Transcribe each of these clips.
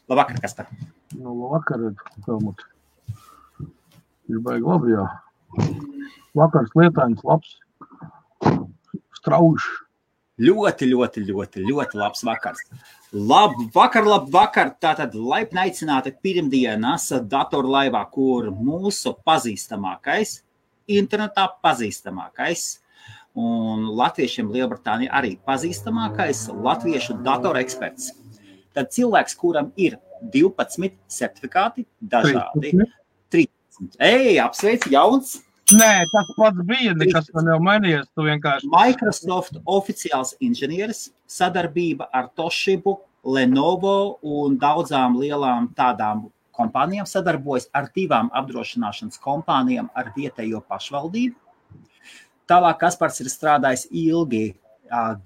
Labvakar, Kaspar. Labvakar, Helmut. Ir baigi labi, jā. Vakars lietains, labs, strauši. Ļoti labs vakars. Labvakar. Tātad laipni aicināti pirmdienas datorlaivā, kur mūsu pazīstamākais, internetā pazīstamākais un latviešiem Lielbritānija arī pazīstamākais latviešu datoreksperts. Tad cilvēks, kuram ir 12 certifikāti, dažādi, 13. Apsveic, jauns! Nē, tas pats bija, nekas man jau mainījies, tu vienkārši... Microsoft oficiāls inženieris, sadarbība ar Toshibu, Lenovo un daudzām lielām tādām kompānijām sadarbojas ar 2 apdrošināšanas kompānijām ar vietējo pašvaldību. Tālāk Kaspars ir strādājis ilgi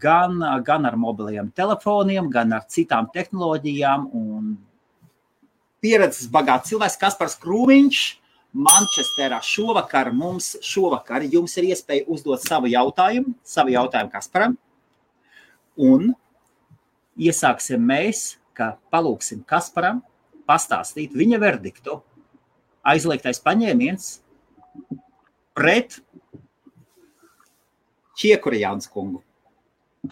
gan ar mobiliem telefoniem, gan ar citām tehnoloģijām un pieredzes bagāts cilvēks Kaspars Krūmiņš. Mančesterā šovakar jums ir iespēja uzdot savu jautājumu Kasparam. Un iesāksim mēs, ka palūksim Kasparam pastāstīt viņa verdiktu. Aizliegtais paņēmiens pret Čiekurjāns kungu.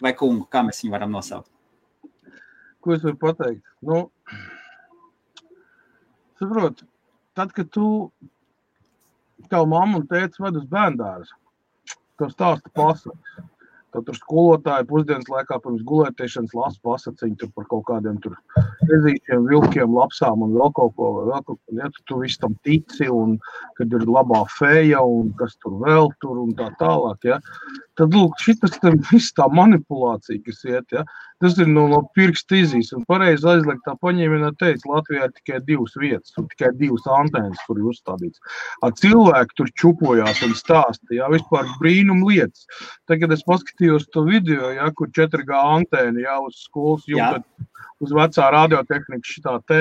Vai kungu, kā mēs viņu varam nosaukt? Ko es varu pateikt? Saprot, tad, kad tev mamma un tētis ved uz bērndārzu, tev stāsta pasakas. Tad tur skolotāji pusdienas laikā pirms gulētiešanas lasa pasaciņu tur par kaut kādiem tur ezīšiem, vilkiem, lapsām un vēl kaut ko. Ja tu visu tam tici un kad ir labā feja un kas tur vēl tur un tā tālāk, ja. Tad, lūk, šitas viss tā manipulācija, kas iet, ja. Tas ir no pirksta izīs un pareizi aizliegtā paņēmienā teica, Latvijā ir tikai 2 vietas un tikai 2 antēnas, kur ir uzstādīts. Cilvēki tur čupojās un stāsta, ja, vispār brīnum lietas. Tagad es paskatījos to video, ja, kur 4G antēna, ja, uz skolas jumta, uz vecā radiotehnika šitā te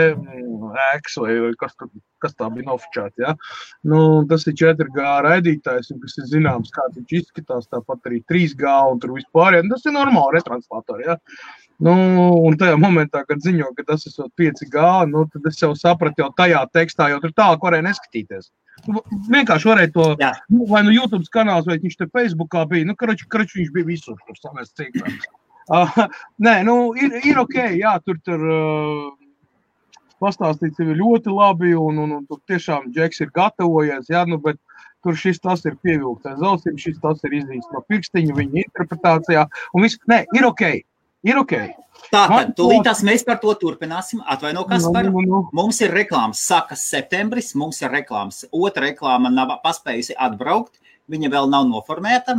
ēks vai kas tā bija nofočēta, ja. Tas ir 4G raidītājs, un kas ir zināms, kā viņš izskatās, tāpat arī 3G un tur vispār, ja. Tas ir normāli retranslatori, ja. Un tajā momentā, kad ziņo, ka tas ir 5G, tad es jau sapratu jau tajā tekstā, jau tur tālāk varēja neskatīties. Vienkārši varēja to, vai YouTube kanāls, vai viņš te Facebookā bija, karoči viņš bija visur, tur samēs cīkās. Nē, ir ok, jā, tur pastāstīts ir ļoti labi, un tur tiešām Džeks ir gatavojies, jā, bet tur tas ir pievilktais zausim, tas ir izdīts no pirkstiņa, viņa interpretācijā, un viss, nē, ir ok. Tātad, tūlītās mēs par to turpināsim. Atvaino, Kaspar. Mums ir reklāmas, sākas septembris, mums ir reklāmas. Otra reklāma nav paspējusi atbraukt, viņa vēl nav noformēta.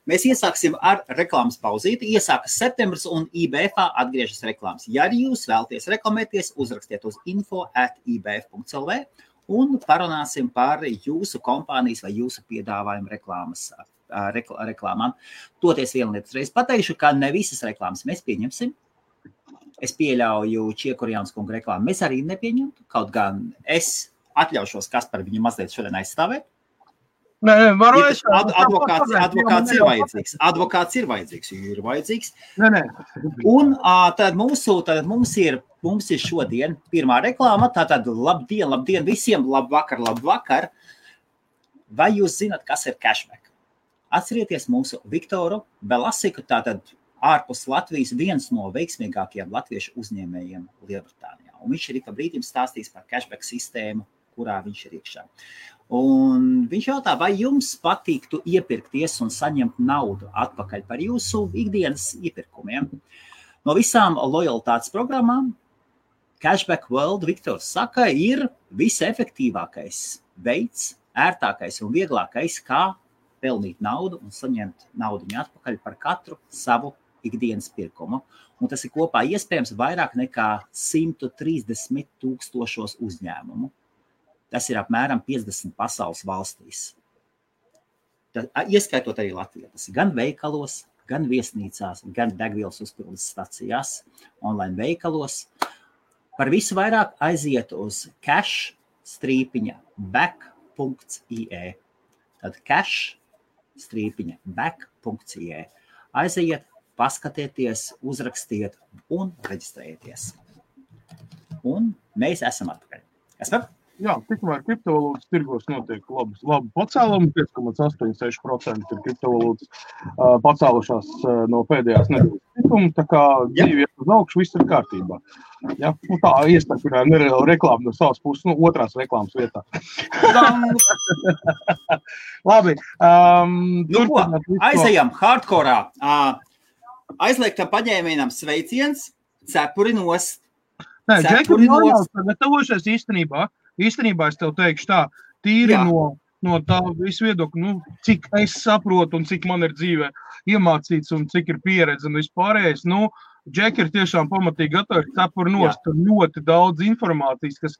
Mēs iesāksim ar reklāmas pauzīti. Iesākas septembris un IBF atgriežas reklāmas. Ja arī jūs vēlaties reklamēties, uzrakstiet uz info@ibf.lv un parunāsim par jūsu kompānijas vai jūsu piedāvājumu reklāmām. Toties vienu lietu reiz pateikšu, ka ne visas reklāmas mēs pieņemsim. Es pieļauju Čiekurjāns kungu reklāmu. Mēs arī nepieņemtu, kaut gan es atļaušos Kaspar viņu mazliet šodien aizstāvēt. Nē, varu advokāts ir vajadzīgs. Advokāts ir vajadzīgs. Nē. Un tad mums ir šodien pirmā reklāma. Tātad labdien visiem, labvakar. Vai jūs zināt, kas ir cashback? Atcerieties mūsu Viktoru Belasiku, tātad ārpus Latvijas viens no veiksmīgākajiem latviešu uzņēmējiem Lielbritānijā. Un viņš ir pa brīdim stāstījis par cashback sistēmu, kurā viņš ir iekšā. Un viņš jautā, vai jums patīktu iepirkties un saņemt naudu atpakaļ par jūsu ikdienas iepirkumiem. No visām lojalitātes programmām Cashback World, Viktors saka, ir visefektīvākais veids, ērtākais un vieglākais, kā pelnīt naudu un saņemt naudu atpakaļ par katru savu ikdienas pirkumu. Un tas ir kopā iespējams vairāk nekā 130 000 uzņēmumu. Tas ir apmēram 50 pasaules valstīs. Ieskaitot arī Latvijā. Tas ir gan veikalos, gan viesnīcās, gan degvielas uzpildes stacijās, online veikalos. Par visu vairāk aiziet uz cash-back.ie. Tad cash-back.ie. Aiziet, paskatieties, uzrakstiet un reģistrējieties. un mēs esam atpakaļ. Esam? Jā, tikmēr kriptovalūtas tirgos notiek labi pacēlumi, 5,86% ir kriptovalūtas pacēlušās no pēdējās nedēļas tikuma, tā kā dzīvi uz augšu, viss ir kārtībā. Ja? Nu, tā iestarpinā nereāla reklāma no savas puses, otrās reklāmas vietā. Labi. Aizejam hardkorā. Aizliegtam paņēmienam sveiciens, cepuri nost. Nē, Džekam nav gatavošies īstenībā es tev teikšu tā, tīri no tā visu viedokļu, cik es saprotu un cik man ir dzīvē iemācīts un cik ir pieredze un vispārējais, Džeki ir tiešām pamatīgi gatavi cepuri nost, tur ļoti daudz informācijas, kas,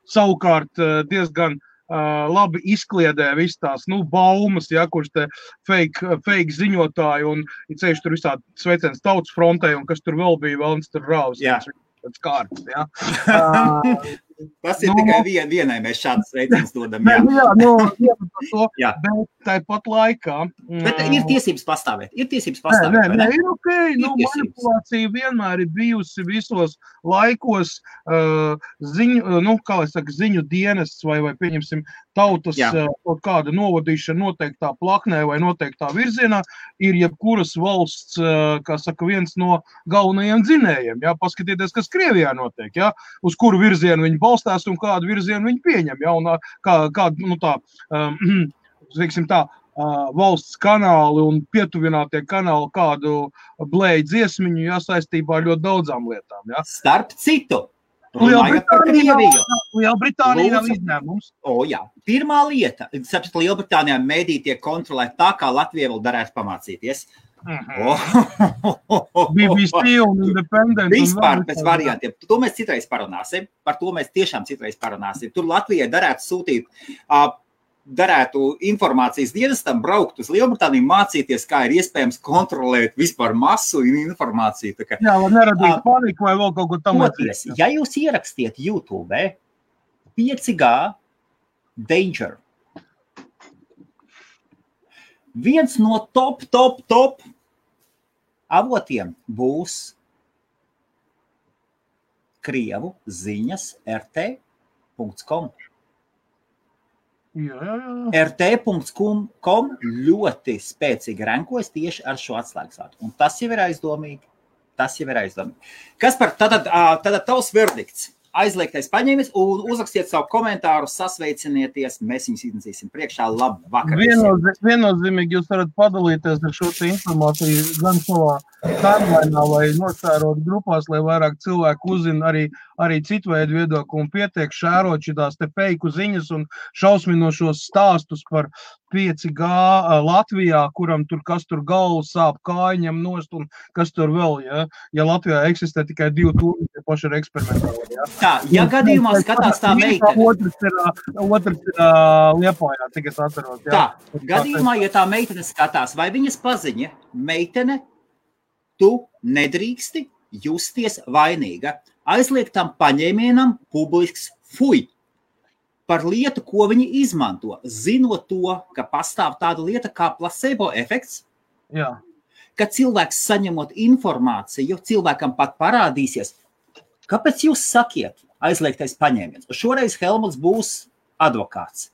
savukārt diezgan labi izkliedē viss tās, baumas, kurš te fake ziņotāji un ceļš tur visādi sveiciens tautas frontē un kas tur vēl bija, vēl tur rāvs. Pēc kārtas, Tas ir tikai vienai mēs šādas sveiciens dodam, bet tāpat laikā. Bet ir tiesības pastāvēt, Nē, ir okei, manipulācija vienmēr ir bijusi visos laikos ziņu dienests vai pieņemsim tautas kaut kāda novadīšana noteiktā plaknē vai noteiktā virzienā ir jebkuras valsts, kā saka, viens no galvenajiem dzinējiem, paskatieties, kas Krievijā notiek, uz kuru virzienu viņi balstās un kādu virzienu viņi pieņem, un kādu, teiksim tā, valsts kanāli un pietuvinātie kanāli kādu blēju dziesmiņu, saistībā ar ļoti daudzām lietām, Starp citu, Lielbritānija nav izņēmums. Pirmā lieta, saprat, Lielbritānijā mēdī tiek kontrolēt tā, kā Latvija vēl darētu pamācīties. BBC un Independent. Vispār pēc variantiem. To mēs citreiz parunāsim. Par to mēs tiešām citreiz parunāsim. Tur Latvijai darētu informācijas dienestam braukt uz Lielbritāniju, mācīties, kā ir iespējams kontrolēt vispār masu un informāciju. Lai neradīt paniku vai vēl kaut ko tam līdzīgu. Ja jūs ierakstiet YouTube 5G Danger, viens no top avotiem būs Krievu ziņas rt.com. rt.com ļoti spēcīgi rankojas tieši ar šo atslēgsvārdu. Un tas jau ir aizdomīgi. Kas par tātad tavs verdikts? Aizliegtais paņēmis un uzrakstiet savu komentāru, sasveicinieties, mēs viņus iznesīsim priekšā. Labvakar! Viennozīmīgi jūs varat padalīties ar šo informāciju gan savā timelinā vai nošērot grupās, lai vairāk cilvēku uzzina arī citu veidu viedokli un pietiek šērot šitās te feiku ziņas un šausminošos stāstus par 5G Latvijā, kuram tur kas tur galvu sāp, kājiņam nost un kas tur vēl, ja Latvijā eksistē tikai 2 tūri, tie paši ir eksperimentāli, Tā, ja gadījumā skatās tā meitene. Otrs ir Liepājā, tik es atceros, Tā, gadījumā, ja tā meitene skatās, vai viņas paziņa, meitene, tu nedrīksti justies vainīga. Aizliegtam paņēmienam publisks fuj par lietu, ko viņi izmanto, zinot to, ka pastāv tāda lieta kā placebo efekts, ka cilvēks saņemot informāciju, cilvēkam pat parādīsies, kāpēc jūs sakiet aizliegtais paņēmiens? Šoreiz Helmuts būs advokāts.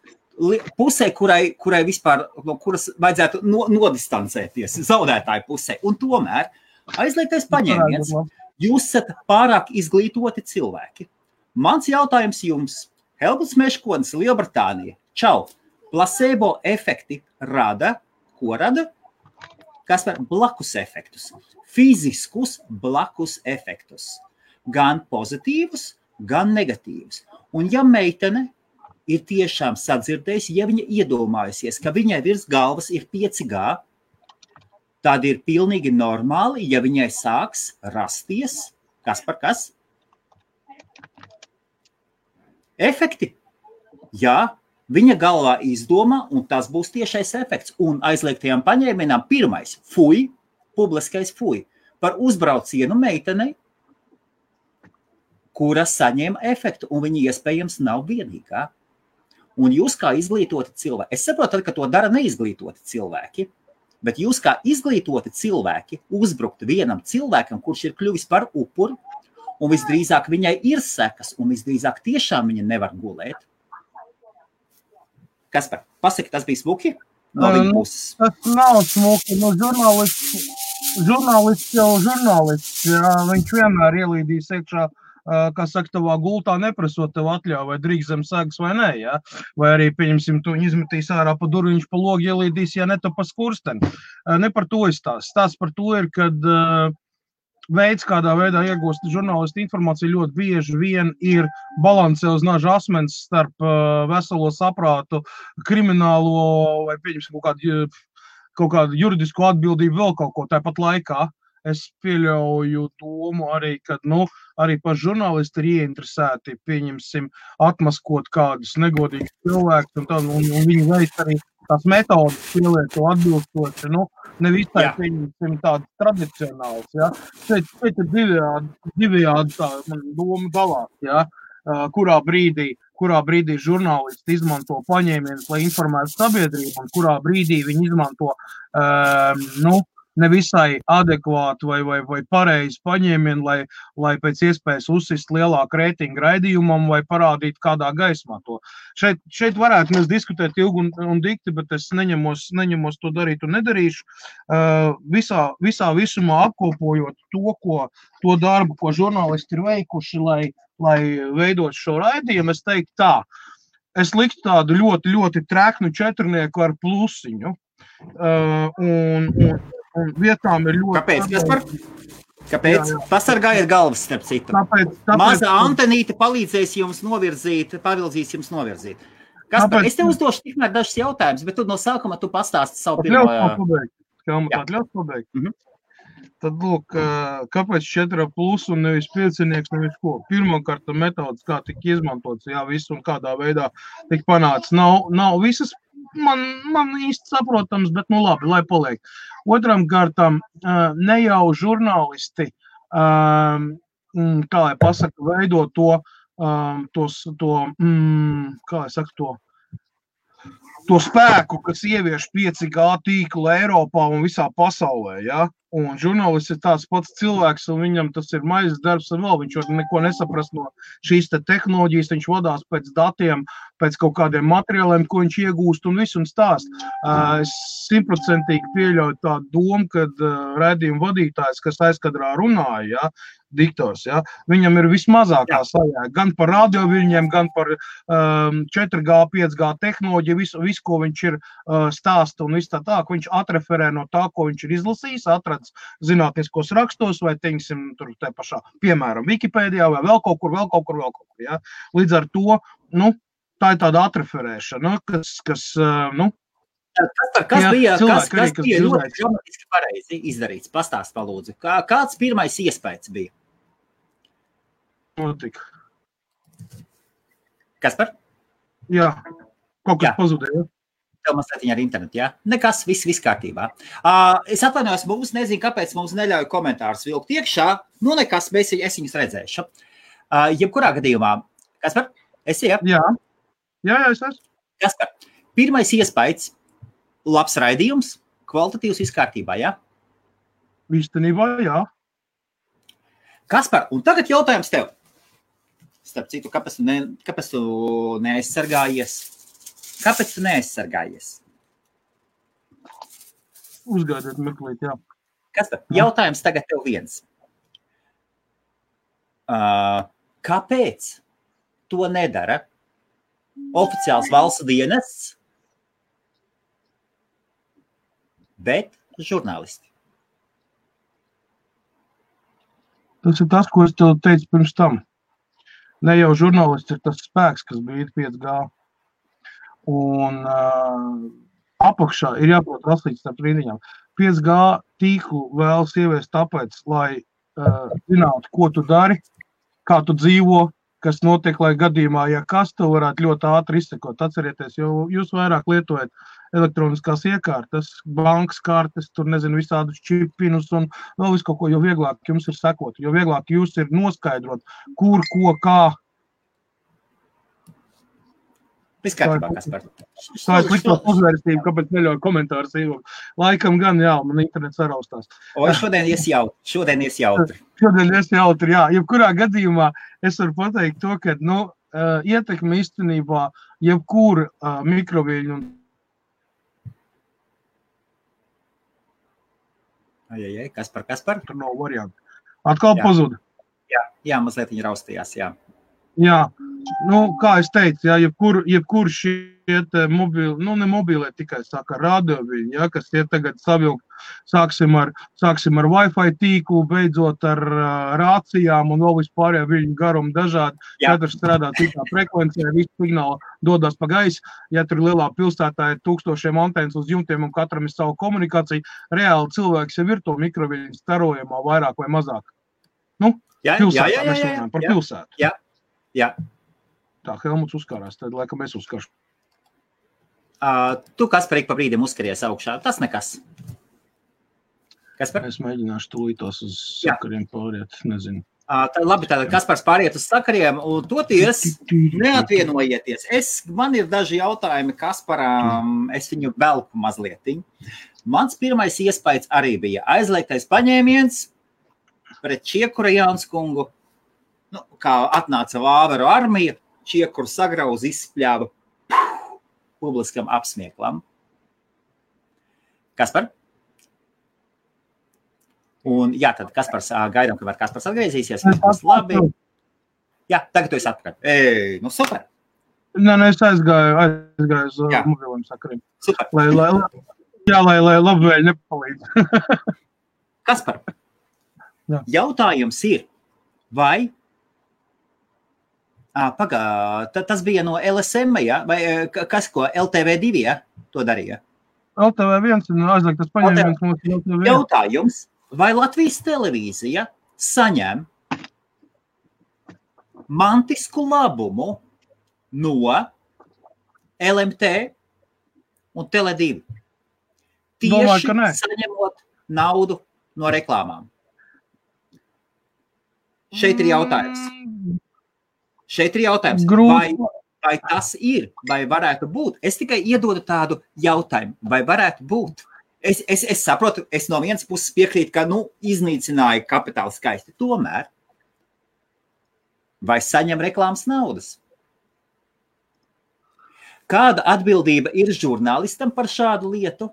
Pusē, kurai vispār, no kuras vajadzētu nodistancēties, zaudētāju pusē. Un tomēr aizliegtais paņēmiens, jūs esat pārāk izglītoti cilvēki. Mans jautājums jums, Helmuts Meškonis, Lielbritānija, čau, placebo efekti rada, ko rada? Kas var blakus efektus, fiziskus blakus efektus, gan pozitīvus, gan negatīvus. Un ja meitene ir tiešām sadzirdējusi, ja viņa iedomājusies, ka viņai virs galvas ir 5G, tad ir pilnīgi normāli, ja viņai sāks rasties, kas par kas? Efekti. Jā, viņa galvā izdomā, un tas būs tiešais efekts. Un aizliegtajām paņēmienām pirmais fuj, publiskais fuj, par uzbraucienu meitenei, kura saņēma efektu, un viņa iespējams nav vienīgā. Un jūs kā izglītoti cilvēki, es saprotu, ka to dara neizglītoti cilvēki, bet jūs kā izglītoti cilvēki uzbrukt vienam cilvēkam, kurš ir kļuvis par upuri, un visdrīzāk viņai ir sekas, un visdrīzāk tiešām viņa nevar gulēt. Kaspar, pasaki, tas bija smuki? No viņa puses. Tas nav smuki, žurnālists jau žurnālists, jā, viņš vienmēr ielīdīs iekšā, kā saka, tavā gultā neprasot tev atļauju, vai drīkst zem segas vai nē, jā, vai arī, pieņemsim, tu izmetīs ārā pa durvi, viņš pa logu ielīdīs, ja ne tu pa skursteni. Ne par to izstāst. Stāsts par to ir, kad veids, kādā veidā iegūst žurnālisti informāciju ļoti bieži vien ir balansē uz naža asmens starp veselo saprātu, kriminālo vai, pieņemsim, kaut kādu juridisku atbildību vēl kaut ko tāpat laikā. Es pieļauju domu arī, kad, arī paši žurnālisti ir ieinteresēti, pieņemsim, atmaskot kādus negodīgus cilvēkus un viņi veids arī tās metodas pielieto atbilstoši, ne visai, pieņemsim, tādas tradicionāls, ja. Šeit ir divējādi tā doma dalās, ja, kurā brīdī žurnālisti izmanto paņēmienus, lai informētu sabiedrību, un kurā brīdī viņi izmanto, nevisai adekvātu vai pareizi paņēmienu, lai pēc iespējas uzsist lielāku reitingu raidījumam vai parādīt kādā gaismā to. Šeit varētu mēs diskutēt ilgi un dikti, bet es neņemos to darīt un nedarīšu. Visā visumā apkopojot to darbu, ko žurnālisti ir veikuši, lai veidot šo raidījumu, es teiktu tā. Es liktu tādu ļoti, ļoti treknu četrnieku ar plusiņu. Un vietām ir ļoti... Kāpēc, Kaspar? Kāpēc? Jā. Pasargājiet galvas, starp citu. Mazā Antenīte palīdzēs jums novirzīt. Kaspar, es tev uzdošu tikmēr dažus jautājumus, bet tu no sākuma tu pastāsti savu pirmo... Ļaus pabeigt. Tad, lūk, kāpēc 4+ un nevis 5, nevis ko? Pirmkārt, metodas, kā tika izmantots, jā, visu un kādā veidā tika panāca. Nav visas man īsti saprotams, bet labi, lai paliek. Otram kārtam, ne jau žurnālisti, kā lai pasaka, veido to spēku, kas ievieš 5G tīklu Eiropā un visā pasaulē, ja? Un žurnālists ir tāds pats cilvēks, un viņam tas ir maizes darbs un vēl, viņš var neko nesaprast no šīs te tehnoloģijas, viņš vadās pēc datiem, pēc kaut kādiem materiāliem, ko viņš iegūst un visu un stāst. Es 100% pieļauju tādu domu, kad raidījuma vadītājs, kas aizkadrā runāja, ja, diktors, ja, viņam ir vismazākā sajēga, gan par radioviļņiem, gan par 4G, 5G tehnoloģiju, visu, ko viņš ir stāsta un viss tā, ka viņš atreferē no tā, ko viņš ir izlasījis, atradis zinātniskos rakstos vai, teiksim, tur te pašā, piemēram, Wikipēdijā vai vēl kaut kur, ja. Līdz ar to, tā ir tāda atreferēšana, kas Kas bija ļoti dramatiski pareizi izdarīts? Pastāst, palūdzu. Kāds pirmais iespējas bija? Notika. Kaspar? Jā, kaut kas pazudēja. Tev mazliet ar internetu, jā? Nekas, viss kārtībā. Es atvainojos, mums nezinu, kāpēc mums neļauj komentārus vilkt iekšā. Nekas, es viņus redzēšu. Jebkurā gadījumā. Kaspar, esi, jā? Jā, es esmu. Kaspar, pirmais iespējas. Labs raidījums, kvalitatīvs viss kārtībā, jā? Īstenībā, jā. Kaspar, un tagad jautājums tev. Starp citu, kāpēc tu neaizsargājies? Kāpēc tu neaizsargājies? Uzgaidiet meklīt, jā. Kaspar, jautājums tagad tev viens. Kāpēc to nedara oficiāls valsts dienests, bet žurnālisti? Tas ir tas, ko es tev teicu pirms tam. Ne jau žurnālists ir tas spēks, kas bija 5G. Un apakšā ir jāprot raslīts starp rindiņām. 5G tīklu vēlas ieviest tāpēc, lai zinātu, ko tu dari, kā tu dzīvo, kas notiek, lai gadījumā, ja kas, to varētu ļoti ātri izsekot. Atcerieties, jo jūs vairāk lietojat elektroniskās iekārtas, bankas kartes, tur nezinu visādus čipinus un vēl visu kaut ko, jo vieglāk jums ir sekot, jo vieglāk jūs ir noskaidrot, kur, ko, kā. Viss kārtībā, Kaspar. Tā ir slikto uzvērstību, kāpēc neļauj komentārus ievok. Laikam gan, jā, man internets saraustās. O, šodien ies jautri. Šodien ies jautri, jā. Jebkurā gadījumā es varu pateikt to, ka, ietekme īstenībā jebkura mikroviļņu un Kaspar? tur nav varianti. Atkal pazuda. Jā, mazliet viņi raustījās, jā. Jā, kā es teicu, jā, jebkur šie mobili, ne mobili, tikai saka radioviļņi, jā, kas tie tagad savilkt, sāksim ar Wi-Fi tīklu, beidzot ar rācijām un vēl vispārējā viļņu garumu dažādi, katrs strādā citā frekvencē, visi signāli dodas pa gaisu, ja tur lielā pilsētā ir 1000 antenas uz jumtiem un katram ir savu komunikāciju, reāli cilvēks jau ir to mikroviļņu starojumā vairāk vai mazāk. Pilsētā mēs runājam par pilsētu. Jā. Tā, Helmuts uzkārās, tad laikam es uzkāršu. Tu, Kaspar, pa brīdim uzskaries augšā. Tas nekas. Kaspar? Es mēģināšu tūlītos uz sakariem pāriet, nezinu. Labi, tātad Kaspars pāriet uz sakariem, un toties neatvienojieties. Man ir daži jautājumi Kasparam, es viņu velku mazlietiņu. Mans pirmais iespējas arī bija aizliegtais paņēmiens pret Čiekura Jānskungu. Kā atnāca Vāveru armija, Čiekuru sagrauz, izspļāva publiskam apsmieklam. Kaspar? Un tad Kaspars, gaidām, kamēr Kaspars atgriezīsies. Labi. Jā, tagad tu esi atpakaļ. Super. Es aizgāju uz mobiliem sakariem. Super. Lai labvēļ nepalīdz. Kaspar, jautājums ir, vai tas bija no LSM, ja? Vai kas ko, LTV2, ja? To darīja? LTV1 ir aizliegtas paņēmiens mums LTV1. Jautājums, vai Latvijas televīzija saņem mantisku labumu no LMT un Tele2? Tieši saņemot naudu no reklāmām. Šeit ir jautājums. Vai tas ir, vai varētu būt? Es tikai iedodu tādu jautājumu, vai varētu būt? Es saprotu, es no vienas puses piekrītu, ka, iznīcināja kapitālu skaisti. Tomēr, vai saņem reklāmas naudas? Kāda atbildība ir žurnālistam par šādu lietu?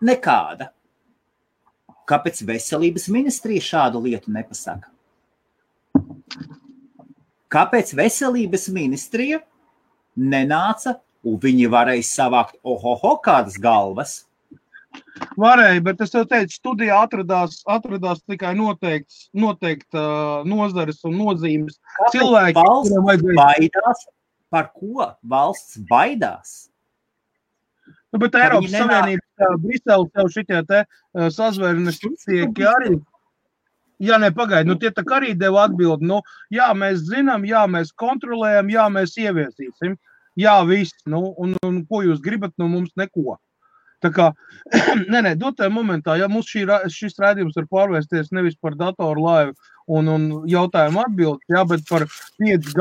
Nekāda. Kāpēc veselības ministrija šādu lietu nepasaka? Kāpēc veselības ministrija nenāca un viņi varēja savākt kādas galvas? Varēja, bet es tev teicu, studijā atradās tikai noteikta nozares un nozīmes. Kāpēc valsts baidās? Par ko valsts baidās? Bet Eiropas Savienība, Brisele tev šitie sazvērnes tieki arī. Jā, pagaidi, tie tā arī deva atbildi. Jā, mēs zinām, jā, mēs kontrolējam, jā, mēs ieviesīsim. Jā, viss. Un ko jūs gribat, mums neko. Tā kā, dotā momentā, ja mums šis rādījums var pārvērsties nevis par datoru laivu un jautājumu atbildi, jā, bet par 5G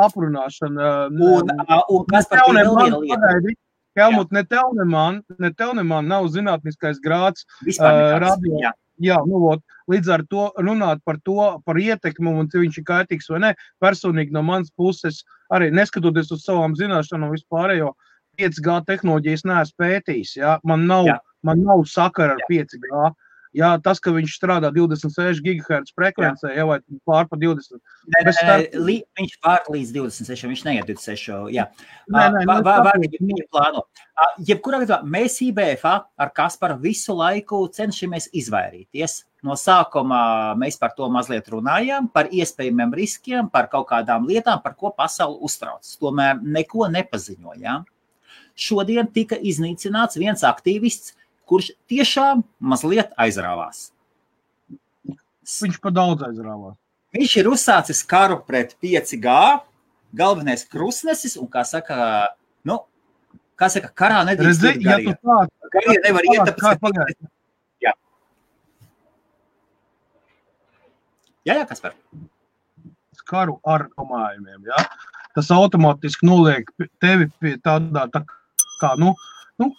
aprunāšanu. Un kas par to vēl lieta? Helmut, ne tev man nav zinātniskais grāds radio. Jā, līdz ar to runāt par ietekmi un viņš ir kaitīgs vai ne, personīgi no manas puses, arī neskatoties uz savām zināšanām vispārējo 5G tehnoloģijas neesmu pētījis, jā, man nav sakara ar 5G. Jā, tas, ka viņš strādā 26 GHz frekvencē, vai pār pa 20. Viņš pār līdz 26, viņš neiet 26, jā. Viņa plāno. Jebkurā gadījumā mēs IBFA ar Kasparu visu laiku cenšamies izvairīties. No sākuma mēs par to mazliet runājām, par iespējamiem riskiem, par kaut kādām lietām, par ko pasauli uztrauc. Tomēr neko nepaziņojām. Šodien tika iznīcināts viens aktīvists, kurš tiešām mazliet aizrāvās. Viņš pa daudz aizrāvās. Viņš ir uzsācis karu pret 5G, galvenais krustnesis, un kā saka, karā nedrīkst iet garie. Garie nevar iet, tāpēc... Jā, Kaspar. Karu ar domājumiem, jā. tas automātiski noliek tevi pie tādā tā kā,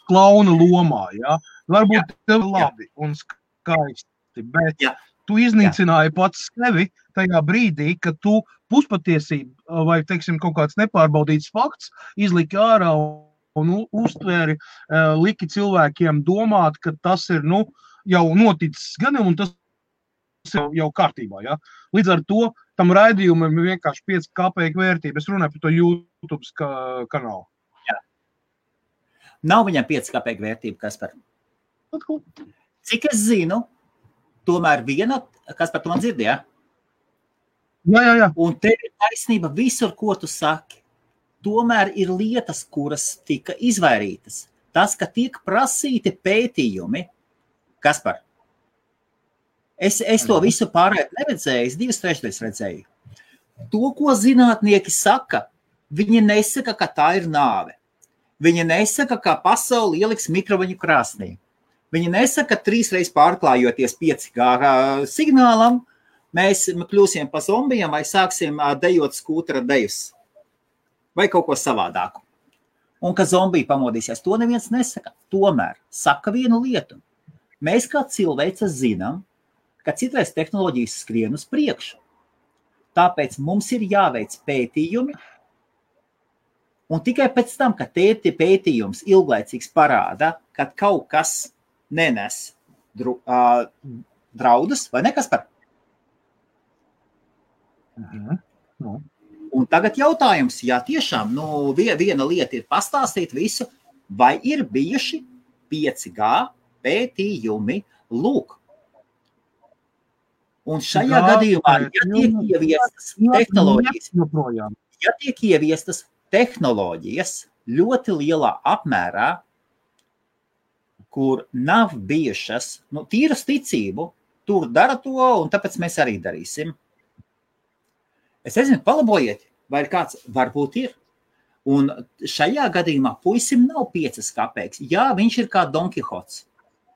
klauna lomā, ja? Varbūt tev labi un skaisti, bet tu iznīcināji pats sevi tajā brīdī, kad tu puspatiesību vai, teiksim, kaut kāds nepārbaudīts fakts izliki ārā un uztvēri, liki cilvēkiem domāt, ka tas ir, jau noticis gadiem un tas jau kārtībā, ja? Līdz ar to tam raidījumam ir vienkārši 5 kapeiku vērtība. Es runāju par to YouTube kanālu. Jā. Nav viņam 5 kapeiku vērtība, Kaspar. Cik es zinu, tomēr viena, Kaspar, tu man dzirdi, ja? Jā. Un tev ir taisnība visur, ko tu saki. Tomēr ir lietas, kuras tika izvairītas. Tas, ka tiek prasīti pētījumi, Kaspar, es to visu pārēt neredzēju, es 2/3 redzēju. To, ko zinātnieki saka, viņi nesaka, ka tā ir nāve. Viņi nesaka, ka pasauli ieliks mikroviņu krāsnī. Viņi nesaka, ka 3 reizes pārklājoties 5G signālam, mēs kļūsim pa zombijiem vai sāksim dejot skūtera dejus. Vai kaut ko savādāku. Un ka zombiji pamodīsies, to neviens nesaka. Tomēr saka vienu lietu. Mēs kā cilvēce zinām, ka citreiz tehnoloģijas skrien uz priekšu. Tāpēc mums ir jāveic pētījumi, un tikai pēc tam, kad pētījums ilglaicīgs parāda, kad kaut kas nenes draudus, vai ne, Kaspar? Un tagad jautājums, ja tiešām viena lieta ir pastāstīt visu, vai ir bijuši 5G pētījumi, lūk. Un šajā gadījumā, ja tiek ieviestas tehnoloģijas ļoti lielā apmērā, kur nav bijušas, tīras ticību, tur dara to, un tāpēc mēs arī darīsim. Es nezinu, palabojiet, vai ir kāds, varbūt ir. Un šajā gadījumā puisim nav 5 kapeikas. Jā, viņš ir kā Don Kihots.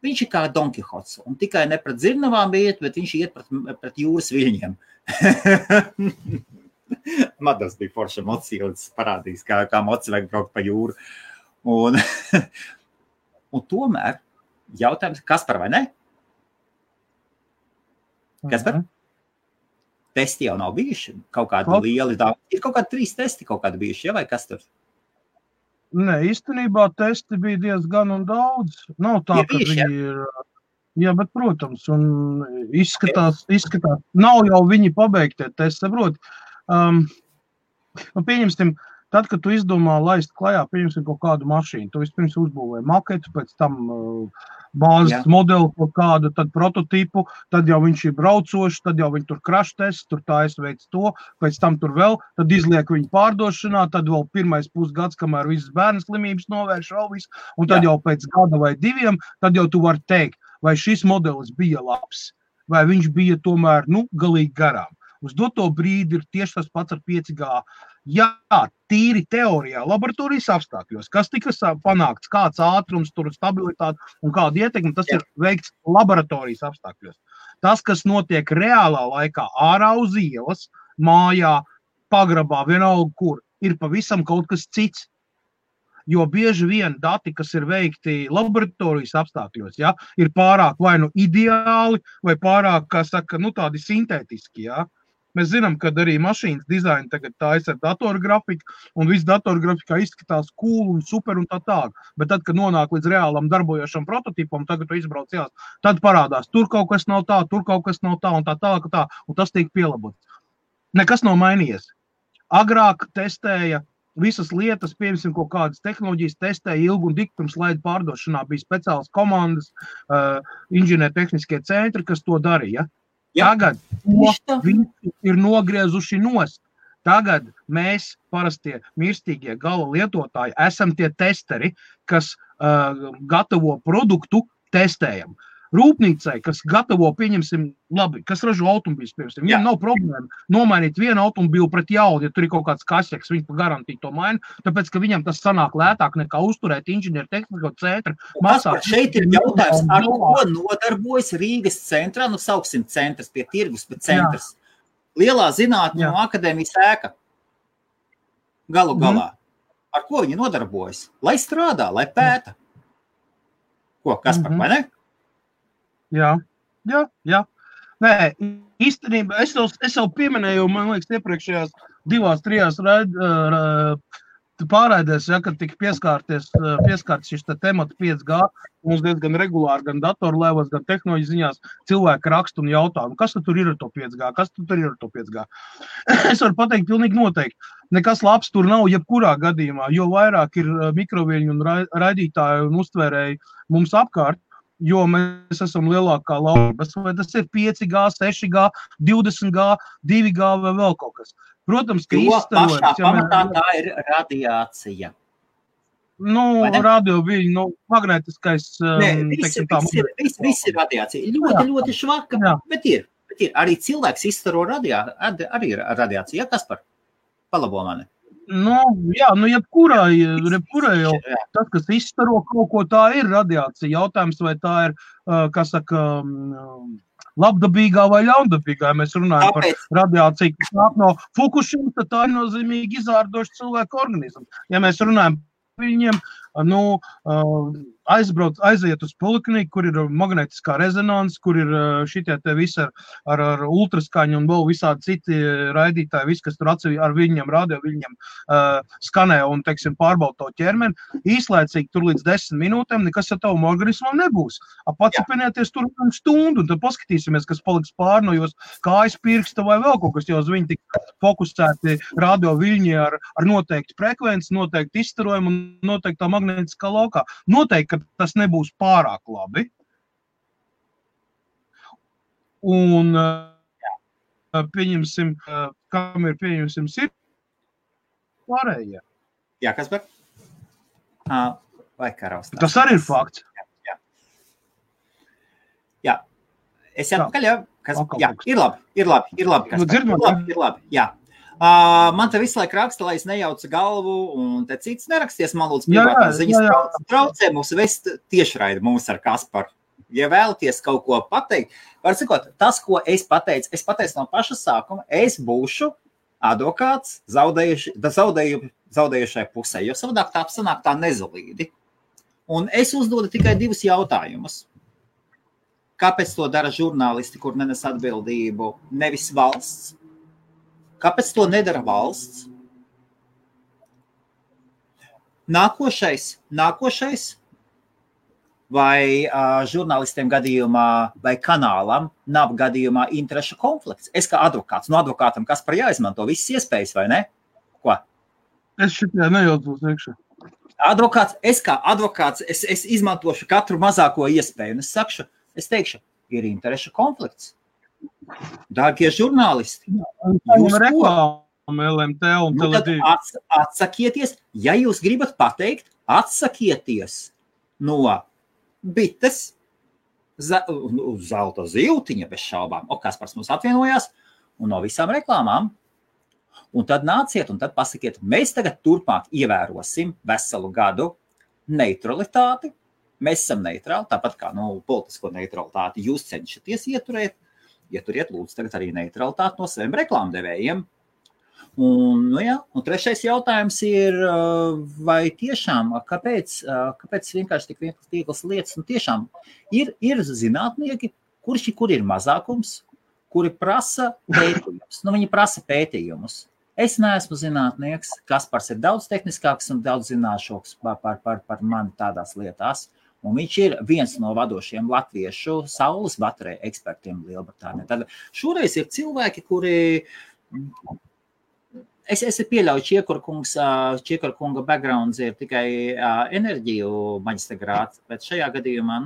Viņš ir kā Don Kihots. Un tikai ne pret zirnavām iet, bet viņš iet pret jūras viļņiem. Madas bija forša mocija, un tas parādīs, kā moci vajag braukt pa jūru. Un tomēr jautājums, Kaspar vai ne? Kaspar? Testi jau nav bijuši, kaut kādi lieli daudz. Ir kaut kādi 3 testi kaut kādi bijuši, ja, vai kas tur? Nē, īstenībā testi bija diezgan un daudz. Nav tā, ka viņi ir... Jā, bet, protams, un izskatās, nav jau viņi pabeigtie testi, saprot. Pieņemsim, tad, kad tu izdomā laist klajā, pieņemsim kaut kādu mašīnu, tu vispirms uzbūvēji maketu, pēc tam bāzes modeli kaut kādu, tad prototipu, tad jau viņš ir braucošs, tad jau viņi tur crash test, tur tā es veic to, pēc tam tur vēl, tad izliek viņu pārdošanā, tad vēl pirmais pusgads, kamēr visas bērnu slimības novērš vēl visu, un tad jau pēc gada vai 2, tad jau tu vari teikt, vai šis modelis bija labs, vai viņš bija tomēr, galīgi garām. Uz doto brīdi ir tieši tas pats ar 5G. Jā, tīri teorijā, laboratorijas apstākļos, kas tika panākts, kāds ātrums, tur stabilitāte un kāda ietekme, tas ir veikts laboratorijas apstākļos. Tas, kas notiek reālā laikā, ārā uz ielas, mājā, pagrabā, vienalga kur, ir pavisam kaut kas cits. Jo bieži vien dati, kas ir veikti laboratorijas apstākļos, ir pārāk vai ideāli, vai pārāk, kā saka, tādi sintētiski, Mēs zinām, ka arī mašīnas dizaini tagad tājas ar datorgrafiku, un viss datorgrafikā izskatās cool un super un tā tālāk. Bet tad, kad nonāk līdz reālam darbojošam prototipam, tagad tu izbrauc jās, tad parādās, tur kaut kas nav tā, tur kaut kas nav tā, un tā tālāk, un tas tiek pielabots. Nekas nav mainījies. Agrāk testēja visas lietas, piemēram, kaut kādas tehnoloģijas testēja ilgu un dikti pirms laida pārdošanā, bija speciālas komandas, inženiertehniskie centri, kas to darīja. Tagad viņi ir nogriezuši nost. Tagad mēs, parastie mirstīgie gala lietotāji, esam tie testeri, kas gatavo produktu testējam. Rūpnīcai, kas gatavo, pieņemsim, labi, kas ražo automobīļus, piemēram, viņam nav problēma nomainīt vienu automobīlu pret jaunu, ja tur ir kaut kāds kasjeks, viņš pa garantiju to maina, tāpēc, ka viņam tas sanāk lētāk nekā uzturēt inženiertehnisko centru. Šeit ir jautājums, ar ko nodarbojas Rīgas centrā, sauksim centrs pie tirgus, bet centrs. Lielā zinātņu akadēmijas ēka. galu galā. Ar ko viņi nodarbojas? Lai strādā, lai pēta. Ko, Kaspar, vai ne? Jā. Nē, īstenībā es jau pieminēju, man liekas, iepriekšējās 2-3 pārraidēs, ja, kad tika pieskārts šis temats 5G, mums diezgan regulāri, gan datorlēvos, gan tehnoloģiju ziņās cilvēki raksta un jautā, kas tur ir ar to 5G, kas tur ir ar to 5G. Es varu pateikt pilnīgi noteikti, nekas labs tur nav jebkurā gadījumā, jo vairāk ir mikroviļņu un raidītāju un uztvērēju mums apkārt, jo mēs esam lielākā laulības, vai tas ir 5G, 6G, 20G, 2G vai vēl kaut kas. Protams, ka izstarojums... Pašā pamatā tā ir radiācija. Radioviļņu, magnētiskais... Viss ir radiācija. Ļoti švaka, bet ir. Arī cilvēks izstaro radiāciju. Ja, Kaspar? Palabo mani. Jebkurā jau tas, kas izstaro kaut ko, tā ir radiācija. Jautājums, vai tā ir, labdabīgā vai ļaundabīgā. Ja mēs runājam par radiāciju, kas nāk no Fukušima, tad tā ir nozīmīgi izārdoša cilvēku organismu. Ja mēs runājam par viņiem, aiziet uz polikliniku, kur ir magnētiskā rezonanse, kur ir šitie te visi ar ultraskaņu un vēl visādi citi raidītāji, visi, kas tur ar viņiem, radio viņiem skanē un, teiksim, pārbauda to ķermeni, īslaicīgi tur līdz 10 minūtēm nekas ar tavam organismam nebūs. Pacipinieties tur stundu un tad paskatīsimies, kas paliks pār no jūs kājas pirksta vai vēl kaut kas, jo uz viņi tik fokusēti radio viļņi ar noteikti frekvenci, noteikti izstarojumu un noteiktā magnētiskā laukā. Noteikti, ka tas nebūs pārāk labi. Un pieņemsim, kam ir pieņemsim sirds pārējie. Jā, Kaspar? Vai karaustās? Tas arī ir fakts. Jā. Es atpakaļ, jā? Jā, ir labi. Kaspar. Ir labi, jā. Man te visu laiku raksta, lai es nejaucu galvu, un te cits neraksties, man lūdzu privātās ziņas traucē mums vest tiešraidi mums ar Kasparu. Ja vēlaties kaut ko pateikt, var sakot, tas, ko es pateicu no paša sākuma, es būšu advokāts zaudējušai pusē, jo savādāk tā sanāk tā nezalīdi. Un es uzdodu tikai 2 jautājumus. Kāpēc to dara žurnālisti, kur nenes atbildību, nevis valsts? Kāpēc to nedara valsts? Nākošais vai žurnālistiem gadījumā vai kanālam nav gadījumā interešu konflikts. Es kā advokāts, no advokātam Kaspar jāizmanto visas iespējas, vai ne? Ko? Es šitajā nejaucos iekšā. Es kā advokāts, es izmantošu katru mazāko iespēju, un es teikšu, ir interešu konflikts. Dārgie žurnālisti, jūs reklāmu LMT un Tele2. Atsakieties, ja jūs gribat pateikt, atsakieties no bites, zelta ziltiņa bez šaubām, Kaspars mums atvienojās, un no visām reklāmām. Un tad nāciet un tad pasakiet, mēs tagad turpmāk ievērosim veselu gadu neutralitāti. Mēs esam neitrāli, tāpat kā politisko neutralitāti jūs cenšaties ieturēt. Ieturiet, lūdzu, tagad arī neutralitāti no saviem reklāmdevējiem. Un 3. jautājums ir, vai tiešām, kāpēc vienkārši tik vieglas lietas, un tiešām ir zinātnieki, kur ir mazākums, kuri prasa pētījumus. Viņi prasa pētījumus. Es neesmu zinātnieks, Kaspars ir daudz tehniskāks un daudz zināšāks par mani tādās lietās. Un viņš ir viens no vadošiem latviešu saules bateriju ekspertiem Lielbritānijā. Tad šoreiz ir cilvēki, kuri... Es pieļauju, Čiekura kunga backgrounds ir tikai enerģiju maģistra grāds, bet šajā gadījumā,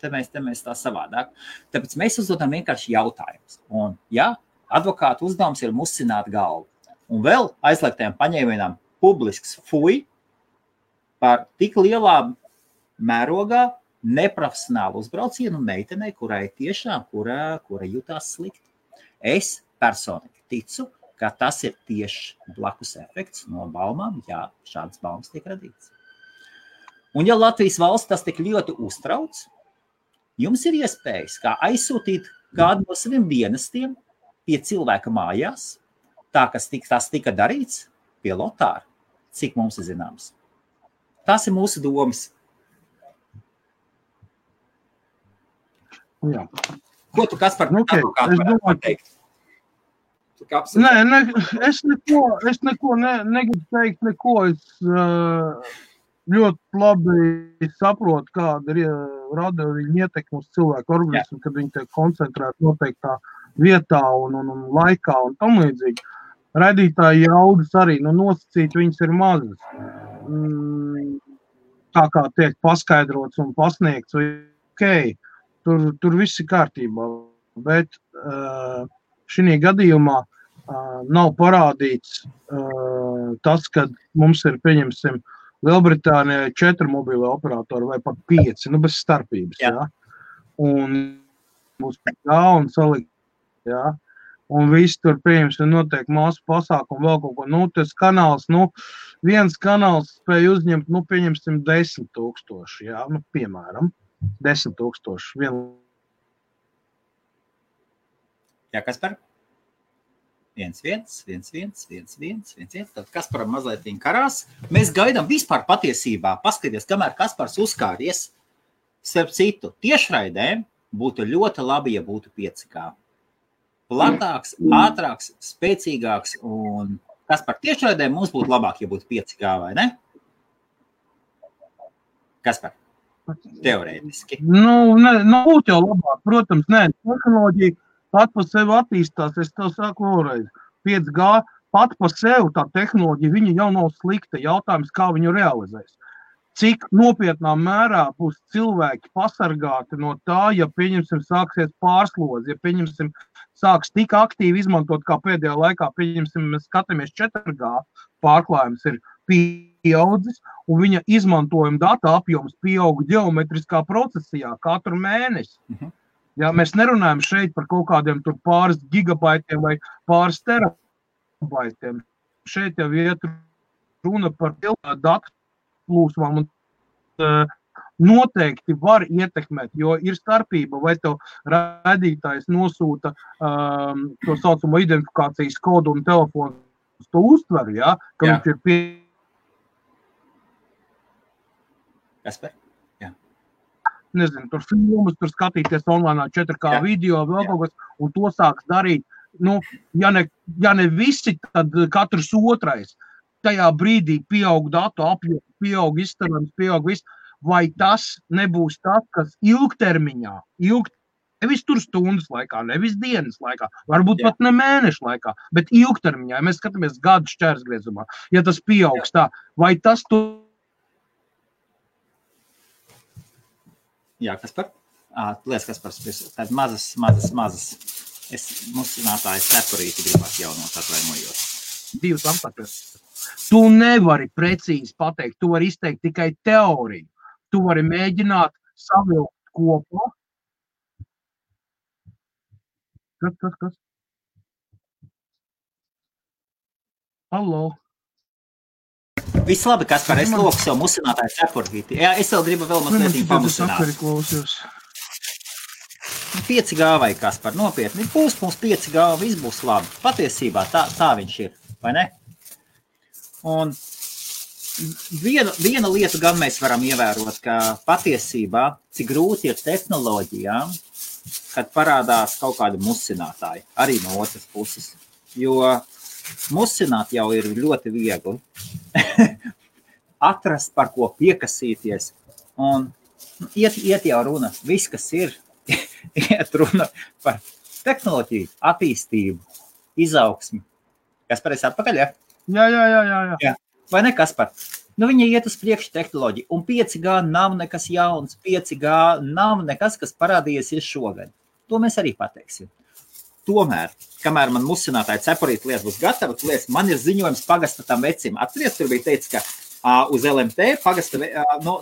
te mēs tā savādāk. Tāpēc mēs uzdodam vienkārši jautājumus. Un, advokāta uzdevums ir musināt galvu. Un vēl aizliegtajām paņēmienām publisks fuj par tik lielā mērogā neprofesionālu uzbraucienu meitenei, kurai tiešām, kura jutās slikti. Es personīgi ticu, ka tas ir tieši blakus efekts no baumām, šādas baumas tiek radīts. Un ja Latvijas valsts tas tik ļoti uztrauc, jums ir iespējas kā aizsūtīt kādu no saviem dienestiem pie cilvēka mājās, tā, kas tas tika darīts, pie Lotāra, cik mums ir zināms. Tas ir mūsu domas. Jā. Ko tu, Kaspar, pateikt? Nē, es neko negribu teikt, neko. Es ļoti labi saprotu, kāda ir rada viņa ietekme uz cilvēku organismu, kad viņi tiek koncentrēti noteiktā vietā un laikā un tam līdzīgi. Raidītāji jaudas arī, nosacīt viņas ir mazas. Tā kā tiek paskaidrots un pasniegts, okay, tur viss ir kārtībā, bet šī gadījumā nav parādīts tas, ka mums ir, pieņemsim, Lielbritānijā 4 mobīlie operatori vai pat 5, bez starpības, jā. Un būs un salikt, jā. Un viss tur, pieņemsim, notiek māsu pasākumu, vēl kaut ko, tas kanāls, viens kanāls spēj uzņemt, pieņemsim 10 000, jā, piemēram, 10 000. Jā, Kaspar? 1, 1. Tad Kasparam mazliet viņa karās. Mēs gaidām vispār patiesībā. Paskaties, kamēr Kaspars uzkāries, starp citu, tiešraidēm būtu ļoti labi, ja būtu 5G. Platāks, ātrāks, spēcīgāks un Kaspar, tiešraidēm mums būtu labāk, ja būtu 5G, vai ne? Kaspar, teorētiski. Būtu jau labāk, protams, tehnoloģija pat par sevi attīstās, es tev saku vēlreiz, 5G pat par sevi tā tehnoloģija, viņa jau nav slikta, jautājums, kā viņu realizēs. Cik nopietnā mērā būs cilvēki pasargāti no tā, ja, pieņemsim, sāksies pārslodzi, ja, pieņemsim, sāks tik aktīvi izmantot, kā pēdējā laikā, pieņemsim, mēs skatāmies 4G, pārklājums ir pieaudzis, un viņa izmantojuma data apjoms pieauga ģeometriskā procesijā katru mēnesi. Ja, mēs nerunājam šeit par kaut kādiem tur pāris gigabaitiem vai pāris terabaitiem. Šeit jau iet runa par datu plūsmām un noteikti var ietekmēt, jo ir starpība, vai tev raidītājs nosūta to saucamo identifikācijas kodu un telefonu to uztver, ja, ka viņš ir Kasper? Nezinu, tur filmas, tur skatīties online 4K video, vēl kaut kas, un to sāks darīt, ja ne visi, tad katrs otrais. Tajā brīdī pieaug datu apjoms, pieaug izstarams, pieaug viss, vai tas nebūs tas, kas ilgtermiņā, nevis tur stundas laikā, nevis dienas laikā, varbūt pat ne mēnešu laikā, bet ilgtermiņā, ja mēs skatāmies gadu šķērsgriezumā, ja tas pieaugs tā, vai tas Jā, Kaspar? Lies, Kaspars, tād mazas. Musinātājs separīti gribās jaunot atvainojot. 2 aptakas. Tu nevari precīzi pateikt, tu vari izteikt tikai teoriju. Tu vari mēģināt savilkt kopā. Kas? Hallo? Viss labi, Kaspar, es loku sev musinātāju separīti. Jā, es vēl gribu vēl mazliet pamusināt. 5G vai Kaspar, nopietni, būs mums 5G, viss būs labi. Patiesībā tā viņš ir, vai ne? Un viena lieta gan mēs varam ievērot, ka patiesībā, cik grūti ir tehnoloģijām, kad parādās kaut kādi musinātāji, arī no otras puses. Jo musināt jau ir ļoti viegli. Atrast, par ko piekasīties. Un iet jau runa, viss, kas ir, iet runa par tehnoloģiju, attīstību, izaugsmi. Kaspar, esi atpakaļ, ja? Jā. Vai ne, Kaspar? Viņa iet uz priekšu tehnoloģiju, un 5G nav nekas jauns, 5G nav nekas, kas parādījies šogad. To mēs arī pateiksim. Tomēr, kamēr man musinātāji separīti lietas būs gatava, man ir ziņojums pagasta tam vecim. Atceries, tur bija teicis, ka uz LMT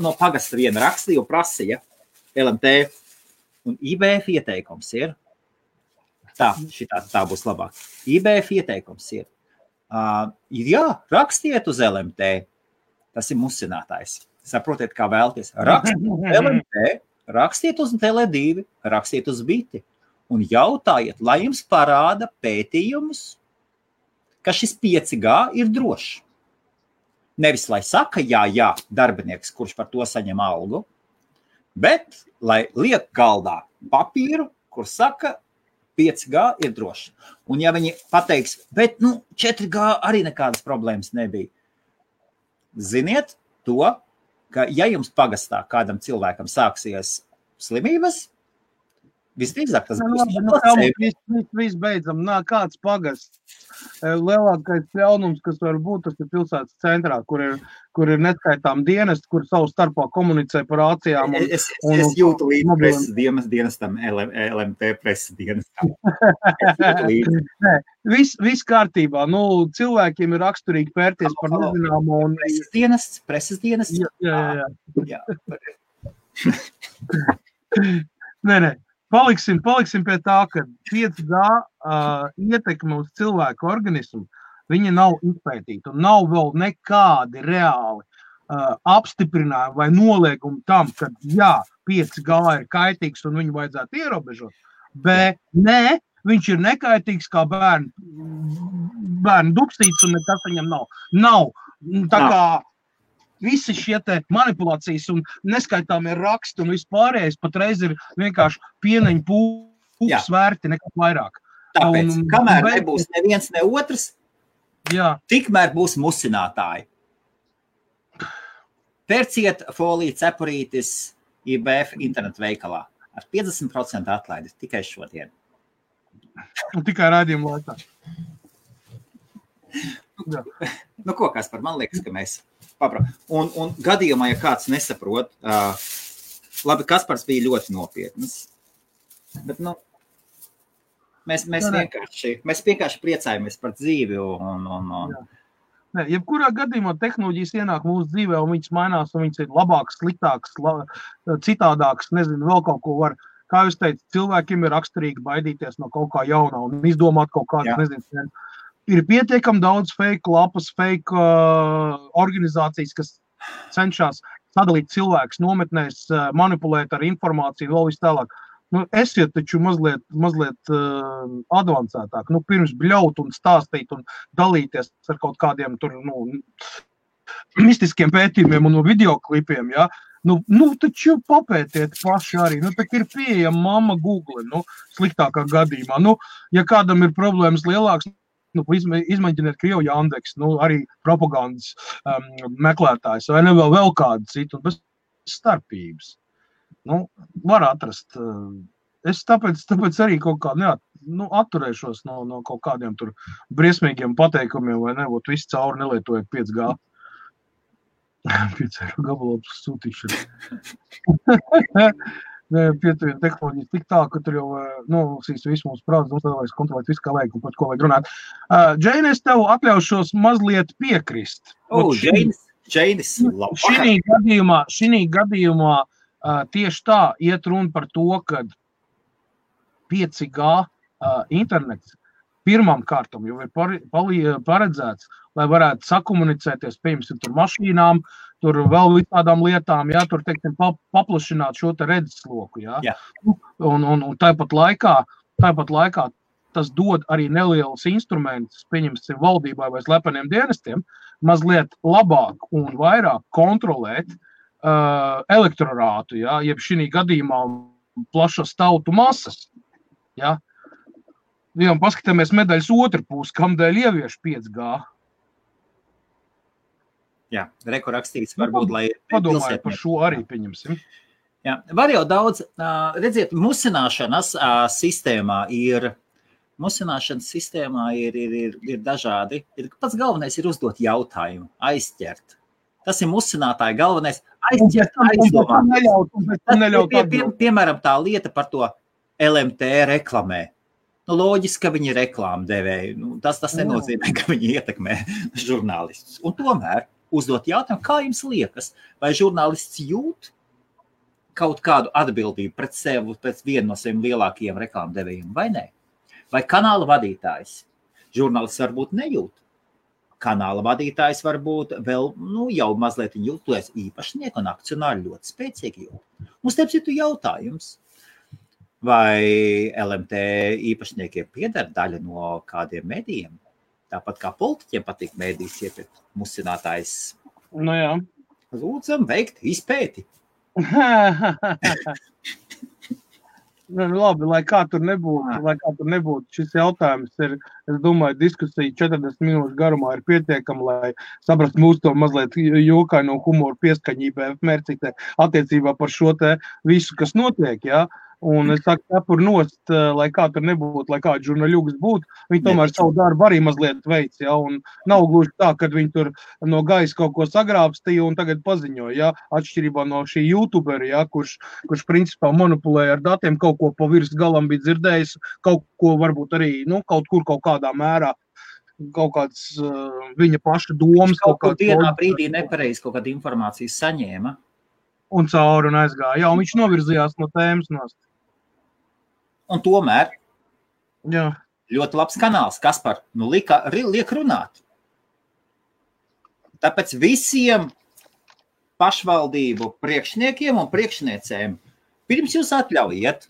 no pagasta viena rakstīja un prasīja LMT. Un IBF ieteikums ir, tā būs labāk. IBF ieteikums ir, rakstiet uz LMT, tas ir musinātājs. Saprotiet, kā vēlties. Rakstiet uz LMT, rakstiet uz Tele2, rakstiet uz Biti. Un jautājiet, lai jums parāda pētījumus, ka šis 5G ir drošs. Nevis, lai saka, jā, darbinieks, kurš par to saņem algu, bet lai liek galdā papīru, kur saka, 5G ir droši. Un ja viņi pateiks, bet 4G arī nekādas problēmas nebija. Ziniet to, ka ja jums pagastā kādam cilvēkam sāksies slimības, visdrīzāk tas būs. Viss beidzam, kāds pagasts. Lielākais ļaunums, kas var būt, tas ir pilsētas centrā, kur ir neskaitām dienesti, kur savu starpā komunicē par ācijām. Es jūtu līdz preses dienestam, LMT preses dienestam. Viss kārtībā. Cilvēkiem ir raksturīgi pērties par nezināmo. Preses dienests? Jā. Nē. Paliksim pie tā, ka 5G ietekme uz cilvēku organismu, viņa nav izpētīta un nav vēl nekādi reāli apstiprinājumi vai noliegumi tam, ka 5G ir kaitīgs un viņu vajadzētu ierobežot, bet nē, viņš ir nekaitīgs kā bērnu dupsīts un nekas viņam nav. Nav. Tā kā visi šie te manipulācijas un neskaitāmie raksti un vispārējais patreiz ir vienkārši pieneņu pūks vērti nekā vairāk. Tāpēc, kamēr nebūs neviens ne otrs, tikmēr būs musinātāji. Pērciet foliju cepurītis IBF internetu veikalā ar 50% atlaidi tikai šodien. Un tikai raidījumu laikā. Ko Kaspar, man liekas, ka mēs un gadījumā, ja kāds nesaprot, labi, Kaspars bija ļoti nopietnas, bet, mēs vienkārši priecājamies par dzīvi Nē, jebkurā gadījumā tehnoloģijas ienāk mūsu dzīvē un viņas mainās un viņas ir labākas, sliktākas, citādākas, nezinu, vēl kaut ko var. Kā jūs teicat, cilvēkiem ir raksturīgi baidīties no kaut kā jaunā un izdomāt kaut kādas, nezinu, ir pietiekami daudz fake lapas, fake organizācijas, kas cenšas sadalīt cilvēkus nometnēs, manipulēt ar informāciju, vēl vis tālāk. Esiet taču mazliet advancētāk. Pirms bļaut un stāstīt un dalīties ar kaut kādiem tur, mistiskiem pētījumiem un videoklipiem, ja? Taču papētiet paši arī. Tak ir pieejama mamma Google, sliktākā gadījumā. Ja kādam ir problēmas lielāks, izmēģiniet Krievu Jandeks, arī propagandas meklētājs, vai ne vēl kādu citu, un bez starpības. Var atrast. Es tāpēc arī kaut kā atturēšos no kaut kādiem tur briesmīgiem pateikumiem, vai ne, visi cauri nelietojiet 5G. 5 eiro gabalopus sūtīšana. Pietuvienu tehnoloģijas tik tā, ka tur jau visu mūsu prāts, tad vajag kontrolēt visu, kā vajag un par ko vajag runāt. Džeini, es tev atļaušos mazliet piekrist. Džeinis, labi. Šī gadījumā tieši tā iet runa par to, ka 5G internets pirmām kārtām jau ir paredzēts, lai varētu sakomunicēties, piemēram, tur mašīnām, tur vēl visādām lietām, tur, teiksim, paplašināt šo te redzesloku, Un tāpat laikā tas dod arī nelielus instrumentus, pieņemsim, valdībai vai slepeniem dienestiem, mazliet labāk un vairāk kontrolēt elektorātu, jeb šī gadījumā plašas tautu masas, un paskatāmies medaļas otru pusi, kamdēļ ievieš 5G. Jā, rakstīts varbūt, lai padomāju par šo arī pieņemsim. Jā, var jau daudz, redziet, musināšanas sistēmā ir dažādi. Pats galvenais ir uzdot jautājumu, aizķert. Tas ir musinātāja galvenais aizķert, aizdomāt. Piemēram, tā lieta par to LMT reklamē. Loģiski, ka viņi ir reklāmu devēji. Tas nenozīmē, ka viņi ietekmē žurnālistus. Un tomēr uzdot jautājumu, kā jums liekas, vai žurnālists jūt kaut kādu atbildību pret sevi, pret vienu no saviem lielākajiem reklāmu devējiem, vai ne? Vai kanāla vadītājs? Žurnālists varbūt nejūt. Kanāla vadītājs varbūt vēl, jau mazliet jūtoties īpašnieku un akcionāri ļoti spēcīgi jūt. Mums starp citu jautājums. Vai LMT īpašniekiem pieder daļa no kādiem medijiem? Tāpat kā politiķiem patīk medijas iepirkt, musinātājs Nu jā. Lūdzam veikt izpēti. Labi, lai kā tur nebūtu, šis jautājums ir, es domāju, diskusija 40 minūšu garumā ir pietiekama, lai saprast mūsu to mazliet jokaino humoru pieskaņībā mērcītē attiecībā par šo te visu, kas notiek, jā. Un es saku, cepur nost, lai kā tur nebūtu, lai kāds žurnāļugs būtu, viņi tomēr savu darbu arī mazliet veic, ja, un nav gluži tā, kad viņi tur no gaisa kaut ko sagrābstīja un tagad paziņoja, ja, atšķirībā no šī youtuberi, ja, kurš principā manipulēja ar datiem, kaut ko pa virs galam bija dzirdējis, kaut ko varbūt arī, kaut kur kaut kādā mērā, kaut kāds viņa paša domas. Kaut kur dienā brīdī nepareizi kaut kāda informācija saņēma. Un cauri un aizgāja, jā, un viņš novirzījās no tēmas nost. Un tomēr jā. Ļoti labs kanāls, Kaspar, liek runāt. Tāpēc visiem pašvaldību priekšniekiem un priekšniecēm pirms jūs atļaujiet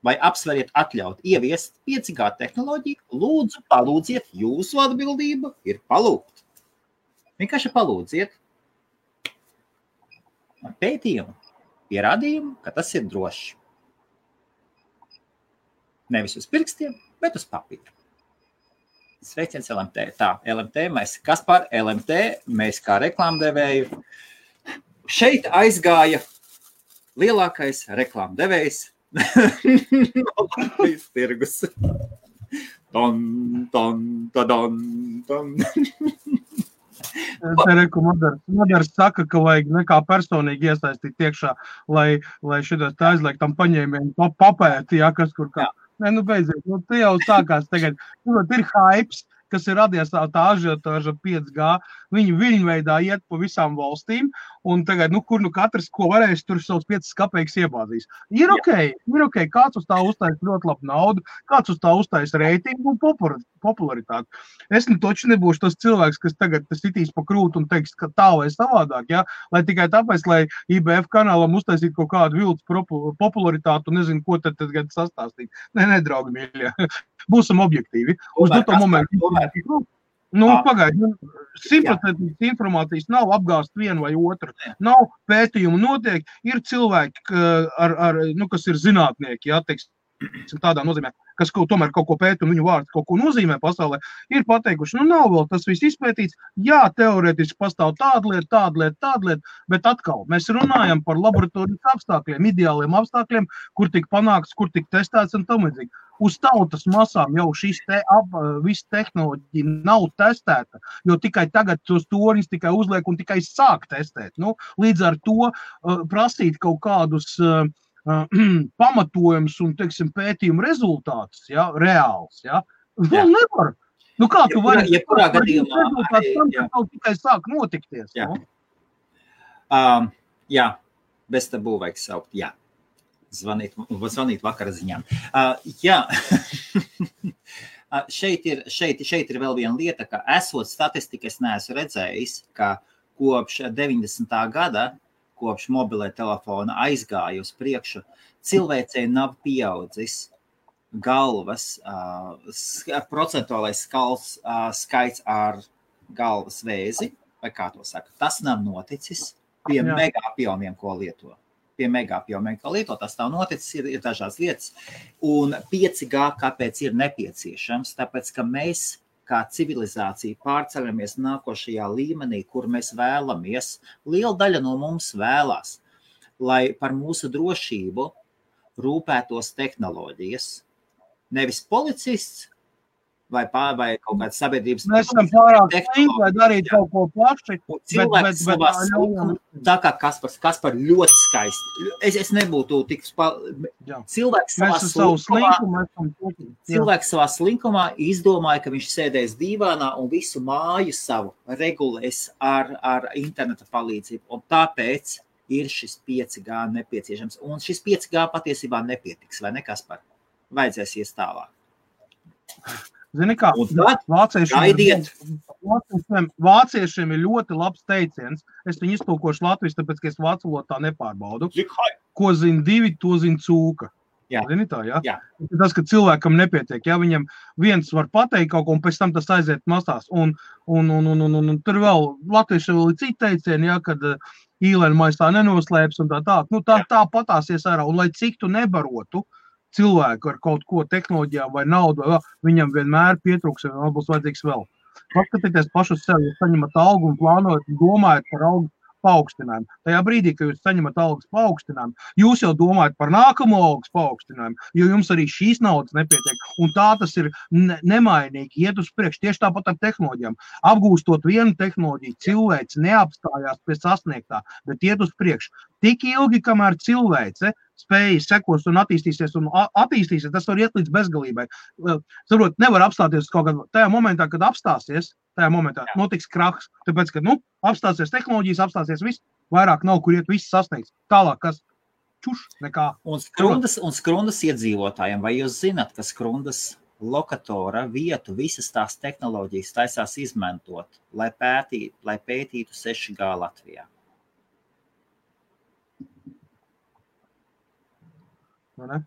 vai apsveriet atļaut ieviest 5G tehnoloģiju, lūdzu, palūdziet, jūsu atbildība ir palūgt. Vienkārši palūdziet pētījumu, pierādījumu, ka tas ir droši. Nevis uz pirkstiem, bet uz papīra. Sveiciens LMT. Tā, LMT, mēs Kaspar, LMT, mēs kā reklāmdevēju. Šeit aizgāja lielākais reklāmdevējs no Latvijas tirgus. Ton, ton, tadon, ton. Madars saka, ka vajag nekā personīgi iesaistīt iekšā, lai šitas tā aizliek tam paņēmiem papēti, ja, kas kur kā. Nē, beidziet, te jau sākās tagad. Ir hypes, kas ir radies tā ažiotāža 5G. Viņi viļņveidā iet pa visām valstīm, un tagad, kur katrs, ko varēs, tur savus 5 kapeikas iebāzīs. Ir ok, kāds uz tā uztais ļoti labu naudu, kāds uz tā uztais reitingu un popularitāti. Es toči nebūšu tas cilvēks, kas tagad sitīs pa krūtu un teiks, ka tā vai savādāk, ja? Lai tikai tāpēc, lai IBF kanālam uztaisīt kaut kādu viltus popularitātu un nezinu, ko tad sastāstīt. Nē, draugi mīļie, būsim objektīvi. Uz doto momentu. Pagaidi, 100% informācijas nav apgāst vienu vai otru. Nav pētījumu notiek, ir cilvēki, kas ir zinātnieki, ja, teiksim, tādā nozīmē, kas tomēr kaut ko pēta un viņu vārds kaut ko nozīmē pasaulē, ir pateikuši, nav vēl tas viss izpētīts, jā, teorētiski pastāv tāda lieta, bet atkal mēs runājam par laboratorijas apstākļiem, ideāliem apstākļiem, kur tik panākts, kur tik testēts un tam līdzīgi. Uz tautas masām jau viss tehnoloģija nav testēta, jo tikai tagad tos torņus tikai uzliek un tikai sāk testēt. Līdz ar to prasīt kaut kādus pamatojumus un, teiksim, pētījumu rezultātus, ja, reāls, ja, vēl nevar. Kā tu vari? Jebkurā gadījumā. Kaut tikai sāk notikties. Jā. Jā, bez tabū vajag saukt, jā. Zvanīt vakara ziņām. Jā, šeit ir vēl viena lieta, ka esot statistika, es neesmu redzējis, ka kopš 90. gada, kopš mobilē telefona aizgāja uz priekšu, cilvēcei nav pieaudzis galvas, procentuālais skaits ar galvas vēzi, vai kā to saka, tas nav noticis pie megapjomiem, ko lieto. Tas nav noticis, ir dažādas lietas. Un 5G kāpēc ir nepieciešams? Tāpēc, ka mēs kā civilizācija pārceļamies nākošajā līmenī, kur mēs vēlamies. Liela daļa no mums vēlās, lai par mūsu drošību rūpētos tehnoloģijas. Nevis policists vai kaut kāds sabiedrības... Mēs esam pārāk slinki, lai darītu kaut ko plaši. Cilvēks savā slinkuma, tā kā Kaspar ļoti skaisti. Es nebūtu tik... Cilvēks savā slinkumā izdomāja, ka viņš sēdēs dīvānā un visu māju savu regulēs ar interneta palīdzību. Un tāpēc ir šis 5G nepieciešams. Un šis 5G patiesībā nepietiks, vai ne, Kaspar? Vajadzēs ies tālāk. Zini kā, vāciešiem ir ļoti labs teiciens. Es viņu iztulkošu latviešu, tāpēc, ka es vācu valodā nepārbaudu. Ko zina divi, to zina cūka. Jā. Zini tā, jā? Jā. Tas, ka cilvēkam nepietiek, ja viņam viens var pateikt kaut ko, un pēc tam tas aiziet masās. Un tur vēl latvieši vēl ir citi teicieni, ja, kad īlēna maisā nenoslēps un tā. Nu, tā patāsies ārā. Un lai cik tu nebarotu cilvēku ar kaut ko tehnoloģijām vai naudu, vai viņam vienmēr pietrūks, un būs vajadzīgs vēl. Paskatieties pašu sevi, jūs saņemat algu un plānojat, domājat par algu paaugstinājumu. Tajā brīdī, kad jūs saņemat algas paaugstinājumu, jūs jau domājat par nākamo algas paaugstinājumu, jo jums arī šīs naudas nepietiek. Un tā tas ir nemainīgi, iet uz priekšu. Tieši tāpat ar tehnoloģijām. Apgūstot vienu tehnoloģiju, cilvēks neapstājās pie sasniegtā, bet iet uz priekšu. Tik ilgi, kamēr cilvēce spējas sekos un attīstīsies, tas var iet līdz bezgalībai. Saprot, nevar apstāties kaut kādā tajā momentā, kad apstāsies, tajā momentā notiks krahs, tāpēc, ka, apstāsies tehnoloģijas, apstāsies viss, vairāk nav, kur iet viss sasniegts. Tālāk, kas nekā. Un Skrundas iedzīvotājiem, vai jūs zināt, ka Skrundas lokatora vietu visas tās tehnoloģijas taisās izmantot, lai pētītu 6G Latvijā? Ne?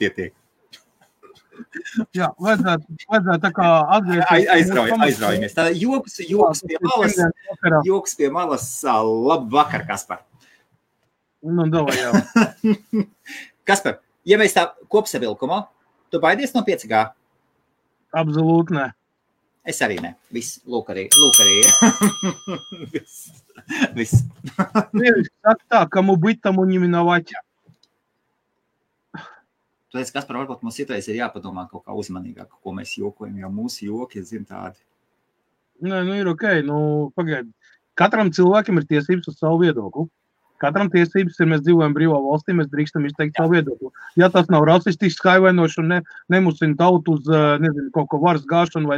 Tiek. Jā, vajadzētu tā kā atgriezties. Aizraujamies. Tā joks pie malas. Labu vakar, Kaspar. Davai, jā. Kaspar, ja mēs tā kopsavilkumā, tu baidies no 5G? Absolūti ne. Es arī ne. Viss, lūk arī. Viss. Saka tā, kamu быть, тому не миновать. Tu teici, Kaspar, varbūt mums citreiz ir jāpadomā kaut kā uzmanīgāk, ko mēs jokojam, jo mūsu joki, tādi. Nē, ir ok. Pagaidi. Katram cilvēkam ir tiesības uz savu viedokli. Katram tiesības ir, mēs dzīvojam brīvā valstī, mēs drīkstam izteikt savu viedokli. Ja tas nav rasistisks, haivainošs un nemusina tautu uz, kaut ko varas gāšanu vai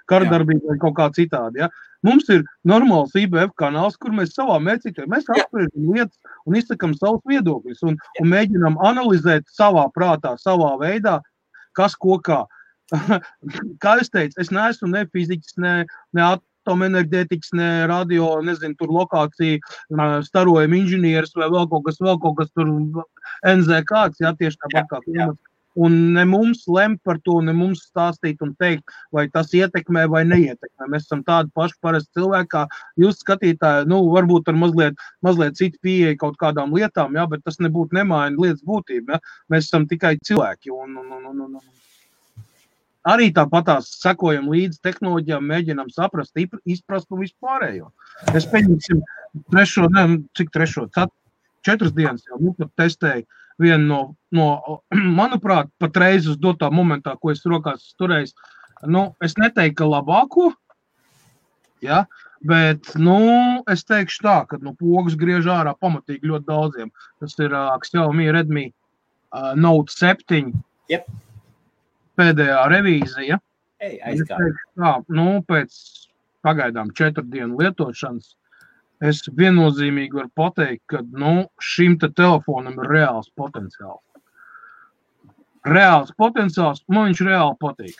karadarbību vai kaut kā citādi, ja. Mums ir normāls IBF kanāls, kur mēs savā mērcītē, mēs apspriežam lietas un izsakam savus viedokļus un mēģinām analizēt savā prātā, savā veidā, kas ko kā. Kā es teicu, es neesmu ne fiziķis, ne atomenerģētikas, ne radio, tur lokācija, starojuma inženieris vai vēl kaut kas tur NZ kāds, jā, tieši tāpat kā klimats. Un ne mums lemt par to, ne mums stāstīt un teikt, vai tas ietekmē vai neietekmē. Mēs esam tādi paši parasti cilvēki, kā jūs skatītāji, varbūt ar mazliet citu pieeja kaut kādām lietām, jā, bet tas nebūtu nemaina lietas būtība, jā. Mēs esam tikai cilvēki un arī tāpatās sekojam līdz tehnoloģijām, mēģinām saprast, izprast un vispārējo. Es pieņemsim 4 dienas jau testēju vienu no, manuprāt, patreiz uz dotā momentā, ko es rokās turējis, es neteiktu, ka labāko, ja, bet, es teikšu tā, ka, pogas griež ārā pamatīgi ļoti daudziem. Tas ir Xiaomi Redmi Note 7. Yep. Pēdējā revīzija. Tā, pēc pagaidām 4 dienu lietošanas es viennozīmīgi varu pateikt, ka šim te telefonam ir reāls potenciāls. Man viņš reāli patīk.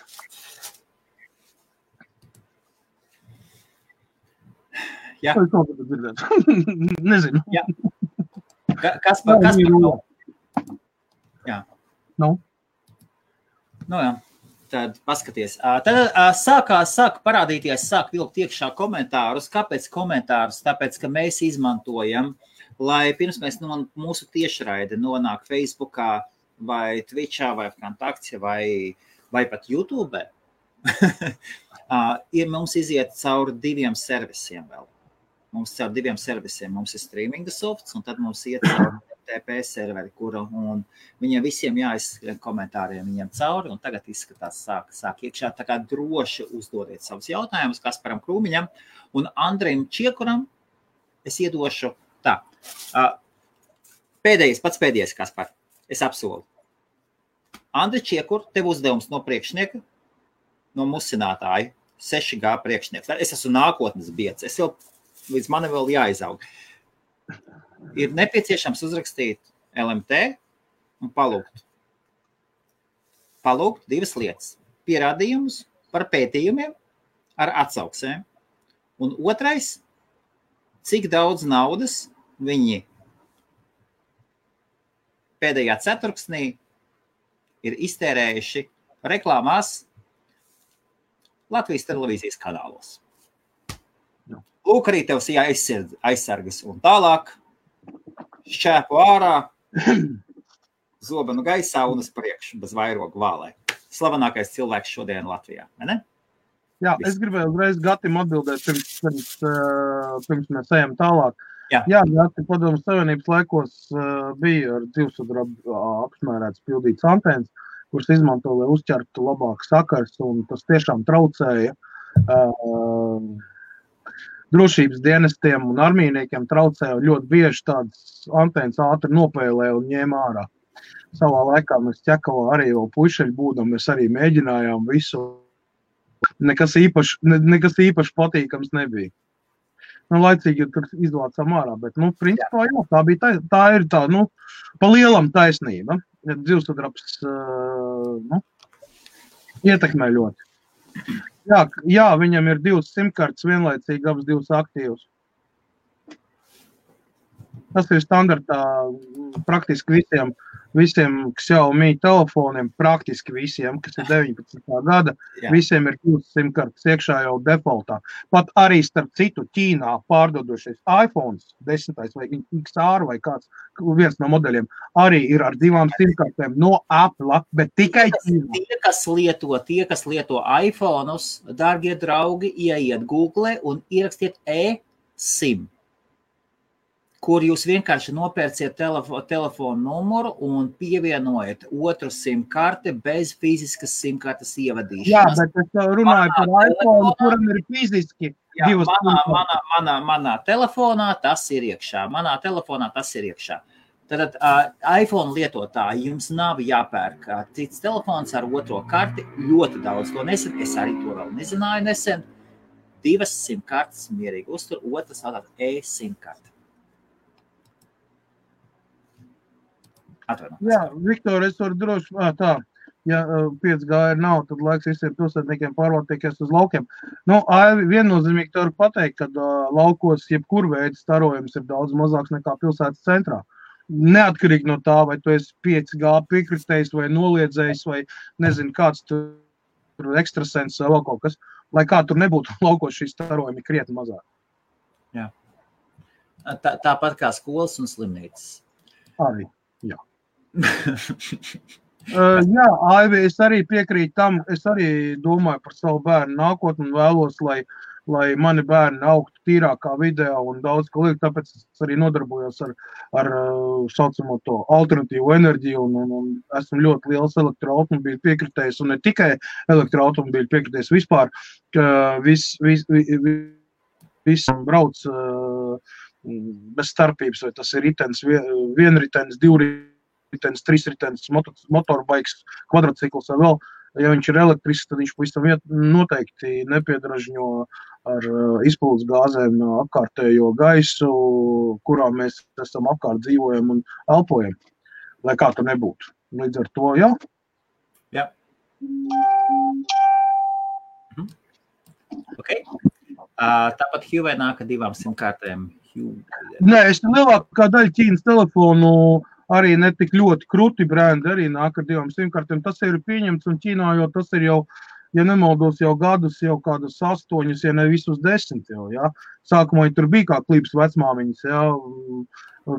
Jā. Nezinu. Jā. Kaspar. Jā. Jā. Tad paskaties. Tad sāk parādīties, sāk vilkt iekšā komentārus. Kāpēc komentārus? Tāpēc, ka mēs izmantojam, lai pirms mēs mūsu tiešraide nonāk Facebookā vai Twitchā vai Kontaktā vai pat YouTube. Mums iziet cauri 2 servisiem vēl. Mums caur 2 servisiem. Mums ir streaminga softs un tad mums iet cauri TP serveri, un viņiem visiem jāizskrien komentāriem viņiem cauri, un tagad izskatās sāk iekšā, tā kā droši uzdodiet savus jautājumus Kasparam Krūmiņam, un Andrejam Čiekuram es iedošu tā. Pats pēdējais, Kaspar, es apsolu. Andri Čiekur, tev uzdevums no priekšnieka, no musinātāja, 6G priekšnieks. Es esmu nākotnes biedrs, līdz mani vēl jāizaug. Ir nepieciešams uzrakstīt LMT un palūgt 2 lietas. Pierādījumus par pētījumiem ar atsauksēm. Un otrais, cik daudz naudas viņi pēdējā ceturksnī ir iztērējuši reklāmās Latvijas televīzijas kanālos. Lūk, arī tev aizsargas un tālāk šķēpu ārā, zobenu gaisā un uz priekšu, bez vairogu vālē. Slavenākais cilvēks šodien Latvijā, vai ne? Jā, es gribēju uzreiz Gatim atbildēt, pirms mēs ejam tālāk. Jā, Gati, Padomju Savienības laikos bija ar dzīvsudrabu apsmērēts pildīts antēnas, kuras izmanto, lai uzķertu labāk sakars, un tas tiešām traucēja drošības dienestiem un armijniekiem traucēja, ļoti bieži tādas antēnas ātri nopēlē un ņēma ārā. Savā laikā mēs Ķekavā arī vēl puišeļi būdam, mēs arī mēģinājām visu. Nekas īpaši patīkams nebija. Laicīgi tur izvācām ārā, bet, principā, jā, tā ir tā, pa lielam taisnība. Dzīvsudrabs, ietekmē ļoti. Jā, viņam ir 2 simkartes vienlaicīgi, abas 2 aktīvas. Tas ir standartā praktiski visiem Xiaomi telefoniem, praktiski visiem, kas ir 19. gada, visiem ir 2 simkartes iekšā jau defaultā. Pat arī starp citu Ķīnā pārdodošies iPhones 10. vai XR vai kāds, viens no modeļiem, arī ir ar 2 simkartēm no Apple, bet tikai Ķīnā. Tie, kas lieto iPhone'us, dārgie draugi, ieiet Google un ierakstiet eSIM, kur jūs vienkārši nopērciet telefonu numuru un pievienojat otru SIM-karti bez fiziskas SIM-kartes ievadīšanas. Jā, bet es runāju par iPhone, kuram ir fiziski 2 SIM-kartes. Manā telefonā tas ir iekšā. Tad iPhone lietotāji jums nav jāpērk cits telefons ar otro karti. Ļoti daudz to nesen. Es arī to vēl nezināju nesen. 2 SIM-kartes mierīgi uztur, otras tātad eSIM-karte. Jā, Viktor, es varu droši, tā, ja 5G nav, tad laiks visiem pilsētniekiem pārvākties uz laukiem. Viennozīmīgi te var pateikt, ka laukos jebkur veids starojums ir daudz mazāks nekā pilsētas centrā. Neatkarīgi no tā, vai tu esi 5G piekritējis vai noliedzējis vai nezinu, kāds tur ekstrasens vai vēl kaut kas, lai kā tur nebūtu laukos šī starojumi krietni mazāk. Jā. Tāpat kā skolas un slimnīcas. Arī, jā. Jā, Aivi, es arī piekrītu tam, es arī domāju par savu bērnu nākotni un vēlos, lai mani bērni augtu tīrākā vidē un daudz ko liek, tāpēc es arī nodarbojos ar saucamo to alternatīvu enerģiju un esmu ļoti liels elektroautomobīļu piekritējis un ne tikai elektroautomobīļu piekritējis vispār, ka viss brauc bez starpības, vai tas ir ritens, vienritens, divritenis, trīsritenis, motorbikes, kvadrocikls vai vēl. Ja viņš ir elektrisks, tad viņš pavisam noteikti nepiedražņo ar izpildes gāzēm apkārtējo gaisu, kurā mēs esam apkārt dzīvojam un elpojam, lai kā tur nebūtu. Līdz ar to, jā? Jā. Ok. Tāpat Huawei nāk ar 2 SIM-kartēm. Nē, es lielākā daļa Ķīnas telefonu arī netik ļoti kruti brendi arī nāk ar 2 SIM-kartēm. Tas ir pieņemts un Ķīnā, jo tas ir jau, ja nemaldos, jau gadus, jau kādus 8, ja ne visus 10 jau, jā. Sākumā tur bija kā klips vecmāmiņas, jā.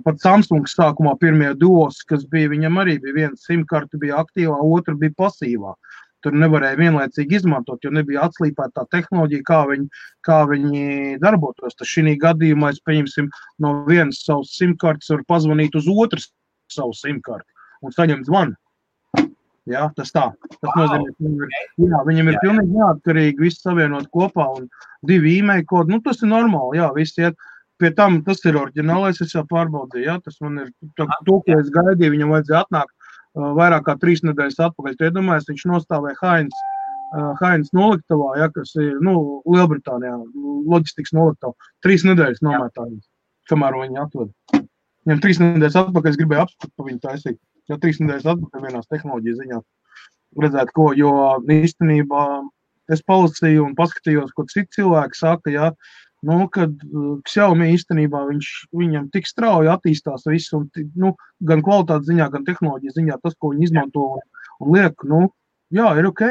Pat Samsungs sākumā pirmie duos, kas bija, viņam arī bija 1 SIM-karte bija aktīvā, otra bija pasīvā. Tur nevarēja vienlaicīgi izmantot, jo nebija atslīpēta tā tehnoloģija, kā viņi darbotos. Tas šī gadījumā, es pieņemsim, no vienas savas SIM-kartes var pazvanīt uz otras savu SIM-karti un saņemt zvanu. Jā, tas tā. Tas nozīmē, ka viņam ir pilnīgi neatkarīgi, viss savienot kopā un 2 e-mail kodi. Tas ir normāli, jā, viss iet. Pie tam tas ir oriģinālais, es jau pārbaudīju, jā, tas man ir to, ko es gaidīju, viņam vajadzēja atnākt vairāk kā 3 nedēļas atpakaļ. Tu iedomājies, viņš nostāvēja Heinz noliktavā, ja, kas ir, Lielbritānijā, loģistikas noliktavā. 3 nedēļas nomētājums, kamēr viņi atved. Viņam 3 nedēļas atpakaļ es gribēju apskatīt pa viņu taisīt. Ja 3 nedēļas atpakaļ vienās tehnoloģijas ziņā redzēt, ko, jo īstenībā es palasīju un paskatījos, ko citi cilvēki saka, ja, kad Xiaomi īstenībā viņam tik strauji attīstās viss, un, gan kvalitātes ziņā, gan tehnoloģijas ziņā, tas, ko viņi izmanto un liek, jā, ir ok.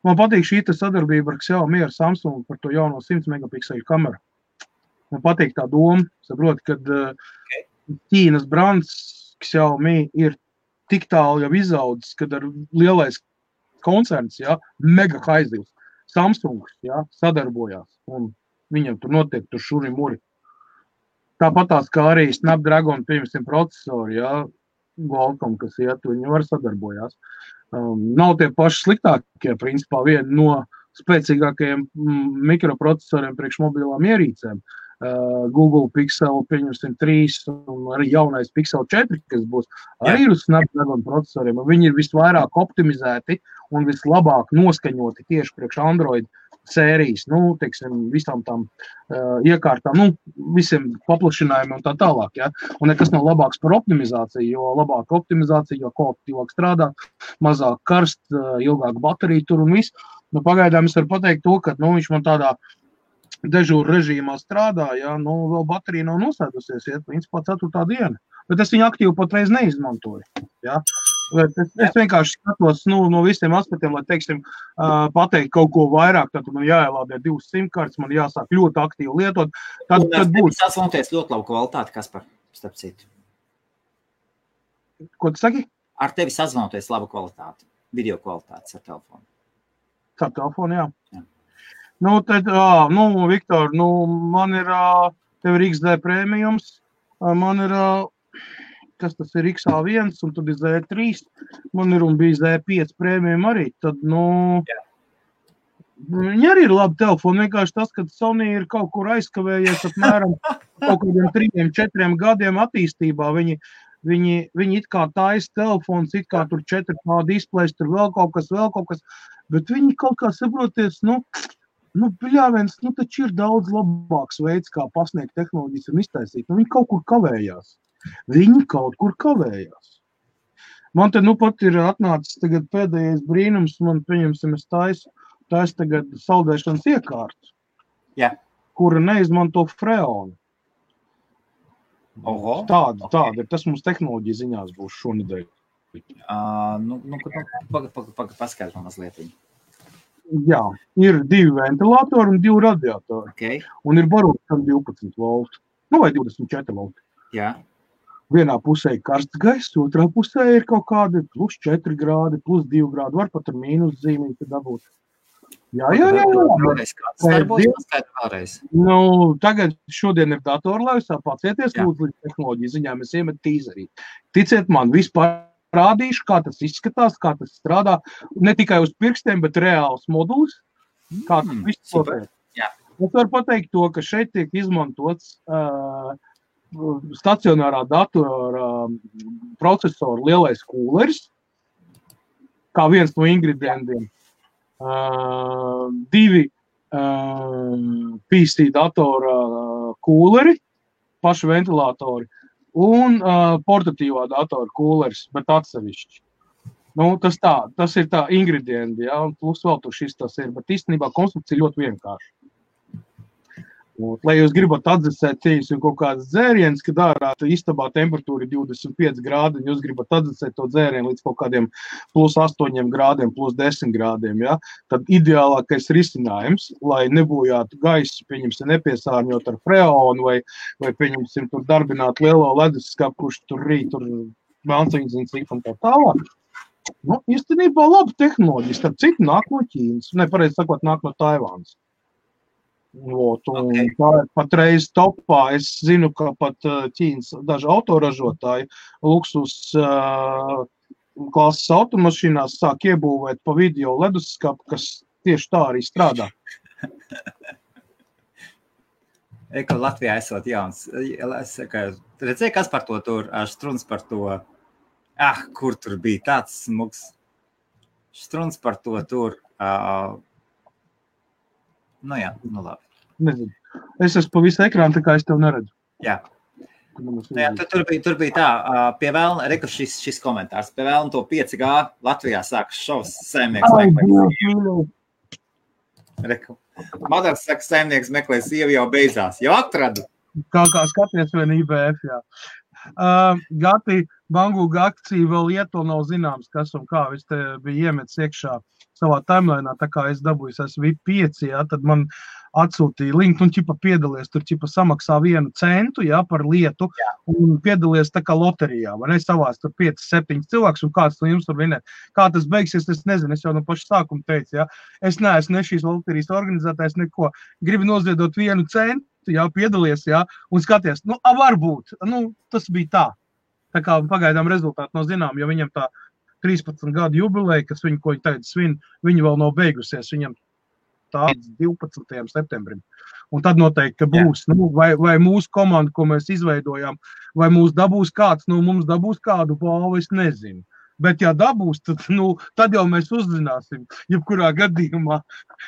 Man patīk šī sadarbība ar Xiaomi, ar Samsung par to jauno 100 megapikseļu kameru. Man patīk tā doma, saprot, kad Ķīnas brands Xiaomi ir tik tālu jau izaudzis, kad ar lielais koncerns, mega haizivs, Samsungs, sadarbojās, un viņam tur notiek tur šuri muri. Tāpat tās kā arī Snapdragon, pieņemsim, procesori, Qualcomm, kas viņi var sadarbojās. Nav tie paši sliktākie, principā, viena no spēcīgākajiem mikroprocesoriem priekš mobilām ierīcēm. Google Pixel, pieņemsim, 3 un arī jaunais Pixel 4, kas būs arī uz Snapdragon procesoriem. Viņi ir visvairāk optimizēti un vislabāk noskaņoti tieši priekš Android sērijas, teiksim, visām tām iekārtām, visiem paplašinājumiem un tā tālāk, Un nekas nav labāks par optimizāciju, jo labāka optimizācija, jo kvalitatīvāk strādā, mazāk karst, ilgāk baterija tur un viss. Pagaidām es varu pateikt to, ka, viņš man tādā dežūra režīmā strādā, vēl baterija nav nosēdusies, principā 4. diena. Bet es viņu aktīvi patreiz neizmantoju, Es vienkārši skatos, no visiem aspektiem, lai, teiksim, pateikt kaut ko vairāk, tad man jāielādē 2 simkartes, man jāsāk ļoti aktīvi lietot. Tad būs. Tas sasvanoties ļoti labu kvalitāti, Kaspar, starp citu. Ko tu saki? Ar tevi sazvanoties labu kvalitāti, video kvalitātes ar telefonu. Ar telefonu, jā. Tad, Viktor, man ir, tev ir XD prēmijums, man ir, kas tas ir XA1, un tad ir Z3, man ir un bija Z5 prēmijum arī, tad, viņi arī ir labi telefoni, vienkārši tas, ka Sony ir kaut kur aizkavējies apmēram kaut kādiem 3-4 gadiem attīstībā, viņi it kā taisa telefons, it kā tur 4K displejs, tur vēl kaut kas, bet viņi kaut kā saproties, bļāviens, taču ir daudz labāks veids, kā pasniegt tehnoloģijas un iztaisīt, viņi kaut kur kavējās. Man te pat ir atnācis tagad pēdējais brīnums, man pieņemsim, es taisu tagad saldēšanas iekārtu, kura neizmanto freonu. Tāda ir, tas mums tehnoloģija ziņās būs šonedēļ. Paskaidro mazliet. Jā, ir 2 ventilātori un 2 radiatori. Okay. Un ir barots 12 volti, vai 24 volti. Jā. Vienā pusē ir karsts gaiss, otrā pusē ir kaut kādi +4 grādi, +2 grādi, var pat ar mīnus zīmīti dabūt. Jā. Tagad šodien ir datorlaivsā, pacieties, lūdzu, līdz tehnoloģiju ziņām, es iemet tīzerī. Ticiet man, vispār rādīšu, kā tas izskatās, kā tas strādā, ne tikai uz pirkstiem, bet reāls modulis, kā tas viss notiek. Es varu pateikt to, ka šeit tiek izmantots stacionārā datora procesora lielais kūleris, kā viens no ingredientiem. 2 PC datora kūleri, paši ventilātori, un portatīvā datora kūleris, bet atsevišķi. Tas ir tā ingredienti, un plus vēl tur šis tas ir, bet īstenībā konstrukcija ļoti vienkārša. Lai jūs gribat atdzesēt un kaut kādas dzērienas, kad ārā istabā temperatūra ir 25 grādi, un jūs gribat atdzesēt to dzērienu līdz kaut kādiem +8 grādiem, +10 grādiem, tad ideālākais risinājums, lai nebojātu gaisu, pieņemsim, nepiesārņot ar freonu, vai pieņemsim, tur darbināt lielo leduskapu, kurš tur rīt, tur melnciņas un cik un tā tālāk. Īstenībā laba tehnoloģija, starp citu nāk no Ķīnas, pareizi sakot, nāk no Taivānas. Tā ir patreiz topā. Es zinu, ka pat Ķīnas daži autoražotāji luksus klases automašīnās sāk iebūvēt pa video leduskapu, kas tieši tā arī strādā. Latvijā esot jauns. Redzēju, kas par to tur, Štruns par to, kur tur bija tāds smuks. Štruns par to tur. Labi. Nezinu. Es esmu pa visu ekrānu, tā kā es tev neredzu. Jā. Tur bija tā, pie vēlna, reku šis komentārs, pie vēlna to 5G Latvijā sākas šovs saimnieks. Madars saka, saimnieks meklē sievi jau beidzās. Jau atradu. Kā skaties vien IBF, jā. Gati, Bangūga akcija vēl iet, nav zināms, kas un kā. Es te biju iemetis iekšā savā timelēnā, tā kā es dabūju, esmu VIP 5, jā, tad man atsūtīja linku, un ķipa piedalies, tur ķipa samaksā 1 centu, jā, par lietu, un piedalies tā kā loterijā, vai ne, savās tur 5-7 cilvēks, un kāds no jums tur vinē. Kā tas beigsies, es nezinu, es jau no paša sākuma teicu, jā, es neesmu ne šīs loterijas organizētājs, neko, gribu noziedot 1 centu, jā, piedalies, jā, un skaties, varbūt, tas bija tā. Tā kā pagaidām rezultāti nav zinām, jo viņam tā 13 gadu jubileja, kas ko viņi tagad svin, viņi vēl nav beigusies, viņam tāds 12. septembrim. Un tad noteikti, ka būs, vai mūsu komanda, ko mēs izveidojām, vai mūs dabūs kāds, mums dabūs kādu balvu, es nezinu. Bet ja dabūs, tad jau mēs uzzināsim, jebkurā gadījumā.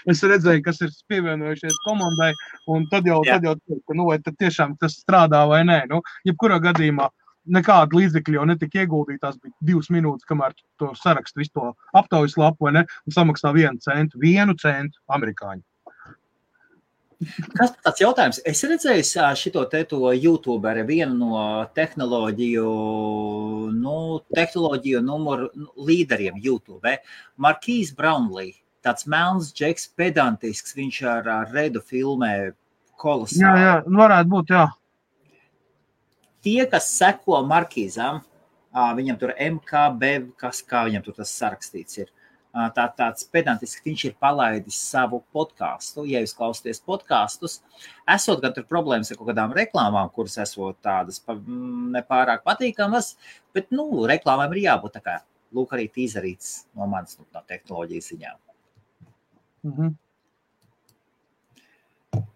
Es redzēju, kas ir pievienojušies komandai, un tad jau teikt, ka vai tad tiešām tas strādā vai nē. Jebkurā gadījumā nekāda līdzekļa jau netika ieguldītās, bija 2 minūtes, kamēr to sarakstu visu to aptaujas lapu, vai ne, un samaksā 1 centu amerikāņu. Kas tāds jautājums? Es redzēju šito to YouTuberi, vienu no tehnoloģiju numuru līderiem YouTube, Marquise Brownlee, tāds melns džeks, pedantisks, viņš ar Redu filmē kolosāli. Jā, varētu būt, jā. Tie, kas seko Markīzam, viņam tur MKB, kā viņam tur tas sarakstīts ir, tāds pedantisks, viņš ir palaidis savu podcastu. Ja jūs klausāties podcastus, esot gan tur problēmas ar kaut kādām reklāmām, kuras esot tādas nepārāk patīkamas, bet, reklāmām ir jābūt tā kā, lūk, arī tīzarīts no manas no tehnoloģijas ziņām.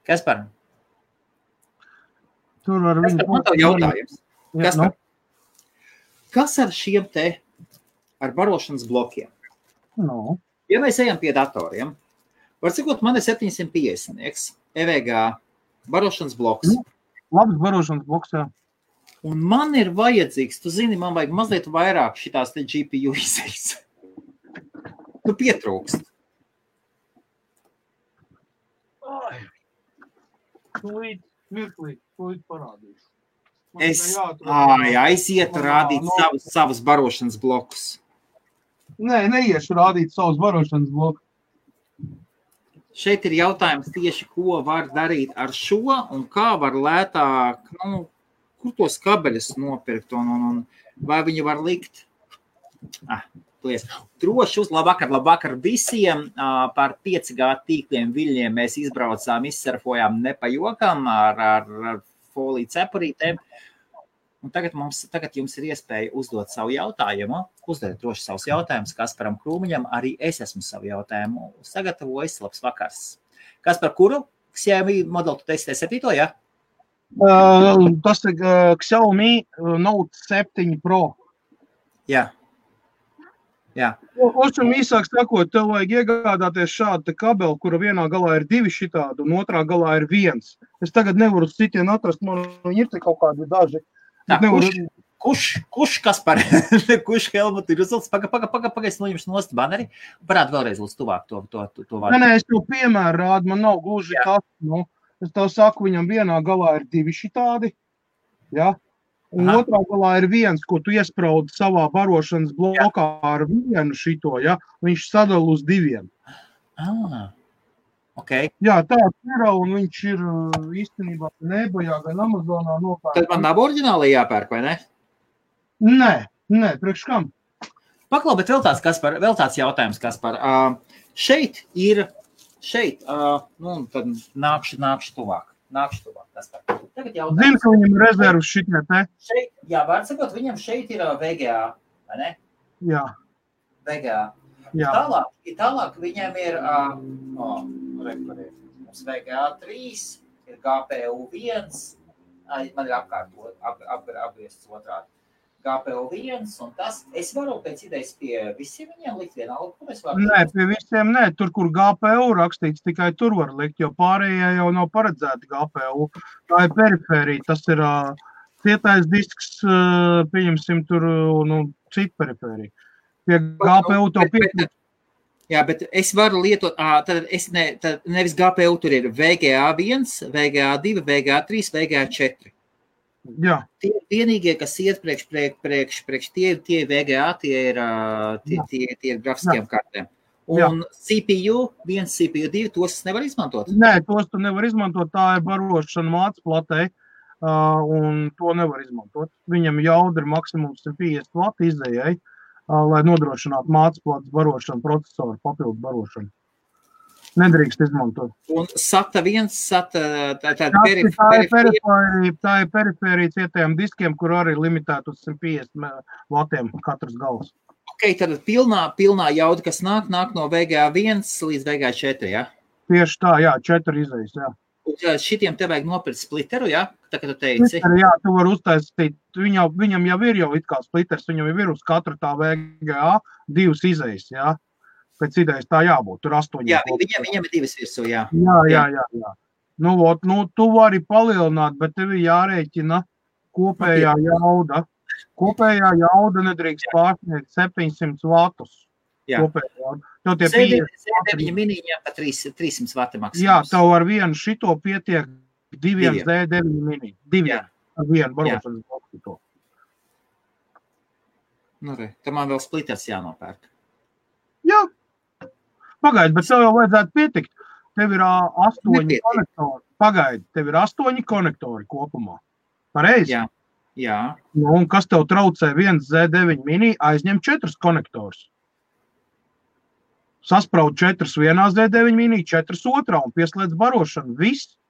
Kaspar? Tur var viņu... Man tev jautājums. Kas ar šiem ar barošanas blokiem? Ja mēs ejam pie datoriem, var cikot, man ir 750, EVG barošanas bloks. Labs barošanas bloks, jā. Un man ir vajadzīgs, tu zini, man vajag mazliet vairāk šitās te GPU izējas. Tu pietrūkst. Mirklī, ko parādīšu. Es aizietu rādīt savus barošanas blokus. Nē, neiešu rādīt savus barošanas blokus. Šeit ir jautājums tieši, ko var darīt ar šo un kā var lētāk, kur tos kabeļus nopirkt un vai viņu var likt. Droši labvakar visiem. Par 5G tīkliem viļņiem mēs izbraucām, izsurfojām nepajokam ar foliju cepurītēm. Un tagad jums ir iespēja uzdot savu jautājumu. Uzdodiet droši savus jautājumus Kasparam Krūmiņam. Arī es esmu savu jautājumu sagatavojis. Labs vakars. Kaspar, kuru Xiaomi modeli tu testē 7, ja? Tas ir Xiaomi Note 7 Pro. Jā. Jā. Ošam īsāk sakot, tev vajag iegādāties šādu kabeli, kura vienā galā ir 2 šitādi un otrā galā ir 1. Es tagad nevaru citien atrast, man ir te kaut kādi daži. Kurš Kaspar? Kurš Helmut ir uzvilts? Pagaidz noņemšu nost baneri. Parādi vēlreiz lūdzu tuvāk to vārdu. Nē, es tev piemēru rādu, man nav gluži tas. Es tev saku, viņam vienā galā ir 2 šitādi. Ja? Un otrā galā ir 1, ko tu iespraudi savā barošanas blokā ar 1 šito, ja? Viņš sadala uz 2. Okay. Jā, tāds ir, un viņš ir īstenībā nebajā gan Amazonā nopērk. Tad man nav oriģināli jāpērk, vai ne? Nē, priekš kam? Paklau, bet vēl tāds jautājums, Kaspar. Šeit, tad nākšu tuvāk. Kaspar. Zinu, ka viņam ir rezervs šitie te. Šeit, jā, var sakot, viņam šeit ir VGA, vai ne? Jā. VGA. Jā. Tālāk viņam ir mums VGA 3, ir GPU 1, man ir apgriezts otrādi. GPU 1 un tas, es varu pēc idejas pie visiem viņiem likt vienalga, ko es varu? Nē, pie visiem nē, tur, kur GPU rakstīts, tikai tur var likt, jo pārējie jau nav paredzēti GPU. Tā ir perifērija, tas ir cietais disks, pieņemsim tur, citu perifēriju. Pie GPU to pietrūkst. Jā, bet es varu lietot, tad nevis GPU, tur ir VGA1, VGA2, VGA3, VGA4. Jā. Tie vienīgie, kas iet priekš tie VGA, tie ir grafiskajām kartēm. Un CPU, 1 CPU, 2, tos nevar izmantot? Nē, tos tu nevar izmantot, tā ir barošana mācas platē, un to nevar izmantot. Viņam jauda ir maksimums 150 vati izējai, lai nodrošinātu mācas platas barošanu, procesoru papildu barošanu. Nedrīkst izmantot. Un SATA 1, tā ir perifērija cietējiem diskiem, kur arī limitēt uz 150 vatiem katrs gals. Ok, tad pilnā jauda, kas nāk no VGA1 līdz VGA4, jā? Tieši tā, jā, 4 izējas, jā. Un šitiem te vajag nopirkt splitteru, jā? Tā, kā tu teici. Splitteru, jā, tu vari uztaisīt, viņam jau ir it kā splitters, viņam jau ir uz katru tā VGA 2 izējas, jā? Pēc idejas tā jābūt, tur 8. Jā, viņam ir 2 virsū, jā. Jā. Nu, tu vari palielināt, bet tev ir jārēķina kopējā jauda. Kopējā jauda nedrīkst pārsniegt 700 vatus. Jā. Z9 miniņiem pa 300 vati maksimums. Jā, tev ar vienu šito pietiek 2 Z9 mini. 2 ar vienu barošanas bloku. Nu, tā man vēl splitters jānopērk. Jā. Pagaidi, bet tev jau vajadzētu pietikt. Tev ir 8 konektori. Pagaidi, tev ir 8 konektori kopumā. Pareizi? Jā. Nu, un kas tev traucē 1 Z9 mini, aizņem 4 konektors. Saspraud 4 vienā Z9 mini, 4 otrā un pieslēdz barošanu. Viss.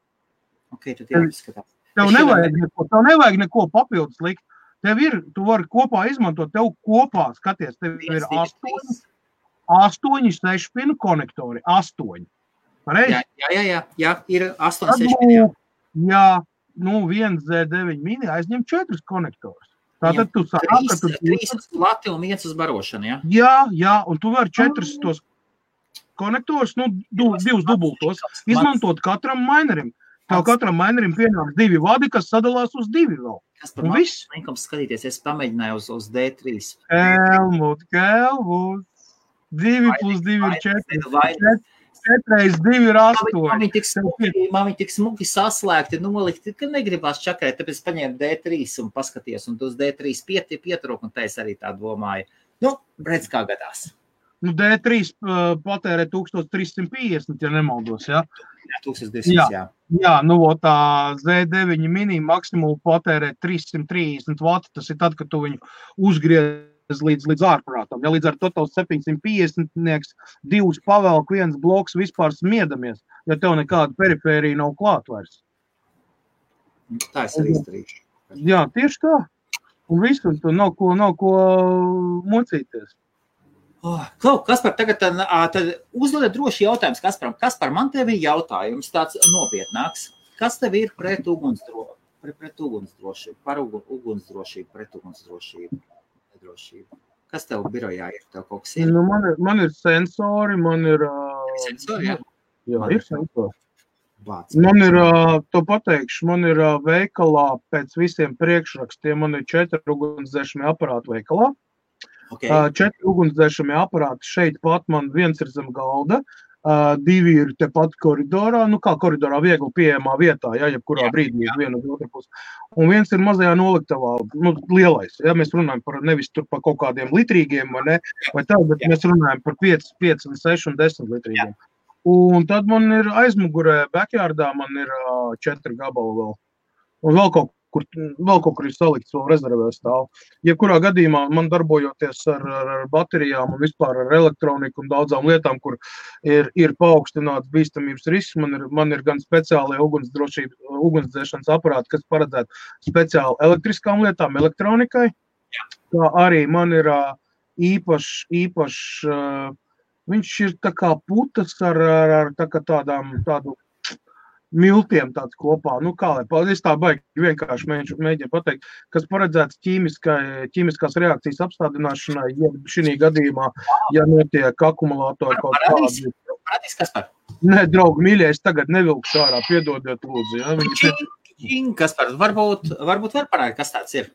Ok, tad jāizskatās. Tev nevajag neko papildus likt. Tu vari kopā izmantot, tev kopā, skaties, tev ir 8 6-pinu konektori. 8. Pareizi? Jā, ir 8 6-pinu. Jā, nu 1 Z9 mini aizņem 4 konektors. Tātad tu sāk, ka tu 3 uz plati un 1 uz barošanu, jā? Jā, un tu vari 4 tos konektors, nu 2 dubultos, izmantot katram minerim. Tev katram minerim pienāks 2 vadi, kas sadalās uz 2 vēl. Kas par linkums skatīties, es pamēģināju uz D3. Helmut. 2 plus 2 ir 4. 4 reiz 2 ir 8. Man viņi tik smuki saslēgti, nolikti, ka negribās čakarēt, tāpēc paņēmu D3 un paskaties, un tu uz D3 pietrūk, un tā es arī tā domāju. Nu, redz, kā gadās. Nu, D3 patērē 1350, ja nemaldos, jā? Jā, 1200, jā. Jā, nu, tā Z9 mini maksimumu patērē 330 vati, tas ir tad, kad tu viņu uzgriez līdz ārprātam. Ja līdz ar to tavs 750 2 pavelk, 1 bloks vispār smiedamies, ja tev nekāda perifērija nav klāt vairs. Tā es arī izdarīšu. Jā, tieši tā. Un viss, un tu nav ko mocīties. Kaspar, tagad tad uzdodiet droši jautājums Kasparam. Kaspar, man tev ir jautājums tāds nopietnāks. Kas tev ir pret ugunsdrošību? Par ugunsdrošību, pret ugunsdrošību? Kas tev birojā ir? Tev kaut kas ir? Nu, man ir sensori, man ir... Sensori, jā? Jā, ir sensori. Man ir, to pateikšu, man ir veikalā pēc visiem priekšrakstiem, man ir 4 ugunsdzēšamie aparāti veikalā. Okay. 4 ugunsdzēšamie aparāti šeit pat man 1 ir zem galda, 2 ir tepat koridorā, nu kā koridorā viegli pieejamā vietā, ja, jebkurā brīdī uz vienu uz otru pusi. Un 1 ir mazajā noliktavā, nu lielais, ja, mēs runājam par nevis tur par kaut kādiem litrīgiem vai ne, vai tā, bet mēs runājam par 5, 6 un 10 litrīgiem. Un tad man ir aizmugurē, backyardā man ir 4 gabali vēl. Un vēl kaut kur ir salikts, vēl rezervē stāv. Jebkurā gadījumā man darbojoties ar baterijām un vispār ar elektroniku un daudzām lietām, kur ir paaugstināts bīstamības risks, man ir gan speciālie ugunsdzēšanas aparāti, kas paredzētu speciāli elektriskām lietām, elektronikai. Kā arī man ir īpašs, viņš ir tā kā putas ar tādu miltiem tāds kopā, nu kā lai paldies, tā baigi vienkārši mēģinu pateikt, kas paredzēts ķīmiskās reakcijas apstādināšanai, ja šī gadījumā, ja notiek akumulātori kaut kādi. Parādīs, Kaspar? Nē, draugi, mīļais, tagad nevilkšu ārā, piedodiet lūdzu. Ja? Kaspar, varbūt var parādīt, kas tāds ir?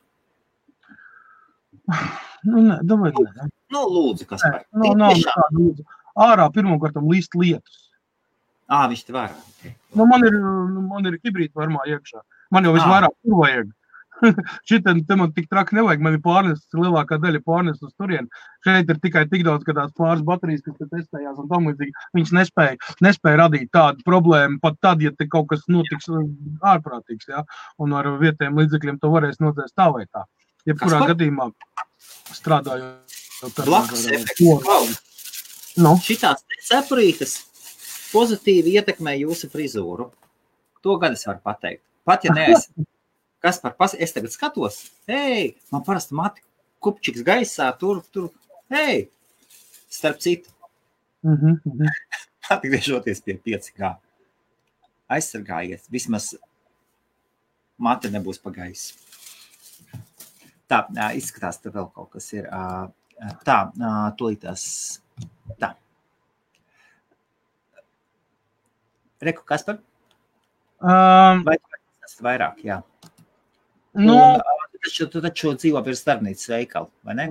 Nu, nē, davai, nē. Nu, lūdzu, Kaspar. Nav nekāda lūdzu. ārā pirmkārtam līst lietus. Viņš te var. Nu, man ir hibrīda formā iekšā. Man jau visvairāk tur vajag. Šitam te man tik traki nevajag. Man ir pārnests, lielākā daļa pārnests uz turien. Šeit ir tikai tik daudz, ka tās pāris baterijas, kas te testējās un tam līdzīgi, viņas nespēja radīt tādu problēmu, pat tad, ja te kaut kas notiks ārprātīgs, ja? Un ar vietējiem līdzekļiem to varēs nodzēst tā vai tā. Jebkurā gadījumā strādājot. Blakus efekts. Šitās cepurītes pozitīvi ietekmē jūsu frizūru. To gan es varu pateikt. Pat ja neesi. Kas par es tagad skatos? Man parasti mati kupčiks gaisā, tur. Starp citu. Atgriežoties pie 5G. Aizsargājies. Vismaz mati nebūs pa gaisu. Tā, izskatās, te vēl kaut kas ir. Tā, tūlītās. Tā. Reku, kas par? Vai tas vairāk, jā. Tu taču dzīvo pie starpnīcas veikalu, vai ne?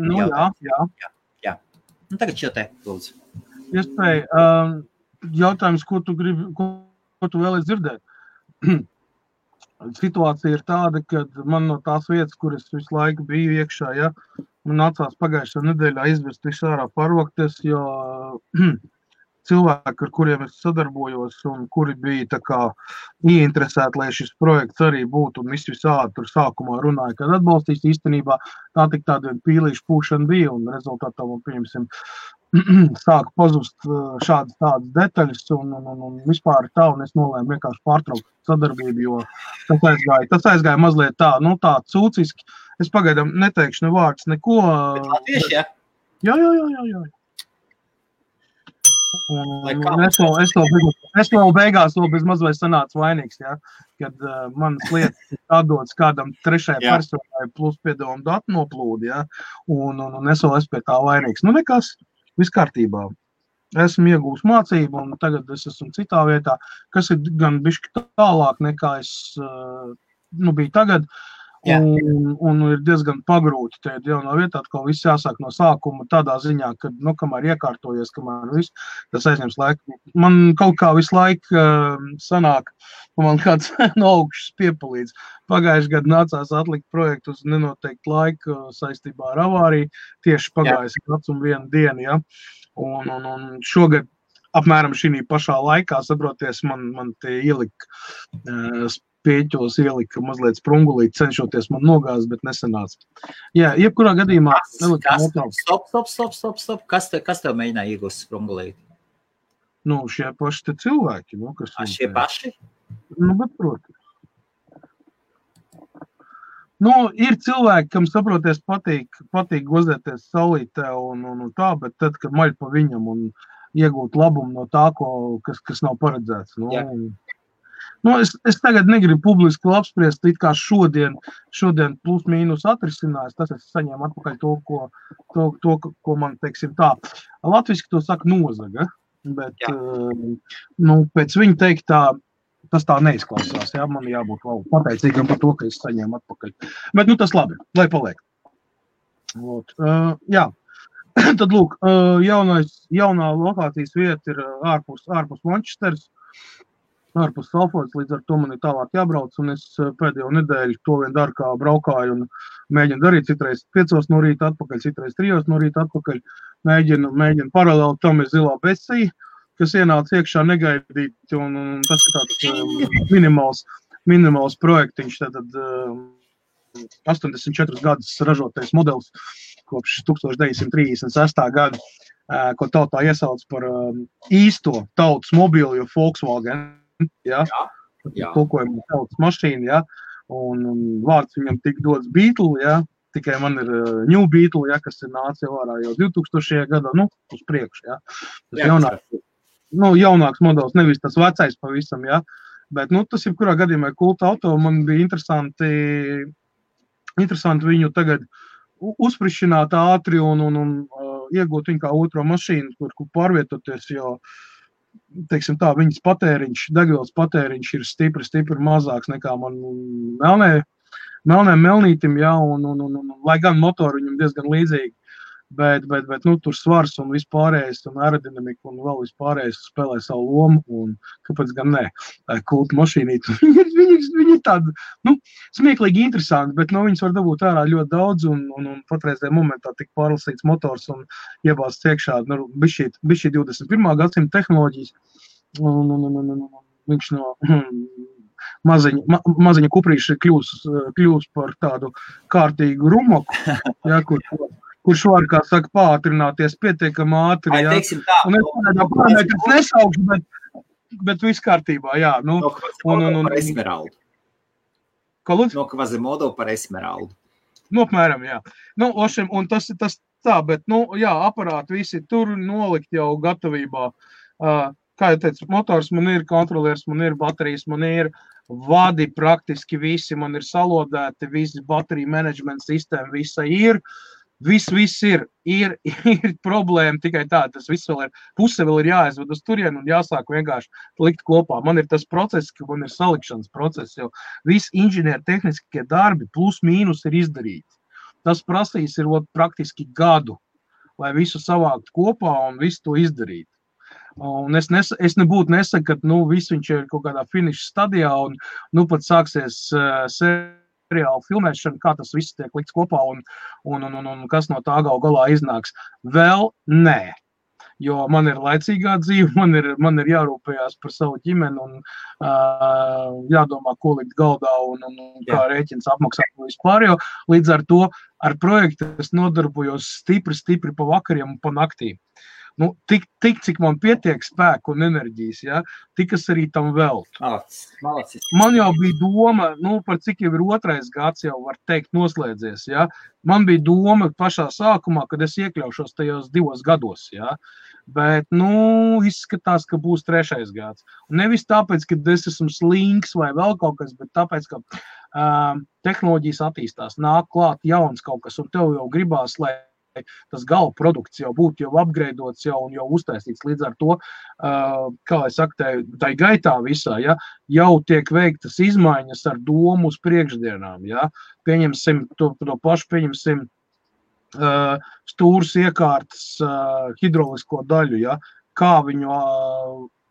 Jā. Tagad šo te, lūdzu. Iespēja, jautājums, ko tu vēlies dzirdēt? Situācija ir tāda, ka man no tās vietas, kur es visu laiku biju iekšā, ja, man nācās pagājušā nedēļā izvest visu ārā parvokties, jo cilvēki, ar kuriem es sadarbojos un kuri bija tā kā ieinteresēti, lai šis projekts arī būtu un visādi tur sākumā runāja, kad atbalstīs īstenībā, tā tik tāda pīlīša pūšana bija un rezultātā man, pieņemsim, sāka pazust tādas detaļas un vispār tā, un es nolēmu vienkārši pārtraukt sadarbību, jo tas aizgāja mazliet tā, tā cūciski. Es pagaidām neteikšu ne vārds, neko. Bet latvieši, ja? Jā. Es vēl beigās vēl bez mazliet sanācu vainīgs, ja, kad manas lietas atdodas kādam trešajai personai plus piedomu datu noplūdi, ja, un es vēl esmu pie tā vainīgs. Nekas, viss kārtībā. Esmu iegūs mācību, un tagad es esmu citā vietā, kas ir gan bišķi tālāk nekā es biju tagad. Un ir diezgan pagrūti tajā jaunā vietā, atkal viss jāsāk no sākuma tādā ziņā, ka, kamēr iekārtojies, kamēr viss, tas aizņems laiku. Man kaut kā visu laiku sanāk, man kāds no augšas piepalīdz. Pagājuši gadu nācās atlikt projektu uz nenoteiktu laiku saistībā ar avāriju, tieši pagājuši gads un vienu dienu, ja. Un šogad apmēram šī pašā laikā, saproties, man te ielika pieķos ielika mazliet sprungulīt, cenšoties man nogāzt, bet nesanāca. Jā, jebkurā gadījumā... Stop. Kas tev mēģināja iegūst sprungulīt? Šie paši te cilvēki. Šie paši? Bet, protams. Ir cilvēki, kam saproties patīk gozēties saulītē un tā, bet tad, kad maļ pa viņam un iegūt labumu no tā, kas nav paredzēts. Es tagad negribu publiski apspriest, it kā šodien plus mīnus atrisinājis, tas es saņēmu atpakaļ to, ko man, teiksim tā, latviski to saka nozaga, bet, pēc viņa teiktā, tas tā neizklausās, jā, man jābūt pateicīgam par to, ka es saņēmu atpakaļ. Bet, tas labi, lai paliek. Jā, tad, lūk, jaunā lokācijas vieta ir ārpus Manchesteras, ārpus Salfords, līdz ar to man ir tālāk jābrauc, un es pēdējo nedēļu to vien daru, kā braukāju un mēģinu darīt, citreiz 5 no rīta atpakaļ, citreiz 3 no rīta atpakaļ, mēģinu paralēli tam ir zilā besija, kas ienāca iekšā negaidīti, un tas ir tāds minimāls projektiņš, tātad 84 gadus ražotais modelis kopš 1936. Gada, ko tautā iesauc par īsto tautas mobīlu, jo Volkswagen, tulkojuma tautas mašīna, ja, un vārds viņam tik dots Beetle, ja, tikai man ir New Beetle, ja, kas ir nācis ārā jau 2000. Gadā, uz priekšu, ja. Tas jaunāks modelis, nevis tas vecais pavisam, ja, bet, tas jebkurā gadījumā kulta auto, man bija interesanti viņu tagad uzprišināt ātri un iegūt viņu kā otro mašīnu, kur pārvietoties, jo, teiksim tā, viņas patēriņš, degvielas patēriņš ir stipri mazāks nekā man melnēm melnītim, ja, un lai gan motori viņam diezgan līdzīgi, Bet tur svars un vispārējais, un aerodinamika un vēl vispārējais spēlē savu lomu, un kāpēc gan ne? Kulta mašīnīti, viņi ir tādi, smieklīgi interesanti, bet viņas var dabūt ārā ļoti daudz, un patreizajā momentā tik pārlasīts motors un iebāsts iekšā, bišķi 21. gadsimta tehnoloģijas, un viņš no maziņa kuprīša kļūs par tādu kārtīgu rumaku, ja, kurš var, kā saka, pātrināties pietiekami ātri, jā. Teiksim tā. Un es parametrs nesaukšu, bet viss kārtībā, jā. Par Esmeraldu. Ko lūdzu? No Quasimodo par Esmeraldu. Apmēram, jā. Un tas tā, bet, jā, aparāti visi tur nolikt jau gatavībā. Kā jau teicu, motors man ir, kontrolieris man ir, baterijas man ir, vadi praktiski visi man ir salodēti, visi bateriju menedžmenta sistēma visa ir. Viss ir problēma tikai tā, tas viss vēl ir, puse vēl ir jāaizved uz turienu un jāsāk vienkārši likt kopā. Man ir tas process, ka man ir salikšanas process, jo visi inženieru tehniskie darbi plus mīnus ir izdarīti. Tas prasīs ir praktiski gadu, lai visu savākt kopā un visu to izdarīt. Un es nebūtu nesaku, ka viss viņš ir kaut kādā finiša stadijā un pat sāksies seriāla filmēšana, kā tas viss tiek likts kopā un kas no tā galā iznāks. Vēl nē, jo man ir laicīgā dzīve, man ir jārūpējās par savu ģimeni un jādomā, ko likt galdā un kā rēķins apmaksāt vispār, jo līdz ar to ar projektu es nodarbojos stipri pa vakariem un pa naktīm. Tik, cik man pietiek spēku un enerģijas, ja, tik es arī tam veltu. Man jau bija doma, par cik jau ir 2. gads jau var teikt noslēdzies, ja. Man bija doma pašā sākumā, kad es iekļaušos tajos 2 gados, ja. Bet, izskatās, ka būs 3. gads. Un nevis tāpēc, ka es esmu slinks vai vēl kaut kas, bet tāpēc, ka tehnoloģijas attīstās, nāk klāt jauns kaut kas, un tev jau gribās, lai tas gala produkts jau būtu jau upgradeots jau un jau uztaisīts. Līdz ar to, kā lai saka, tai gaitā visā, ja, jau tiek veiktas izmaiņas ar domu uz priekšdienām. Ja. Pieņemsim to pašu, stūras iekārtas hidrolisko daļu, ja, kā viņu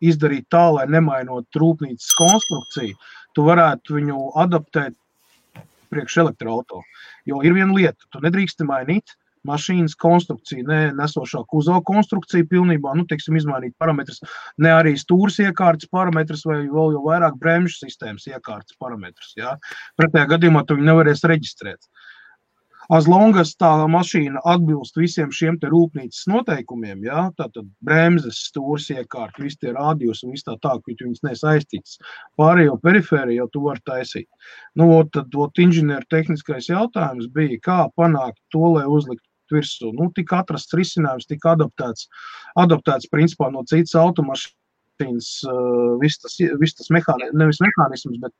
izdarīt tā, lai nemainot rūpnīcas konstrukciju, tu varētu viņu adaptēt priekš elektroauto. Jo ir viena lieta, tu nedrīksti mainīt mašīnas konstrukciju, ne nesošā kuzova konstrukcija pilnībā, teiksim, izmainīt parametrus, ne arī stūras iekārtas parametrus vai vēl jau vairāk bremžu sistēmas iekārtas parametrus, jā. Pretējā gadījumā tu viņu nevarēs reģistrēt. As long as tā mašīna atbilst visiem šiem te rūpnīcas noteikumiem, jā, tātad bremzes, stūras iekārta, visi tie rādījus un viss tā, ka viņas nesaistīts. Pārējo perifēriju jau tu vari taisīt. Tad inženieru tehniskais jautājums bija, kā panākt to, lai uzlikt virsū. Tika atrasts risinājums, tika adaptēts principā no citas automašīnas, viss tas nevis mehānisms, bet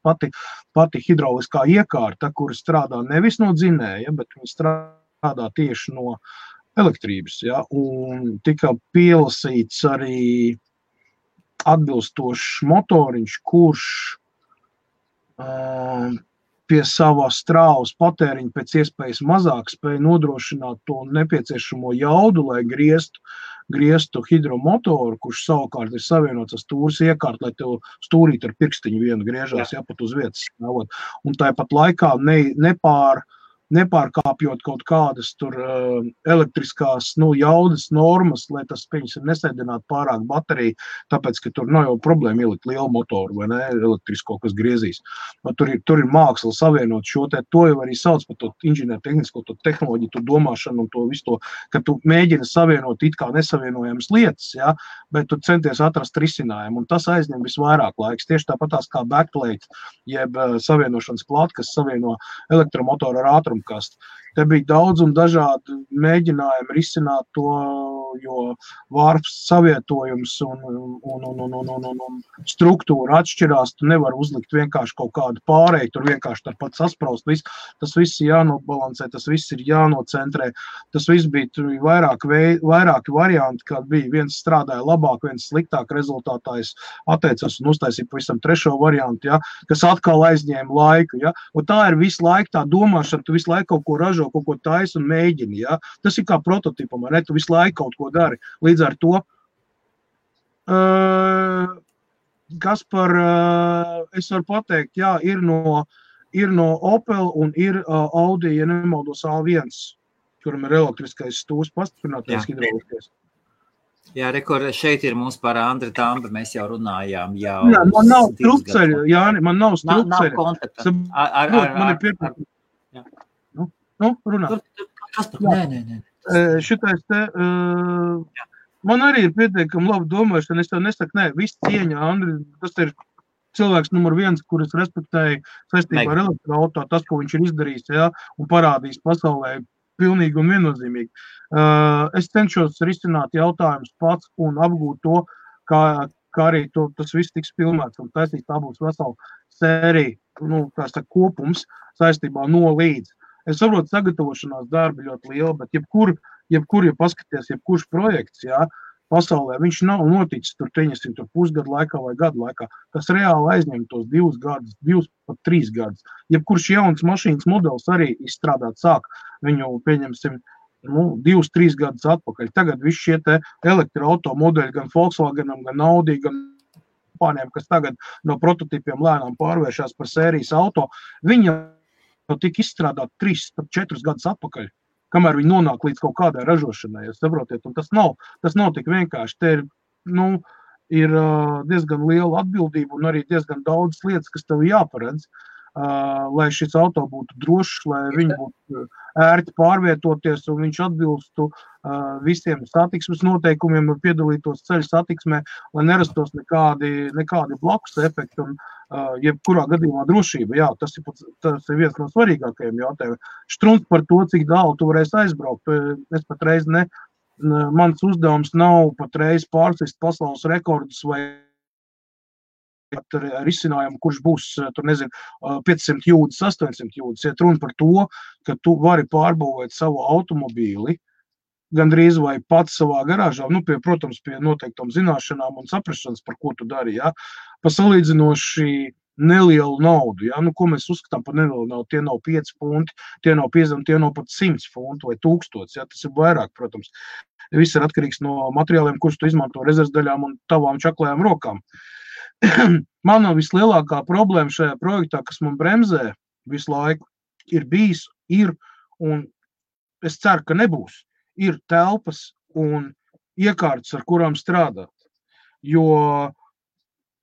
pati hidroliskā iekārta, kura strādā nevis no dzinēja, bet viņa strādā tieši no elektrības. Ja? Un tika pielasīts arī atbilstošs motoriņš, kurš pie savā strāvas patēriņa pēc iespējas mazāk spēja nodrošināt to nepieciešamo jaudu, lai grieztu hidromotoru, kurš savukārt ir savienots ar stūras iekārtu, lai tev stūrīt ar pirkstiņu vienu griežās, ja, pat uz vietas stāvot. Un tāpat laikā nepārkāpjot kaut kādas tur elektriskās jaudas normas, lai tas nesēdinātu pārāk bateriju, tāpēc, ka tur nav jau problēma ielikt lielu motoru vai ne, elektrisko, kas griezīs. Tur ir māksla savienot šo to jau arī sauc par to inženieru tehnisko, to tehnoloģiju, to domāšanu un to visu to, ka tu mēģini savienot it kā nesavienojamas lietas, ja, bet tu centies atrast risinājumu, un tas aizņem visvairāk laiks. Tieši tāpatās kā backplate, jeb savienošanas plāta, kas savieno elektromotoru ar ātrumkastu. Te bija daudz un dažādi mēģinājumi risināt to jo vārps savietojums un struktūra atšķirās, tu nevar uzlikt vienkārši kaut kādu pārēju, tur vienkārši tāpat saspraust, tas viss ir jānobalansē, tas viss ir jānocentrē, tas viss bija, tur bija vairāki varianti, kad bija viens strādāja labāk, viens sliktāk, rezultātā es atteicos un uztaisīju pavisam trešo variantu, ja, kas atkal aizņēma laiku, ja, un tā ir visu laiku tā domāšana, tu visu laiku kaut ko ražo, kaut ko taisi un mēģini, ja, tas ir kā prototipam, ne, tu visu laiku kaut ko dari, līdz ar to, Kaspar, es varu pateikt, jā, ir no Opel un ir Audi, ja nemaldos A1, kuram ir elektriskais stūrs pastiprinātais hidrauliskais. Jā, rekur, šeit ir mums par Andri Tambi, mēs jau runājām. Nē, man nav strupceļa, Jāni, man nav strupceļa. Nav kontakta. Man ir pietiekami. Nu, runā. Nē. Šitais te, man arī ir pietiekami labi domāšana, es tev nesaku, nē, viss cieņa, Andri, tas ir cilvēks numur 1, kurus respektēju saistībā ar elektroauto, tas, ko viņš ir izdarījis, jā, un parādījis pasaulē pilnīgi un viennozīmīgi. Es cenšos risināt jautājumus pats un apgūt to, kā arī tas viss tiks filmēts un taisīt, tā būs vesela sērija, tā saka, kopums saistībā no līdz. Es saprotu, sagatavošanās darbi ļoti liela, bet jebkur, ja paskaties, jebkurš projekts, jā, pasaulē, viņš nav noticis tur pusgadu laikā vai gadu laikā. Tas reāli aizņem tos 2 gadus, 2 pat 3 gadus. Jebkurš jauns mašīnas modelis arī izstrādāt sāk, viņu pieņemsim 2-3 gadus atpakaļ. Tagad visi šie te elektroauto modeļi gan Volkswagenam, gan Audi, gan kompānijām, kas tagad no prototipiem lēnām pārvēršās par sērijas auto, viņi jau tika izstrādāt 3-4 gadus atpakaļ, kamēr viņi nonāk līdz kaut kādai ražošanai, jūs saprotiet, un tas nav tik vienkārši. Te ir diezgan liela atbildība un arī diezgan daudz lietas, kas tev jāparedz, lai šis auto būtu drošs, lai viņi būtu ērti pārvietoties un viņš atbilstu visiem satiksmes noteikumiem un piedalītos ceļu satiksmē, lai nerastos nekādi blakus efekti un jebkurā gadījumā drošība. Jā, tas ir viens no svarīgākajiem jautājumiem. Štruns par to, cik tālu tu varēsi aizbraukt. Es patreiz mans uzdevums nav patreiz pārsist pasaules rekordus vai ar izcinājumu, kurš būs, 500 jūdzes, 800 jūdzes. Iet runa par to, ka tu vari pārbūvēt savu automobīli, gandrīz vai pats savā garāžā, protams, pie noteiktām zināšanām un saprašanas, par ko tu dari, ja, pa salīdzinoši nelielu naudu, ja, ko mēs uzskatām par nelielu naudu, tie nav 5 funti, tie nav 50, tie nav pat 100 funti vai 1000, ja, tas ir vairāk, protams. Viss ir atkarīgs no materiāliem, kurus tu izmanto rezervdaļām un tavām čaklajām rokām. Man vislielākā problēma šajā projektā, kas man bremzē visu laiku, ir bijis, un es ceru, ka nebūs, ir telpas un iekārtas, ar kurām strādāt. Jo,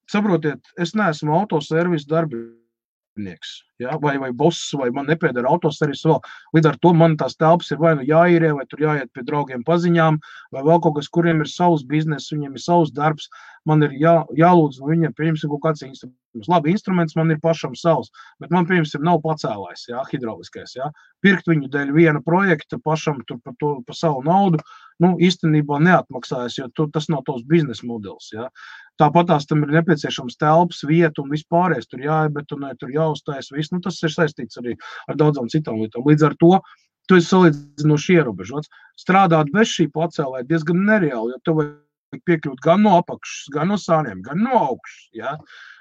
saprotiet, es neesmu autoservis darbinieks, ja, vai boss, vai man nepiedara autoservis vēl. Līdz ar to man tās telpas ir vai nu jāīrē, vai tur jāiet pie draugiem paziņām, vai vēl kaut kas, kuriem ir savs biznes, viņiem ir savs darbs. Man ir jālūdz no viņiem, pieņemsim, kaut kāds instruments. Labi, instruments man ir pašam savs, bet man, pieņemsim, nav pacēlājs, jā, hidrauliskais, jā. Pirkt viņu dēļ viena projekta pašam tur par savu naudu, īstenībā neatmaksājas, jo tas nav tavs biznesa modelis, jā. Tāpatās tam ir nepieciešams telpas, vieta un vispārējais, tur jāiebetonē, tur jāuztais, viss, tas ir saistīts arī ar daudzām citām lietām. Līdz ar to, tu esi salīdzinoši ierobežots. Strādāt bez šī pacēlāja diezgan nereāli, jo tev piekļūt gan no apakšas, gan no sāniem, gan no augšas, ja?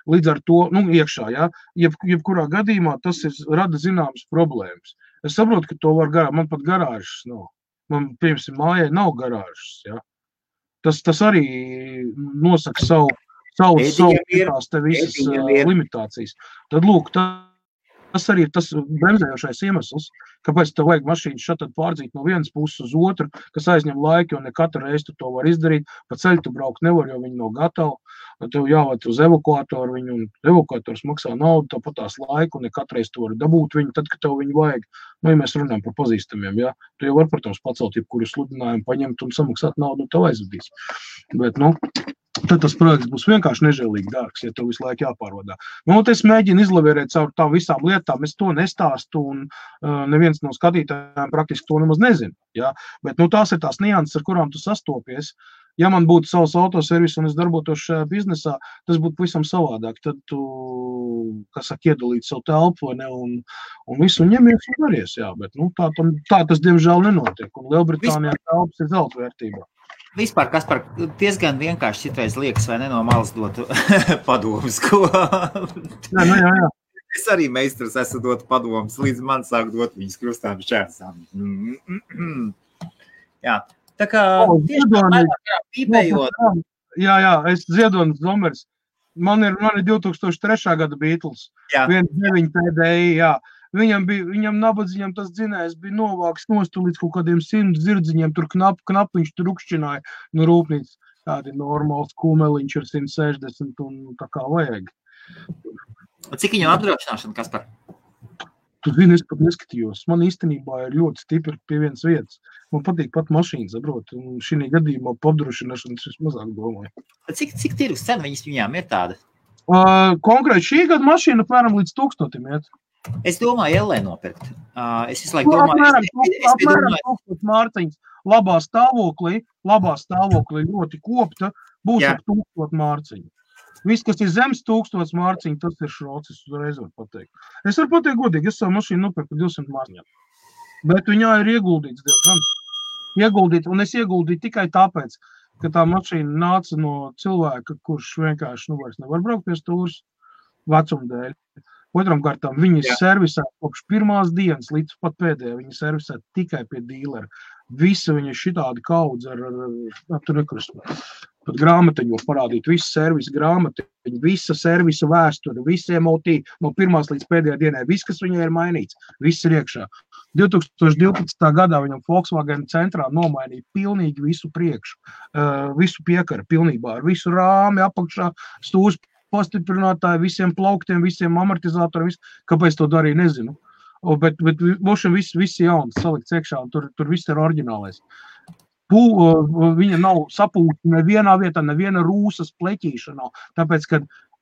Līdz ar to, iekšā, ja? Jebkurā gadījumā tas rada zināmas problēmas. Es saprotu, ka to var man pat garāžas nav. Man, piemēram, mājai nav garāžas, ja? Tas arī nosaka savu te visas limitācijas. Tad, lūk, tas arī ir tas bremzējošais iemesls, kāpēc tev vajag mašīnu šatad pārdzīt no vienas puses uz otru, kas aizņem laiku, jo ne katru reizi tu to var izdarīt. Pa ceļu tu braukt nevar, jo viņi nav gatavi. Tev jāved uz evakuātoru viņu, un evakuātors maksā naudu, tāpat tās laiku, un ne katru reizi tu vari dabūt viņu, tad, kad tev viņu vajag. Ja mēs runājam par pazīstamiem, ja? Tu jau var, protams, pacelt jebkuru sludinājumu, paņemt un samaksāt naudu, un tev aizvadīs. Bet, tad tas projekts būs vienkārši nežēlīgi dārgs, ja tev visu laiku jāpārvadā. Es mēģinu izlavierēt caur tām visām lietām, es to nestāstu, un neviens neviens no skatītājiem praktiski to nemaz nezina. Ja? Bet tās ir tās nianses, ar kurām tu sastopies. Ja man būtu savs autoservis un es darbotos šajā biznesā, tas būtu pavisam savādāk. Tad tu, iedalīt savu telpu, vai ne, un visu ņemies un daries, jā. Bet, tā tas, diemžēl, nenotiek. Un Lielbritānijā telpas ir zelta vērtībā. Vispār, Kaspar, diezgan vienkārši citreiz liekas, vai ne no malas dotu padomus, ko... Jā. Es arī meistars esmu dotu padomus, līdz man sāk dot viņas krustām šķērsām. Jā. Tā kā pīpējot. Jā, es Ziedonis Zomers. Man ir 2003. gada Beatles. 1.9 TDI, jā. Viņam nabadzīņam tas dzinējs bija novāks nostu līdz kaut kādiem 100 zirdziņiem, tur knapiņš tur rukšķināja no rūpnīcas. Tādi normāls kumeliņš ir 160 un tā kā vajag. Cik viņam apdrošināšana, Kaspar? Tu zini, es pat neskatījos. Man īstenībā ir ļoti stipri pie vienas vietas. Man patīk pat mašīnas, saprot, un šī gadījumā apdrošināšanas es mazāk domāju. Cik tirgus cena viņām ir tāda? Konkrēti šī gada mašīna apmēram līdz 1000 iet. Es domāju, LE nopirkt. Es visu laiku domāju... Apmēram 1000 mārciņas. Labā stāvoklī ļoti kopta, būs ap 1000 mārciņu. Viss, kas ir zemes 1000 mārciņu, tas ir šrots, es uzreiz varu pateikt. Es varu pateikt godīgi, es savu mašīnu nopirku 200 mārciņām. Bet viņā ir ieguldīts diezgan. Un es ieguldīju tikai tāpēc, ka tā mašīna nāca no cilvēka, kurš vienkārši vairs nevar braukt pie stūras vecuma dēļ. Otram kārtām viņi servisē kopš pirmās dienas līdz pat pēdējā. Viņi servisē tikai pie dīlera. Visa viņa šitādi kaudz ar tur nekrust. Pat grāmatiņu var parādīt, visu servisu grāmatiņu, visa servisa vēsture, visi MOT no pirmās līdz pēdējā dienai, viss, kas viņai ir mainīts, viss ir iekšā. 2012. gadā viņam Volkswagen centrā nomainīja pilnīgi visu priekšu, visu piekaru pilnībā, ar visu rāmi apakšā, stūrs pastiprinātāji, visiem plauktiem, visiem amortizatoriem, kāpēc to darīja, nezinu. Bet mošam viss jauns salikts iekšā, un tur viss ir oriģinālais. Viņa nav sapūta nevienā vietā, neviena rūsas pleķīša nav, tāpēc, ka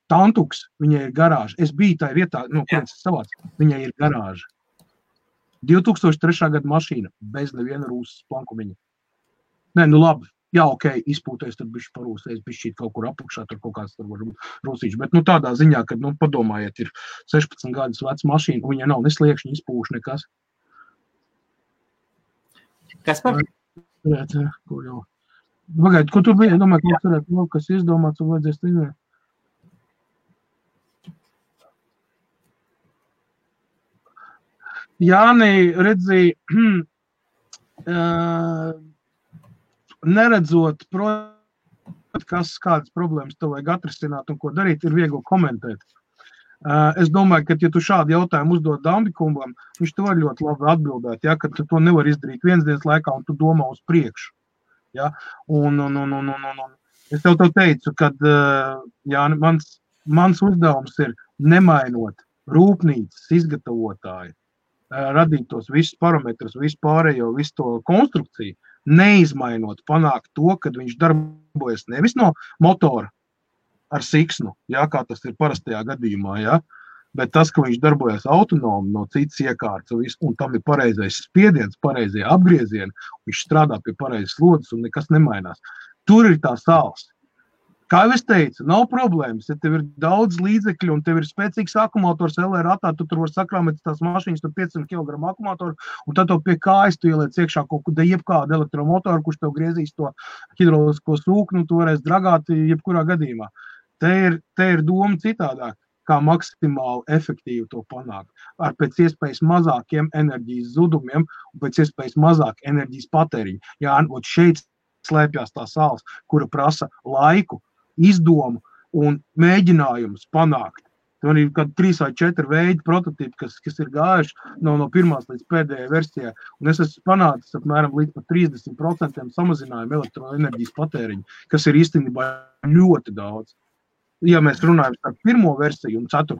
tantuks, viņai ir garāža. Es biju tajā vietā, kurienes savāc, viņai ir garāža. 2003. gada mašīna, bez neviena rūsas plankumiņa. Nē, labi, jā, ok, izpūties, tad bišķi parūsēs, bišķi kaut kur apakšā, tur kaut kāds tur var rūsīši, bet tādā ziņā, kad, padomājiet, ir 16 gadus veca mašīna, un viņa nav nesliekšņi izpūš nekas. Kas par? Pagaid, ko tu biji? Es domāju, ka varētu vēl kas izdomāts un vajadzēs izvērt. Jāni, redzi, neredzot kādas problēmas tev vajag atrisināt un ko darīt, ir viegli komentēt. Es domāju, ka, ja tu šādu jautājumu uzdod Dambikumbam, viņš te var ļoti labi atbildēt, ja, ka tu to nevar izdarīt viens dienas laikā un tu domā uz priekšu. Ja. Un es tev teicu, ka mans uzdevums ir nemainot rūpnīcas izgatavotāju, radīt tos visus parametrus, visu pārējo, visu to konstrukciju, neizmainot, panākt to, kad viņš darbojas nevis no motora, ar siksnu, ja, kā tas ir parastajā gadījumā, ja, bet tas, ka viņš darbojas autonomi no citas iekārtas un tam ir pareizais spiediens, pareizie apgriezieni, viņš strādā pie pareizes slodzes un nekas nemainās. Tur ir tā sāls. Kā jau es teicu, nav problēmas, ja tev ir daudz līdzekļu un tev ir spēcīgs akumulators LR ratā, tu tur var sakrāmēt tās mašīnas, tur 500 kg akumulatoru, un tad tev pie kājas tu ieliec iekšā kaut kādu jebkādu elektromotoru, kurš tev griezīs to hidrolisko sūkni, tu varēs dragāt jebkurā gadījumā. Te ir doma citādāk, kā maksimāli efektīvi to panākt. Ar pēc iespējas mazākiem enerģijas zudumiem un pēc iespējas mazāk enerģijas patēriņu. Jā, un šeit slēpjās tā sāls, kura prasa laiku, izdomu un mēģinājumus panākt. Tur ir kādi 3 vai 4 veidi prototipi, kas ir gājuši no pirmās līdz pēdējai versijai. Un es esmu panācis apmēram līdz pat 30% samazinājumu elektroenerģijas patēriņu, kas ir īstenībā ļoti daudz. Ja mēs runājam par pirmo versiju un 4.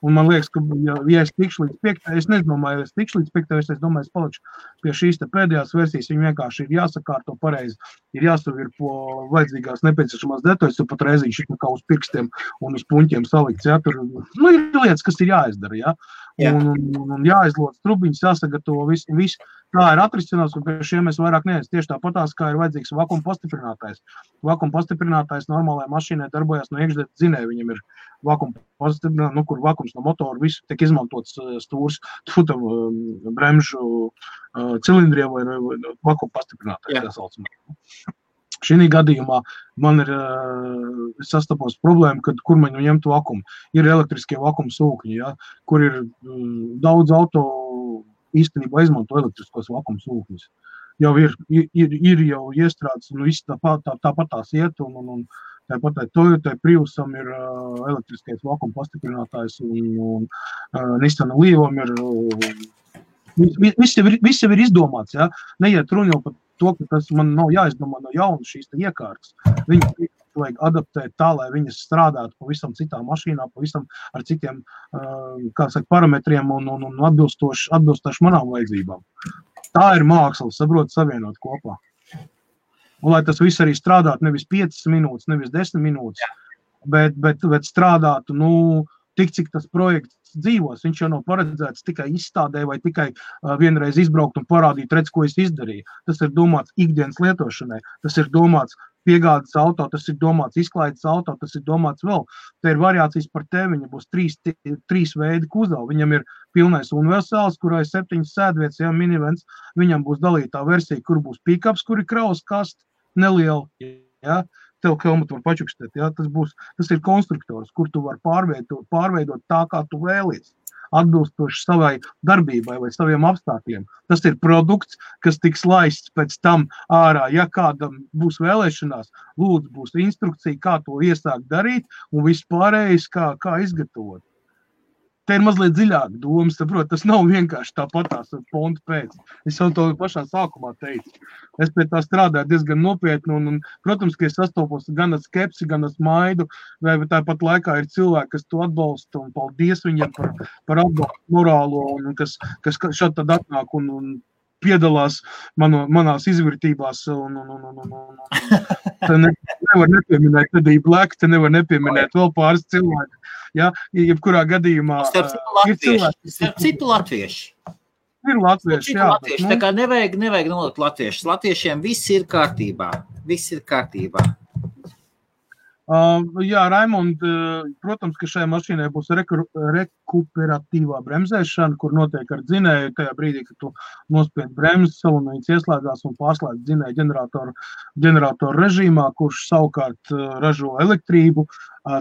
Un man liekas, ka, ja es tikšu līdz 5, es nedomāju, es tikšu līdz 5, es domāju, es palikšu pie šīs te pēdējās versijas, viņi vienkārši ir jāsakārto pareizi, ir jāsavirpo vajadzīgās nepieciešamās detaļas, jo pat reiziņš ir kā uz pirkstiem un uz puņķiem salikts, ja, tur, ir lietas, kas ir jāizdara, ja, un jāizlodz trubiņas, jāsagatavo visu. Tā ir atrisinās, un pie šiem mēs vairāk neesam. Tieši tāpatās, kā ir vajadzīgs vakuma pastiprinātājs. Vakuma pastiprinātājs normālajai mašīnai darbojas no iekšdēļ dzinēja. Viņam ir vakuma pastiprinātājs, kur vakums no motora visu tiek izmantots stūrs, bremžu cilindriem vai vakuma pastiprinātājs. Šī gadījumā man ir sastapos problēma, kad kur man ņemt vakumu. Ir elektriskie vakuma sūkņi, ja, kur ir daudz auto īstenībā izmanto elektriskos vakuma sūkņus. Jau ir jau iestrādes, un viss tāpat tās iet, un tāpat Toyotai Priusam ir elektriskais vakuma pastiprinātājs, un Nissan Leafam ir, viss jau ir izdomāts, ja? Neiet runa jau par to, ka tas man nav jāizdomā no jauna šīs iekārtas. Viņas vajag adaptēt tā, lai viņas strādātu pavisam citā mašīnā, pavisam ar citiem parametriem un atbilstoši manām vajadzībām. Tā ir māksla, saprot, savienot kopā. Un lai tas viss arī strādātu nevis 5 minūtes, nevis 10 minūtes, bet strādātu, tik cik tas projekts dzīvos. Viņš jau nav paredzēts tikai izstādē vai tikai vienreiz izbraukt un parādīt, redz, ko es izdarīju. Tas ir domāts ikdienas lietošanai, tas ir domāts piegādes auto, tas ir domāts izklaides auto, tas ir domāts vēl. Te ir variācijas par tevi, viņam būs 3 veidi kuzavu. Viņam ir pilnais universāls, kurā ir 7 sēdvietas, ja minivens. Viņam būs dalītā versija, kur būs pikaps, kur ir kravas kaste, neliela, ja. Tev helmutu var pačukstēt, ja? Tas ir konstruktors, kur tu var pārveidot tā, kā tu vēlies, atbilstoši savai darbībai vai saviem apstākļiem. Tas ir produkts, kas tiks laists pēc tam ārā. Ja kādam būs vēlēšanās, lūdzu, būs instrukcija, kā to iesākt darīt un viss pārējais, kā izgatavot. Te ir mazliet dziļāk doma, saprot, tas nav vienkārši tāpatās pontu pēc. Es jau to pašā sākumā teicu. Es pie tā strādāju diezgan nopietni un protams, ka es sastopos gan ar skepsi, gan ar smaidu, vai tāpat laikā ir cilvēki, kas to atbalsta un paldies viņiem par atbalstu morālo un kas šad tad atnāk un piedalās manās izvirtībās un te nevar nepieminēt Teddy Black, te nevar nepieminēt vēl pāris cilvēki. Ja, jebkurā gadījumā Starp citu latvieši. Ir latvieši, jā. Tā kā nevajag nolikt latviešus. Latviešiem viss ir kārtībā. Jā, Raimond, protams, ka šajā mašīnai būs rekuperatīvā bremzēšana, kur notiek ar dzinēju tajā brīdī, kad tu nospied bremzes, solonīts ieslēdzās un pārslēdz dzinēju ģeneratoru režīmā, kurš savukārt ražo elektrību,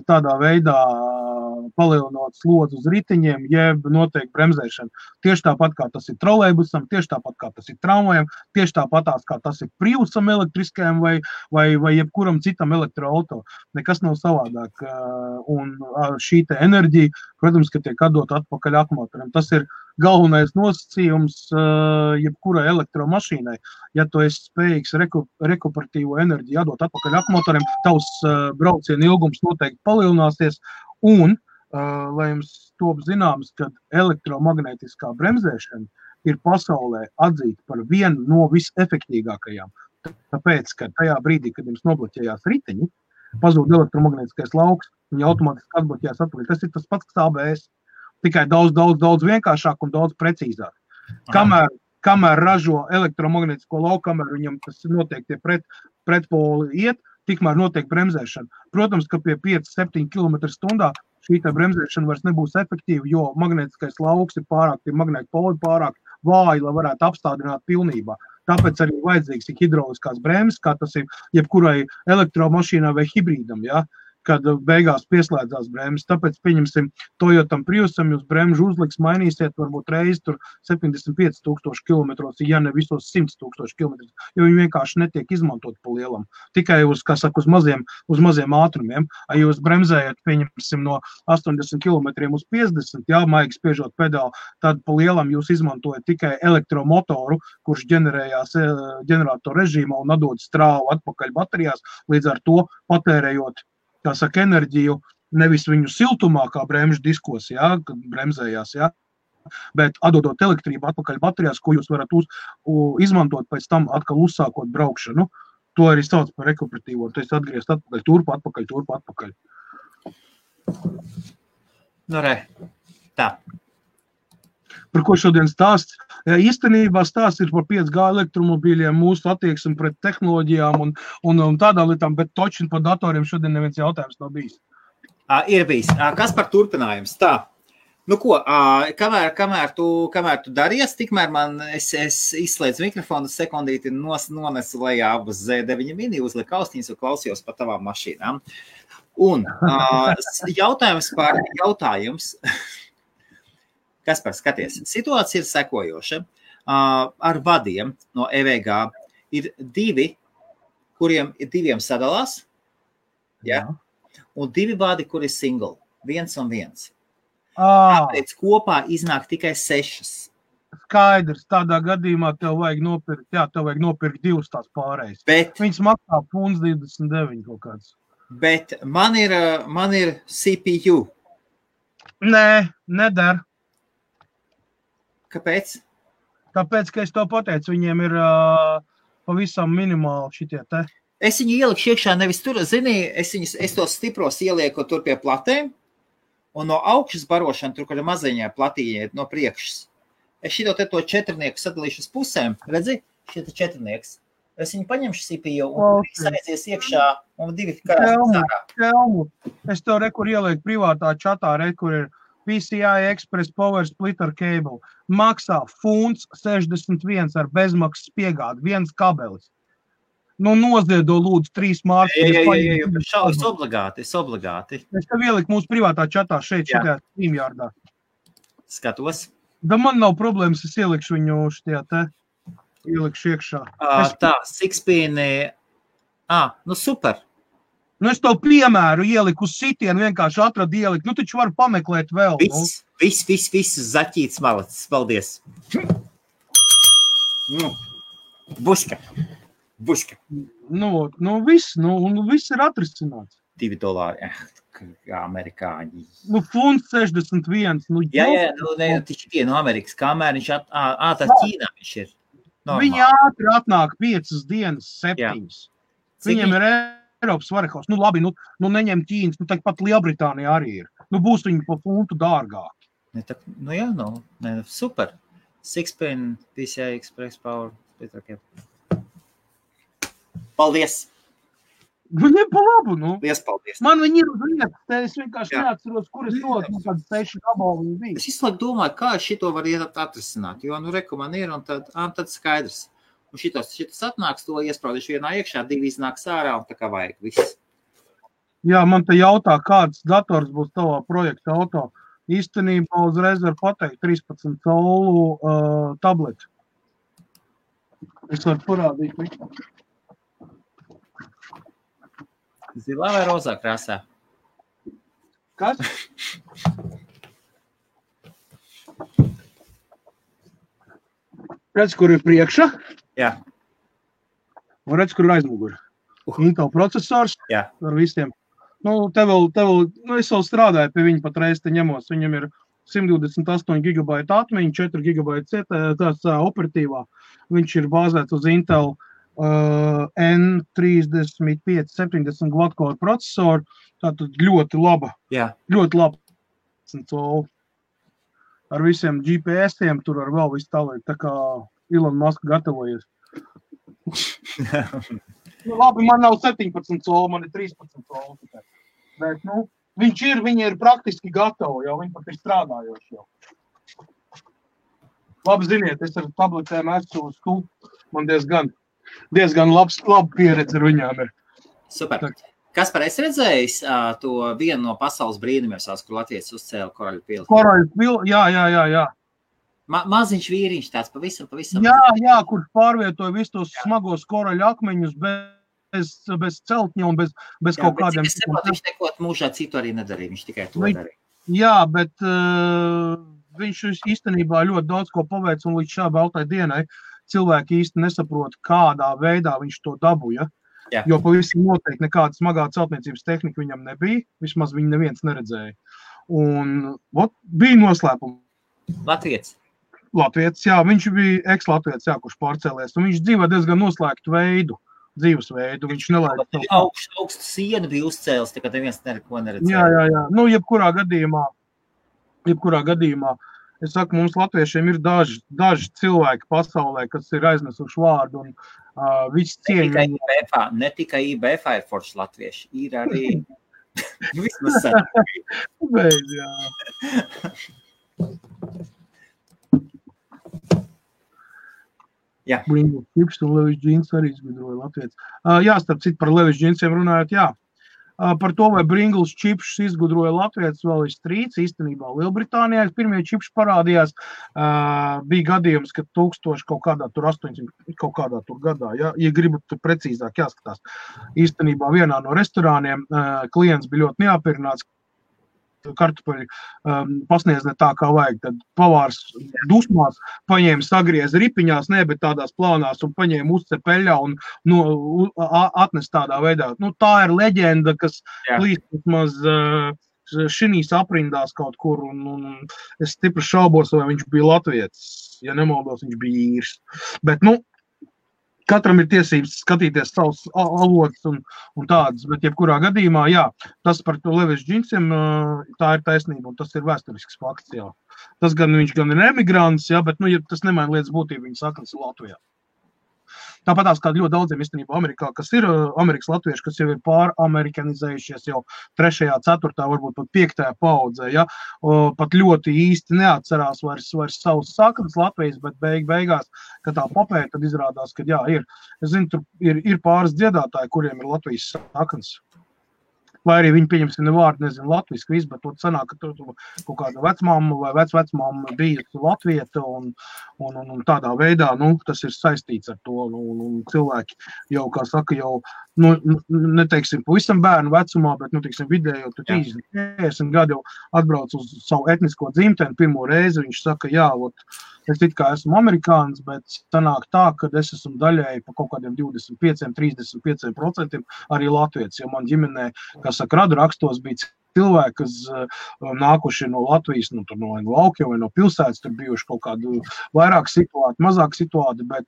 tādā veidā palielinot slodzi uz riteņiem, jeb notiek bremzēšana. Tieši tāpat, kā tas ir trolejbusam, tieši tāpat, kā tas ir tramvajam, tieši tāpatās, kā tas ir Priusam elektriskajam vai jebkuram citam elektroauto. Nekas nav savādāk. Un šī te enerģija, protams, ka tiek atdot atpakaļ akumulatoram. Tas ir galvenais nosacījums jebkurai elektromašīnai. Ja tu esi spējīgs rekuperatīvo enerģiju atdot atpakaļ akumulatoriem, tavs brauciena ilgums noteikti palielināsies un, lai jums top zināms, ka elektromagnētiskā bremzēšana ir pasaulē atzīta par vienu no visefektīgākajām. Tāpēc, ka tajā brīdī, kad jums nobloķējās riteņi, pazūd elektromagnētiskais lauks, viņi automātiski atbloķējās atpakaļ. Tas ir tas pats, kas ABS. Tikai daudz vienkāršāk un daudz precīzāk. Kamēr ražo elektromagnētisko lauku, kamēr viņam tas notiek tie pretpoli iet, tikmēr notiek bremzēšana. Protams, ka pie 5-7 km/h šī bremzēšana vairs nebūs efektīva, jo magnētiskais lauks ir pārāk, tie magnēti poli pārāk vāji, lai varētu apstādināt pilnībā. Tāpēc arī vajadzīgs ir hidrauliskās bremzes, kā tas ir jebkurai elektromašīnai vai hibrīdam, ja? Kad beigās pieslēdzās bremzes. Tāpēc, pieņemsim, Toyotam Priusam jūs bremžu uzliks, mainīsiet varbūt reizi tur 75,000 km, ja ne visos 100,000 km, jo viņi vienkārši netiek izmantot pa lielam. Tikai uz maziem ātrumiem. Ja jūs bremzējat, pieņemsim, no 80 km uz 50, jā, maigi spiežot pedāli, tad pa lielam jūs izmantojat tikai elektromotoru, kurš ģenerējās ģeneratoru režīmā un atdod strāvu atpakaļ baterijās, līdz ar to patērējot enerģiju nevis viņu siltumā, kā bremžu diskos, ja, kad bremzējās, ja, bet atdodot elektrību atpakaļ baterijās, ko jūs varat izmantot pēc tam atkal uzsākot braukšanu. To arī sauc par rekuperatīvo. Tu esi atgriezt atpakaļ, turp atpakaļ. Nu, re, tā. Par ko šodien stāsts? Ja, īstenībā stāsts ir par 5G elektromobīļiem, mūsu attieksmi pret tehnoloģijām un tādām lietām, bet točin par datoriem šodien neviens jautājums nav bijis. Ir bijis. Kas par turpinājums? Tā. Nu ko, kamēr tu daries, tikmēr es izslēdzu mikrofonu, sekundīti nonesu lejā abas Z9 mini, uzliku austiņas un klausījos par tavām mašīnām. Un jautājums. Kaspar, skaties, situācija ir sekojoša. Ar vadiem no EVG ir diviem sadalās, ja? Un 2 vadi, kur ir single, 1 un 1. Tāpēc kopā iznāk tikai 6. Skaidrs, tādā gadījumā tev vajag nopirkt 2 tās pārējas. Viņas maksā funds 29 kaut kāds. Bet man ir CPU. Nē, nedara. Kāpēc? Tāpēc, ka es to pateicu, viņiem ir pavisam minimāli šitie te. Es viņu ieliku iekšā nevis tur, zini, es tos stipros ielieku tur pie platēm, un no augšas barošana, tur, kur ir maziņā platīņa no priekšas. Es šito te to 4-nieku sadalīšu uz pusēm, redzi, šito 4-nieks. Es viņu paņemšu CPU un aizies iekšā un 2 karās sārā. Es tev rekur ielieku privātā čatā, rekur ir PCI Express Power Splitter Cable. Maksā funds 61 ar bezmaksas piegādi, 1 kabelis. Nu, noziedo lūdzu 3 mārciņas. Es obligāti. Es tev ieliku mūsu privātā čatā šeit, šitajā StreamYardā. Skatos. Da man nav problēmas, es ielikšu viņu šitajā te, ielikšu iekšā. Tā, 6-pin, nu super. Nu, es tev piemēru ieliku uz sitienu, vienkārši atradu ieliku. Nu, taču var pameklēt vēl. Viss, zaķīts malacis, paldies. Buška. Viss ir atrisināts. $2. Amerikāņi. Nu, funds 61. Tikai no Amerikas, kamēr viņš tā Ķīnā viņš ir. Normāli. Viņi ātri atnāk 5 dienas, 7. Viņiem ir Eiropas varekaus. Nu, labi, neņem Ķīnas, pat Lielbritānija arī ir. Nu, būs viņi pa funtu dārgāk. Super. 6-pin, PCI Express Power. Paldies! Viņiem pa labu, nu. Paldies. Man viņi ir uz vietas, es vienkārši neatceros, kur es rodu, kāds 6 gabali viņi bija. Es izslēgu domāju, kā šito var atrisināt, jo, reku man ir, un tad skaidrs. Un šitas atnāks, to iespraudīšu vienā iekšā, 2 iznāks ārā, un tā kā vajag viss. Jā, man te jautā, kāds dators būs tavā projekta auto. Īstenībā uzreiz var pateikt 13 colu tableti. Es varu parādīt visu. Zilā vai rozā krāsā? Kas? Redz, kur ir priekšā? Jā. Un redz, kur ir aizmuguri. Intel procesors ar visiem. Nu, es vēl strādāju pie viņa patreiz te ņemos. Viņam ir 128 GB atmiņa, 4 GB tās operatīvā. Viņš ir bāzēts uz Intel N35 70 quad-core procesoru. Tātad ļoti laba. Ļoti laba. Ar visiem GPS-iem tur ar vēl visu tālāk. Tā kā Elon Musk gatavojies. Labi, man nav 17 colu, man ir 13 colu. Bet, viņi ir praktiski gatavi jau, viņi pat ir strādājoši jau. Labi, ziniet, es ar tabletēm esmu uz tu, man diezgan laba pieredze ar viņām ir. Super. Kaspar, es redzējis to vienu no pasaules brīnumiem, kur Latvijas uzcēla Koraļu pili. Koraļu pili, jā. Maziņš vīriņš tāds pavisam. Jā, kurš pārvietoja visus tos smagos koraļu akmeņus bez celtņa un bez kaut kādiem. Es saprotu, viņš neko mūžā citu arī nedarīja, viņš tikai to darīja. Jā, bet viņš īstenībā ļoti daudz ko paveic, un līdz šā baltai dienai cilvēki īsti nesaprot, kādā veidā viņš to dabūja. Jo pavisam noteikti nekāda smagā celtniecības tehnika viņam nebija, vismaz viņu neviens neredzēja. Un bija noslēpums. Latvietis, jā, viņš bija eks-latvietis, jā, kurš pārcēlies, un viņš dzīvo diezgan noslēgtu dzīvesveidu, viņš nelaida. Augstu sienu bija uzcēlis, tā kā neviens neko neredzēja. Jā, nu, jebkurā gadījumā, es saku, mums latviešiem ir daži cilvēki pasaulē, kas ir aiznesuši vārdu, un viss cieņa. Ne tikai IBF ir forši latvieši, ir arī vismaz sen. Jā. Jā. Bringles Chips un Levis Jeans arī izgudroja latvietis. Jā, starp citu par Levis Jeansiem runājot, jā. Par to, vai Bringles Chips izgudroja latvietis, vēl ir strīds. Īstenībā Lielbritānijā pirmie chips parādījās. Bija gadījums, ka 1000 kaut kādā tur 800 kaut kādā tur gadā. Ja gribat tur precīzāk jāskatās. Īstenībā vienā no restorāniem klients bija ļoti neapmierināts. Kartupeļi pasniedz ne tā, kā vajag. Tad pavārs dusmās paņēma sagriez ripiņās, bet tādās plānās un paņēma uzcepeļā un atnes tādā veidā. Nu, tā ir leģenda, kas plīst vismaz šinīs aprindās kaut kur, un es stipri šaubos, vai viņš bija latvietis. Ja nemaldos, viņš bija īrs. Bet, nu, katram ir tiesības skatīties savus avotus un tādas, bet jebkurā gadījumā, jā, tas par to Levis Jeansiem, tā ir taisnība, un tas ir vēsturisks fakts, jā. Tas viņš gan ir emigrants, jā, bet, nu, ja tas nemaina lietas būtību, viņa saknes ir Latvijā. Tāpatās kā ļoti daudziem īstenībā Amerikā, kas ir Amerikas latvieši, kas jau ir pāramerikanizējušies jau 3., 4., varbūt pat 5. paudzē, ja? Pat ļoti īsti neatcerās vairs savus saknes Latvijas, bet beigās, kad tā papēta, tad izrādās, ka jā, ir. Es zinu, tur ir pāris dziedātāji, kuriem ir Latvijas saknes. Vai arī viņi, pieņemsim, vārdu, nezinu, latviski visu, bet to sanāk, ka tur kaut kāda vecmamma vai vecmamma bija latvieta un tādā veidā, nu, tas ir saistīts ar to, un cilvēki jau, kā saka, jau, nu, neteiksim, pavisam bērnu vecumā, bet, nu, teiksim, vidējo, tu 30 gadu jau atbrauc uz savu etnisko dzimteni pirmo reizi, viņš saka, jā, es it kā esmu amerikānis, bet sanāk tā, ka es esmu daļēji pa kaut kādiem 25-35% arī latvietis, jo man ģimenē, kā saka, radu rakstos bija cilvēki, kas nākuši no Latvijas, no laukiem vai no pilsētas, tur bijuši kaut kādu vairāk situāti, mazāk situāti, bet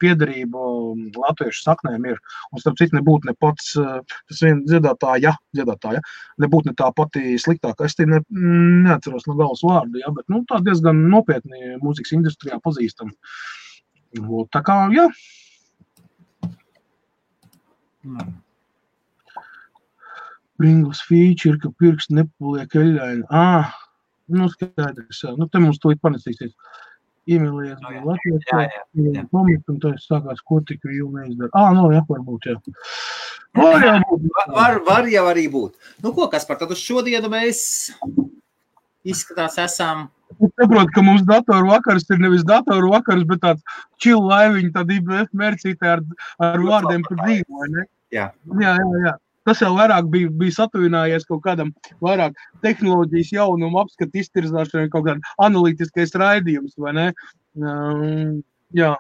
piederība latviešu saknēm ir. Un starp citu nebūtu ne pats, tas vien dziedātāja, nebūtu ne tā pati sliktākā. Es te neatceros no galvas vārdu, ja, bet, nu, tā diezgan nopietni mūzikas industrijā pazīstam. Tā kā, jā. Bringles feature, ka pirksti nepaliek eļļaini. Nu skaidrs, jā. Nu te mums to panesīsies. Iemīlējies bija Latvijas, un tā sākās, ko tik vēl neizdara. Nu jā, varbūt, jā. Var jau arī būt. Nu ko, Kaspar, tad uz šodienu mēs izskatās esam... Es saprotu, ka mums datoru vakars ir nevis datoru vakars, bet tāds chill laiviņi, tāda IBF mercītē ar vārdiem par dzīvu, vai ne? Jā. Jā. Tas jau vairāk bija satuvinājies kaut kādam vairāk tehnoloģijas jaunumu apskatu iztirzāšanai, kaut kādā analītiskais raidījums, vai ne? Jā.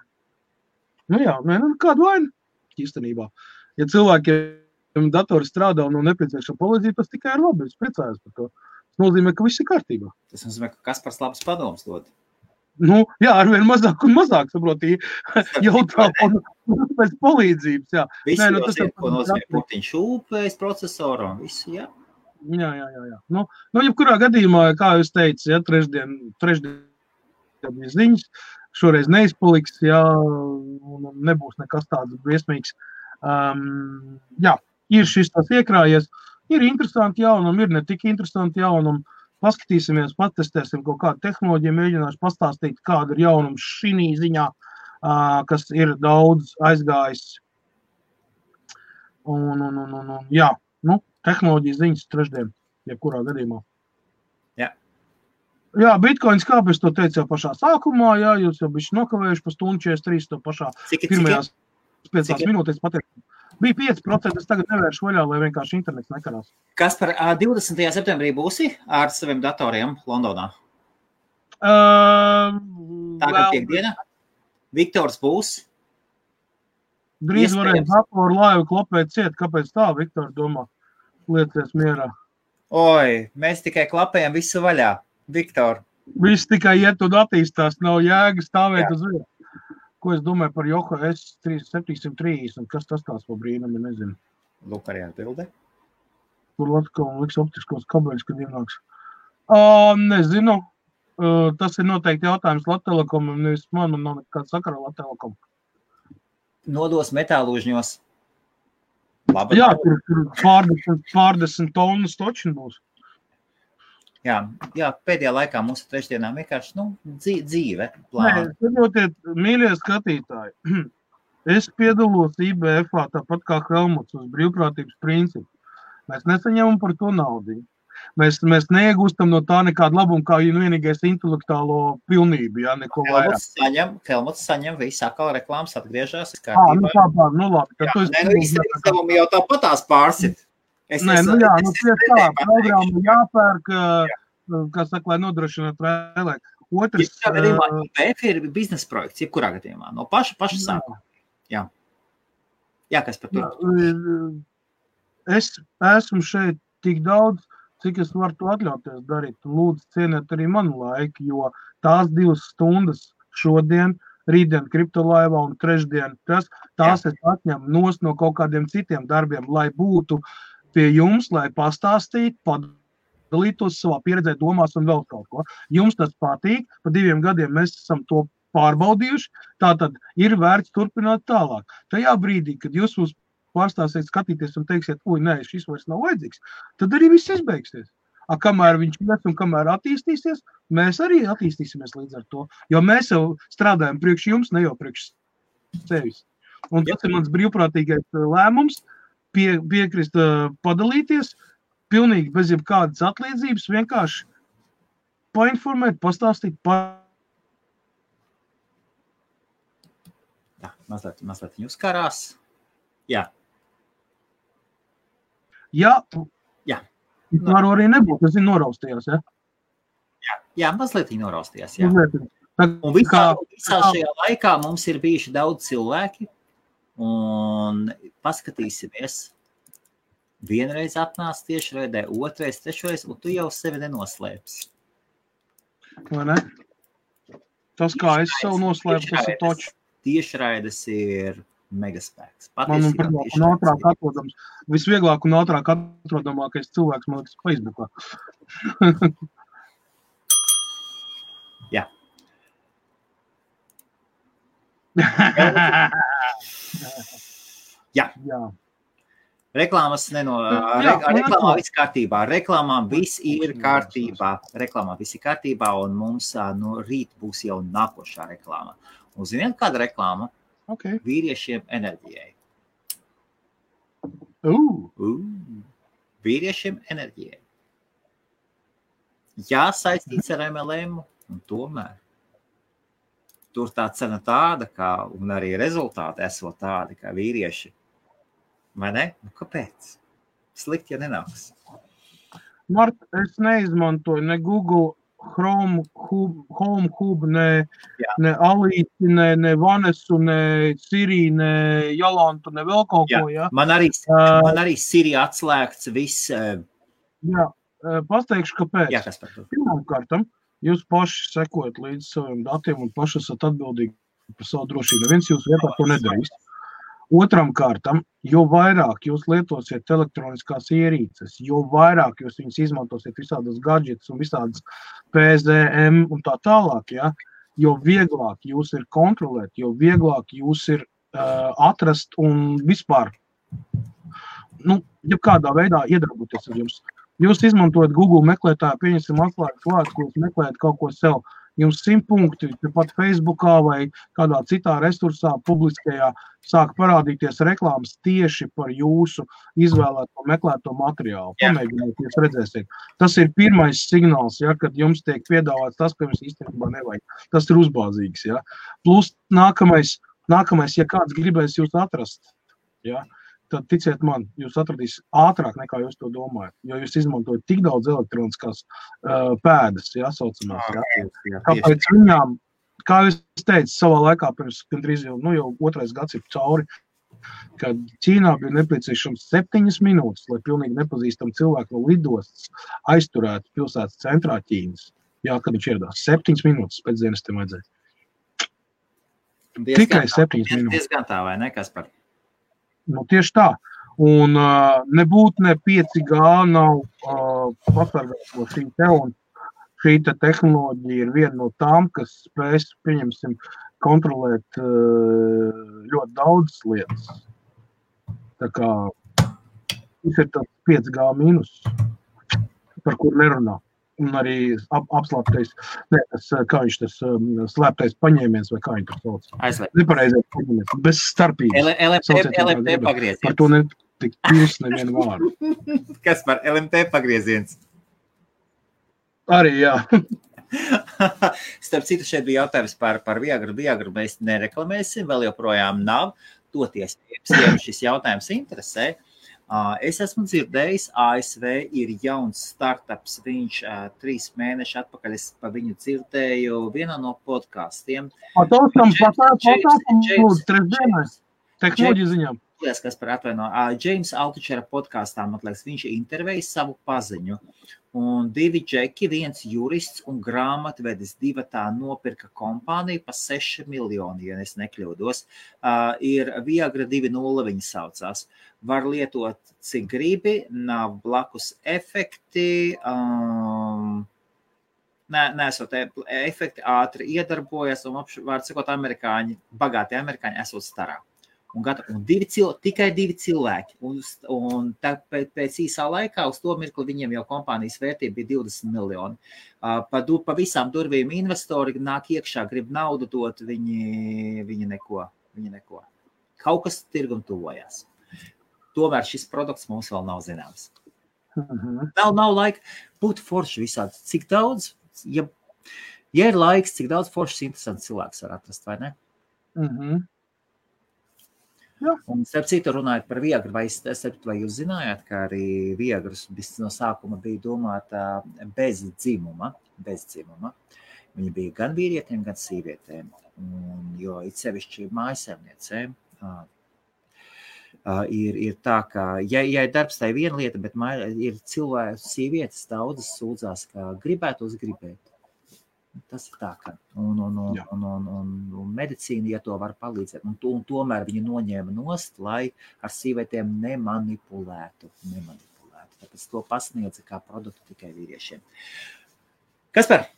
Nu jā, kādu vainu īstenībā. Ja cilvēkiem datori strādā un nepieciešama palīdzība, tas tikai ir labi, es priecājos par to. Tas nozīmē, ka viss ir kārtībā. Tas nozīmē, ka Kaspars labs padoms dod. Nu, jā, arvien mazāk un mazāk, saproti, jautā pēc palīdzības, jā. Visi jau zina, ko nozīmē putiņš UPS procesoru un visu, jā. Jā. Nu, jebkurā gadījumā, kā jūs teicu, ja, trešdien bija ziņas, šoreiz neizpaliks, jā, un nebūs nekas tāds briesmīgs. Jā, ir šis tas iekrājies, ir interesanti jaunumi, ir ne tik interesanti jaunumi. Paskatīsimies, patestēsim kaut kādu tehnoloģiju, mēģināšu pastāstīt, kāda ir jaunums šī ziņā, kas ir daudz aizgājis. Jā, nu, tehnoloģijas ziņas trešdien, jebkurā gadījumā. Jā. Jā, Bitcoins, kāpēc to teicu jau pašā sākumā, jā, jūs jau bišķi nokavējuši pa stundu 43 to pašā pirmajās 5 minūtēs pateikt. Bija 5%, es tagad nevēršu vaļā, lai vienkārši internets nekarās. Kaspar, 20. septembrī būsi ar saviem datoriem Londonā? Tagad piekdiena. Viktors būs? Drīz varēs datoru laivu klapēt ciet. Kāpēc tā, Viktor, domā? Liecies mierā. Oi, mēs tikai klapējam visu vaļā. Viktor. Viss tikai iet un attīstās, nav jēga stāvēt uz vietas. Ko es domāju par Yoko S730, kas tas tās pa brīnumi, nezinu. Lūk, arī atbilde. Tur Latvijas liks optiskos kabeļus, kad ienāks. Nezinu. Tas ir noteikti jautājums Latvtelekomam, nevis man nav nekāda sakara Latvtelekom. Nodos metālūžņos. Labi. Jā, tur pārdesmit tonnas točin būs. Jā, pēdējā laikā mūsu trešdienā vienkārši, dzīve plāna. Nē, saprotiet, mīļie skatītāji, es piedalos IBF-ā tāpat kā Helmuts uz brīvprātības principu. Mēs nesaņemam par to naudu. Mēs neiegūstam no tā nekādu labumu, kā vienīgais intelektuālo pilnību, neko vairāk. Helmuts saņem visu atkal reklāmas atgriežās. Labi. Izdevumi jau tāpatās pārsit. Programma jāpērk, kas saka, lai nodrošinātu vēlēt. Otrs... IBF ir biznesa projekts, jebkurā gadījumā, no paša sākuma. Jā, kas par to? Es esmu šeit tik daudz, cik es varu to atļauties darīt. Lūdzu, cieniet arī manu laiku, jo tās 2 stundas šodien, rītdien kriptolaivā un trešdien, tās es atņemu nost no kaut kādiem citiem darbiem, lai būtu pie jums, lai pastāstītu, padalītos savā pieredzē, domās un vēl kaut ko. Jums tas patīk, pa 2 gadiem mēs esam to pārbaudījuši, tātad ir vērts turpināt tālāk. Tajā brīdī, kad jūs mums pārstāsiet skatīties un teiksiet, nē, šis vairs nav vajadzīgs, tad arī viss izbeigsies. Kamēr viņš ies un kamēr attīstīsies, mēs arī attīstīsimies līdz ar to, jo mēs jau strādājam priekš jums, ne jau priekš sevis. Un tas ir mans brīvprātīgais lēmums, piekrist padalīties, pilnīgi bez jebkādas atliedzības, vienkārši painformēt, pastāstīt Jā, mazliet jūs karās. Jā. Jā. Varu arī nebūt, tas ir noraustījās, ja? Jā, mazliet noraustījās, jā. Un visā šajā laikā mums ir bijuši daudz cilvēki, un paskatīsimies. Vienreiz atnāc tiešraidē, otrais, trešreiz, un tu jau sevi nenoslēpsi. Vai ne? Tas, kā es sev noslēpu, tas ir toči. Tiešraides ir megaspēks. Man un ātrāk atrodams. Visvieglāk un ātrāk atrodamākais cilvēks, man liekas, Facebookā. Jā. Jā. Reklāmā viss kārtībā. Reklāmā viss ir kārtībā, un mums no rīt būs jau nākošā reklāma. Un ziniet, kāda reklāma? Okay. Vīriešiem enerģijai. Vīriešiem enerģijai. Jā, saistīts ar MLM, un tomēr tur tā cena tāda, un arī rezultāti esot tādi, kā vīrieši. Vai ne? Kāpēc? Slikti, ja nenāks. Mart, es neizmantoju ne Google Home Hub, ne Alīti, ne Vanesu, ne Siri, ne Jolantu, ne vēl kaut ko, jā? Man arī Siri atslēgts viss. Jā, pasteikšu, kāpēc. Jā, kas par to? Pirmkārtam, jūs paši sekojat līdz saviem datiem un paši esat atbildīgi par savu drošību. Neviens jūs vietā to nedarīs. Otram kārtam, jo vairāk jūs lietosiet elektroniskās ierīces, jo vairāk jūs viņus izmantosiet visādas gadžetus un visādas PZM un tā tālāk, ja, jo vieglāk jūs ir kontrolēt, jo vieglāk jūs ir atrast un vispār, ja kādā veidā iedarboties ar jums. Jūs izmantojat Google meklētāju, pieņemsim atslēgas vārds, ko jūs meklējat kaut ko sev. Jums 100 punkti, pat Facebookā vai kādā citā resursā publiskajā sāk parādīties reklāmas tieši par jūsu izvēlēto meklēto materiālu. Pamēģiniet, jūs redzēsiet. Tas ir pirmais signāls, ja, kad jums tiek piedāvāts tas, ka jums īstenībā nevajag. Tas ir uzbāzīgs. Ja. Plus nākamais, ja kāds gribēs jūs atrast, ja, tad ticiet man, jūs atradīs ātrāk nekā jūs to domājat, jo jūs izmantojat tik daudz elektroniskās pēdas, ja, saucamās. Ja. Kāpēc viņām, kā jūs teicu, savā laikā pirms gandrīz jau 2. gads ir cauri, kad Ķīnā bija nepieciešams 7 minūtes, lai pilnīgi nepazīstam cilvēku no lidostas aizturētu pilsētas centrā Ķīnas. Jā, kad viņš ieradās 7 minūtes pēc dienestiem vajadzēja. Tikai 7 minūtes. Diezgan tā, vai ne, Kaspar? Nu, tieši tā. Un nebūtu ne 5G nav pasargāt no šī te, un šī te tehnoloģija ir viena no tām, kas spēs, pieņemsim, kontrolēt ļoti daudz lietas. Tā kā tas ir tāds 5G mīnus, par kur nerunā. Un arī apslēptais, kā viņš tas slēptais paņēmiens, vai kā viņš tas sauc. Nepareizais paņēmiens, bez starpības. LMT pagrieziens. Par to netik pils nevienu vārdu. Kas par LMT pagrieziens? Arī, jā. Starp citu, šeit bija jautājums par Viagru. Viagru mēs nereklamēsim, vēl joprojām nav. Toties, ja šis jautājums interesē. Es esmu dzirdējis, ASV ir jauns startups, viņš 3 mēneši atpakaļ, es pa viņu dzirdēju vienā no podkastiem. Tehnoloģiju ziņām. Kas par atvaino. James Altuchera podkastā, man liekas, viņš intervēja savu paziņu. Un 2 džeki, 1 jurists un grāmatvedis 2 tā nopirka kompāniju pa 6 miljoni, ja es nekļūdos. Ir Viagra 2.0 viņi saucās. Var lietot, cik gribi, nav blakus efekti, nesot efekti, ātri iedarbojas, un vārds sakot, bagāti amerikāņi esot starā. Un tikai 2 cilvēki. Un pēc īsā laikā uz to mirkli viņiem jau kompānijas vērtība bija 20 miljoni. Pa visām durvīm investori nāk iekšā, grib naudu dot, viņi neko. Kaut kas tirgum tuvojās. Tomēr šis produkts mums vēl nav zināms. Nav laika būt forši visādi. Cik daudz, ja ir laiks, cik daudz foršs interesants cilvēks var atrast, vai ne? Jā. Un starp citu runājot par Viagru, vai jūs zinājāt, ka arī Viagras no sākuma bija domāta bez dzimuma. Viņa bija gan vīrietiem, gan sīvietēm. Jo it sevišķi mājasēmniecēm ir tā, ka, ja ir darbs, tā ir viena lieta, bet ir cilvēki, sievietes daudzas sūdzās, ka gribētos gribēt. Tas ir tā, ka un medicīna, ja to var palīdzēt, un tomēr viņi noņēma nost, lai ar sīvietēm nemanipulētu. Tāpēc to pasniedza kā produktu tikai vīriešiem. Kaspar,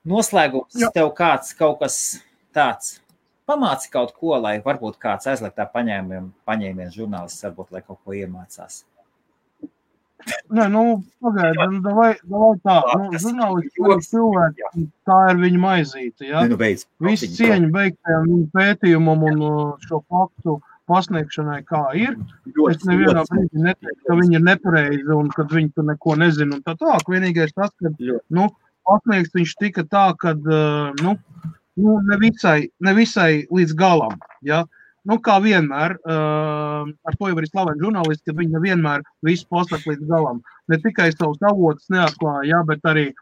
noslēgums tev kaut kas tāds? Pamāci kaut ko, lai varbūt kāds aizliegtā paņēmiens žurnālists, varbūt, lai kaut ko iemācās. Nē, pagaidi, davai tā. Žurnālisti cilvēki, tā ir viņa maizīte, ja? Visi cieņa beigtajam viņa pētījumam un šo faktu pasniegšanai, kā ir. Es nevienā brīdī neteiktu, ka viņi ir nepareizi un kad viņi tur neko nezina un tā tālāk. Vienīgais tas, ka pasniegts viņš tika tā, kad ne visai līdz galam, ja? Kā vienmēr, ar to jau arī slaveni žurnālisti, ka viņi nevienmēr visu pasaka līdz galam. Ne tikai savus avotus neatklāja, ja, bet arī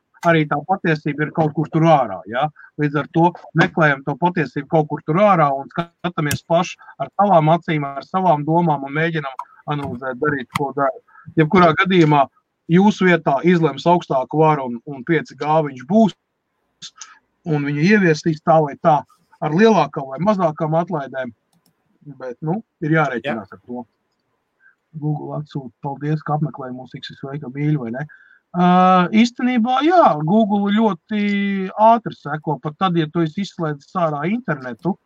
tā patiesība ir kaut kur tur ārā. Ja. Līdz ar to meklējam to patiesību kaut kur tur ārā un skatāmies paši ar savām acīm, ar savām domām un mēģinam analizēt, darīt, ko dara. Jebkurā gadījumā jūsu vietā izlems augstāku varu un 5G viņš būs un viņu ieviestīs tā vai tā ar lielākām vai mazākām atlaidēm. Bet, ir jārēķinās ar to. Google atsūta, paldies, ka apmeklēja mūs, cik sveika mīļi, vai ne? Īstenībā, jā, Google ļoti ātri seko, pat tad, ja tu esi izslēdzis ārā internetu,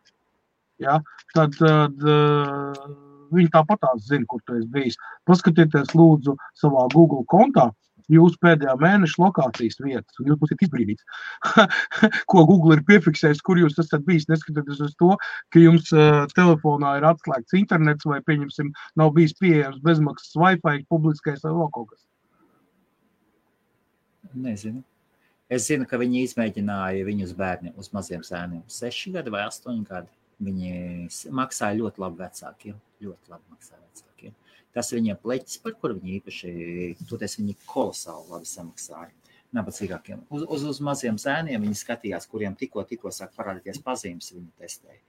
ja, tad viņi tāpatās zina, kur tu esi bijis. Paskatieties, lūdzu, savā Google kontā, jūsu pēdējā mēneša lokācijas vietas, un jūs būsiet izbrīnīts, ko Google ir piefiksējis, kur jūs esat bijis, neskatoties uz to, ka jums telefonā ir atslēgts internets vai, pieņemsim, nav bijis pieejams bezmaksas Wi-Fi, publiskais vai vēl kaut kas. Nezinu. Es zinu, ka viņi izmēģināja viņus bērni uz maziem zēniem 6 gadi vai 8 gadi. Viņi maksāja ļoti labi vecākiem, Tas viņiem pleķis, par kuru viņi īpaši, toties viņi kolosāli labi samaksāja. Nabadzīgākiem. Uz maziem zēniem viņi skatījās, kuriem tikko sāk parādīties pazīmes, viņi testēja.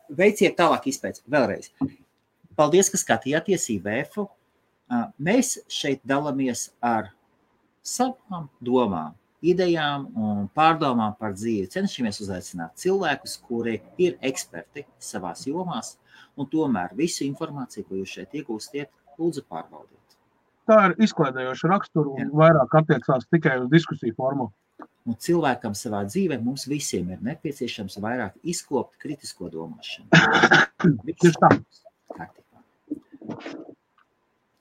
veiciet tālāk izpēc. Vēlreiz. Paldies, ka skatījāties IBF-u. Mēs šeit dalamies ar savām domām, idejām un pārdomām par dzīvi. Cenšamies uzaicināt cilvēkus, kuri ir eksperti savās jomās, un tomēr visu informāciju, ko jūs šeit iegūstiet, lūdzu pārbaudiet. Tā ir izklaidējoša rakstura un vairāk attiecās tikai uz diskusiju formu. Un cilvēkam savā dzīvē mums visiem ir nepieciešams vairāk izkopt kritisko domāšanu. Tieši tā.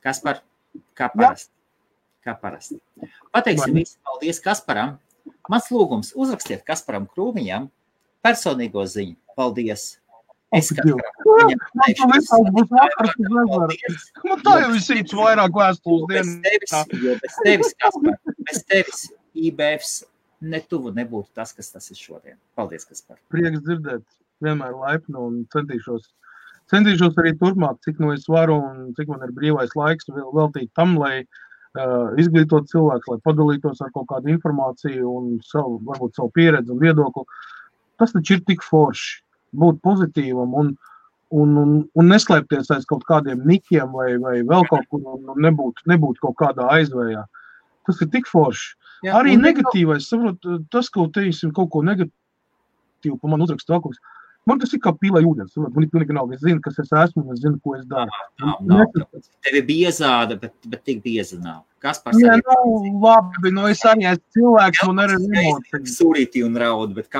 Kaspar, kā parasti. Pateiksim visi paldies Kasparam. Mans lūgums, uzrakstiet Kasparam Krūmiņam personīgo ziņu. Paldies. Es Kasparam. Man tā jau visīts vairāk vēstules dienas. Bez tevis, Kaspar, bez tevis IBFs netuvu nebūtu tas, kas tas ir šodien. Paldies, Kaspar. Prieks dzirdēt, vienmēr laipni un centīšos arī turpmāk, cik no es varu un cik man ir brīvais laiks veltīt tam, lai izglītot cilvēks, lai padalītos ar kaut kādu informāciju un varbūt savu pieredzi un viedokli. Tas taču ir tik forši būt pozitīvam un neslēpties aiz kaut kādiem nikiem vai vēl kaut kur un nebūt kaut kādā aizvējā. Tas ir tik forši. Jā, arī negatīvais, saprot, tas, ko teiksim kaut ko negatīvu pa man uzrakstu vēl kaut kas. Man tas ir kā pīlai ūdens. Man ir pilnīgi nav. Es zinu, kas es esmu, un es zinu, ko es daru. Nav. Tev ir biezāda, bet tik bieza nav. Kaspars arī... Jā, labi, es arī esmu cilvēks, un arī emocijas. Surīti un raud, bet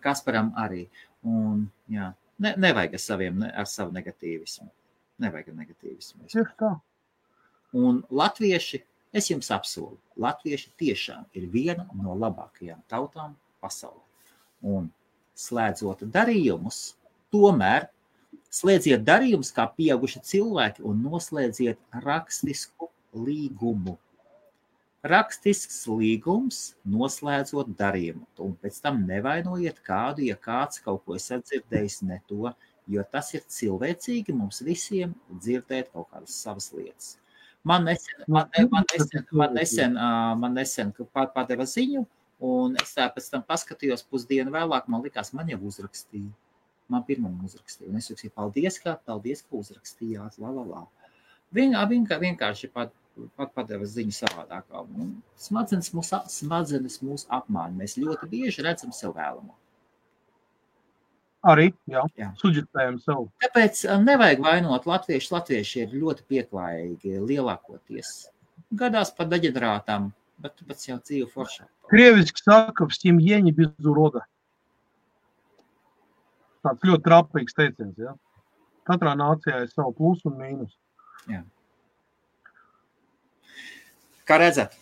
Kasparam arī. Un, jā, nevajag ar savu negatīvismu. Nevajag ar negatīvismu. Tieši tā. Un latvieši, es jums apsolu, latvieši tiešām ir viena no labākajām tautām pasaulē. Un slēdzot darījumus, tomēr slēdziet darījumus kā pieauguši cilvēki un noslēdziet rakstisku līgumu. Rakstisks līgums noslēdzot darījumu. Un pēc tam nevainojiet kādu, ja kāds kaut ko esat dzirdējis ne to, jo tas ir cilvēcīgi mums visiem dzirdēt kaut kādas savas lietas. Man nesen padeva ziņu, un es tā pēc tam paskatījos pusdienu vēlāk, man likās, man jau uzrakstīja. Man pirmam uzrakstīja. Un es jūksīju, paldies, ka uzrakstījāt, Vienkārši padeva ziņu savādākā. Smadzenes mūs apmāņa. Mēs ļoti bieži redzam sev vēlamo. Arī, jā. Suģitējam savu. Tāpēc nevajag vainot latvieši. Latvieši ir ļoti pieklājīgi lielākoties. Gadās par deģenerātām, bet jau dzīve foršā. Krieviski saka, в семье не без урода. Tāds ļoti trapīgs teiciens, jā. Katrā nācijā ir savu plusu un mīnus. Jā. Kā redzat,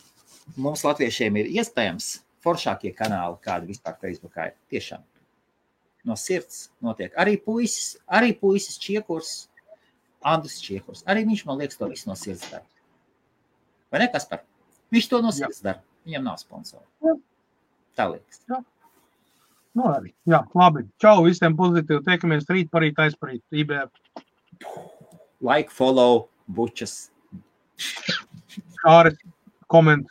mums latviešiem ir iespējams foršākie kanāli, kādi vispār Facebookā ir. Tiešām. No sirds notiek. Arī puisis Čiekurs, Andris Čiekurs. Arī viņš, man liekas, to visu no sirds dara. Vai ne, Kaspar? Viņš to no sirds dara. Viņam nav sponsori. Tā liekas. Jā. Nu arī. Jā, labi. Čau visiem pozitīvi. Tiekamies rīt parīt, aizparīt. IBF. Like, follow, bučas. Kāris, koment.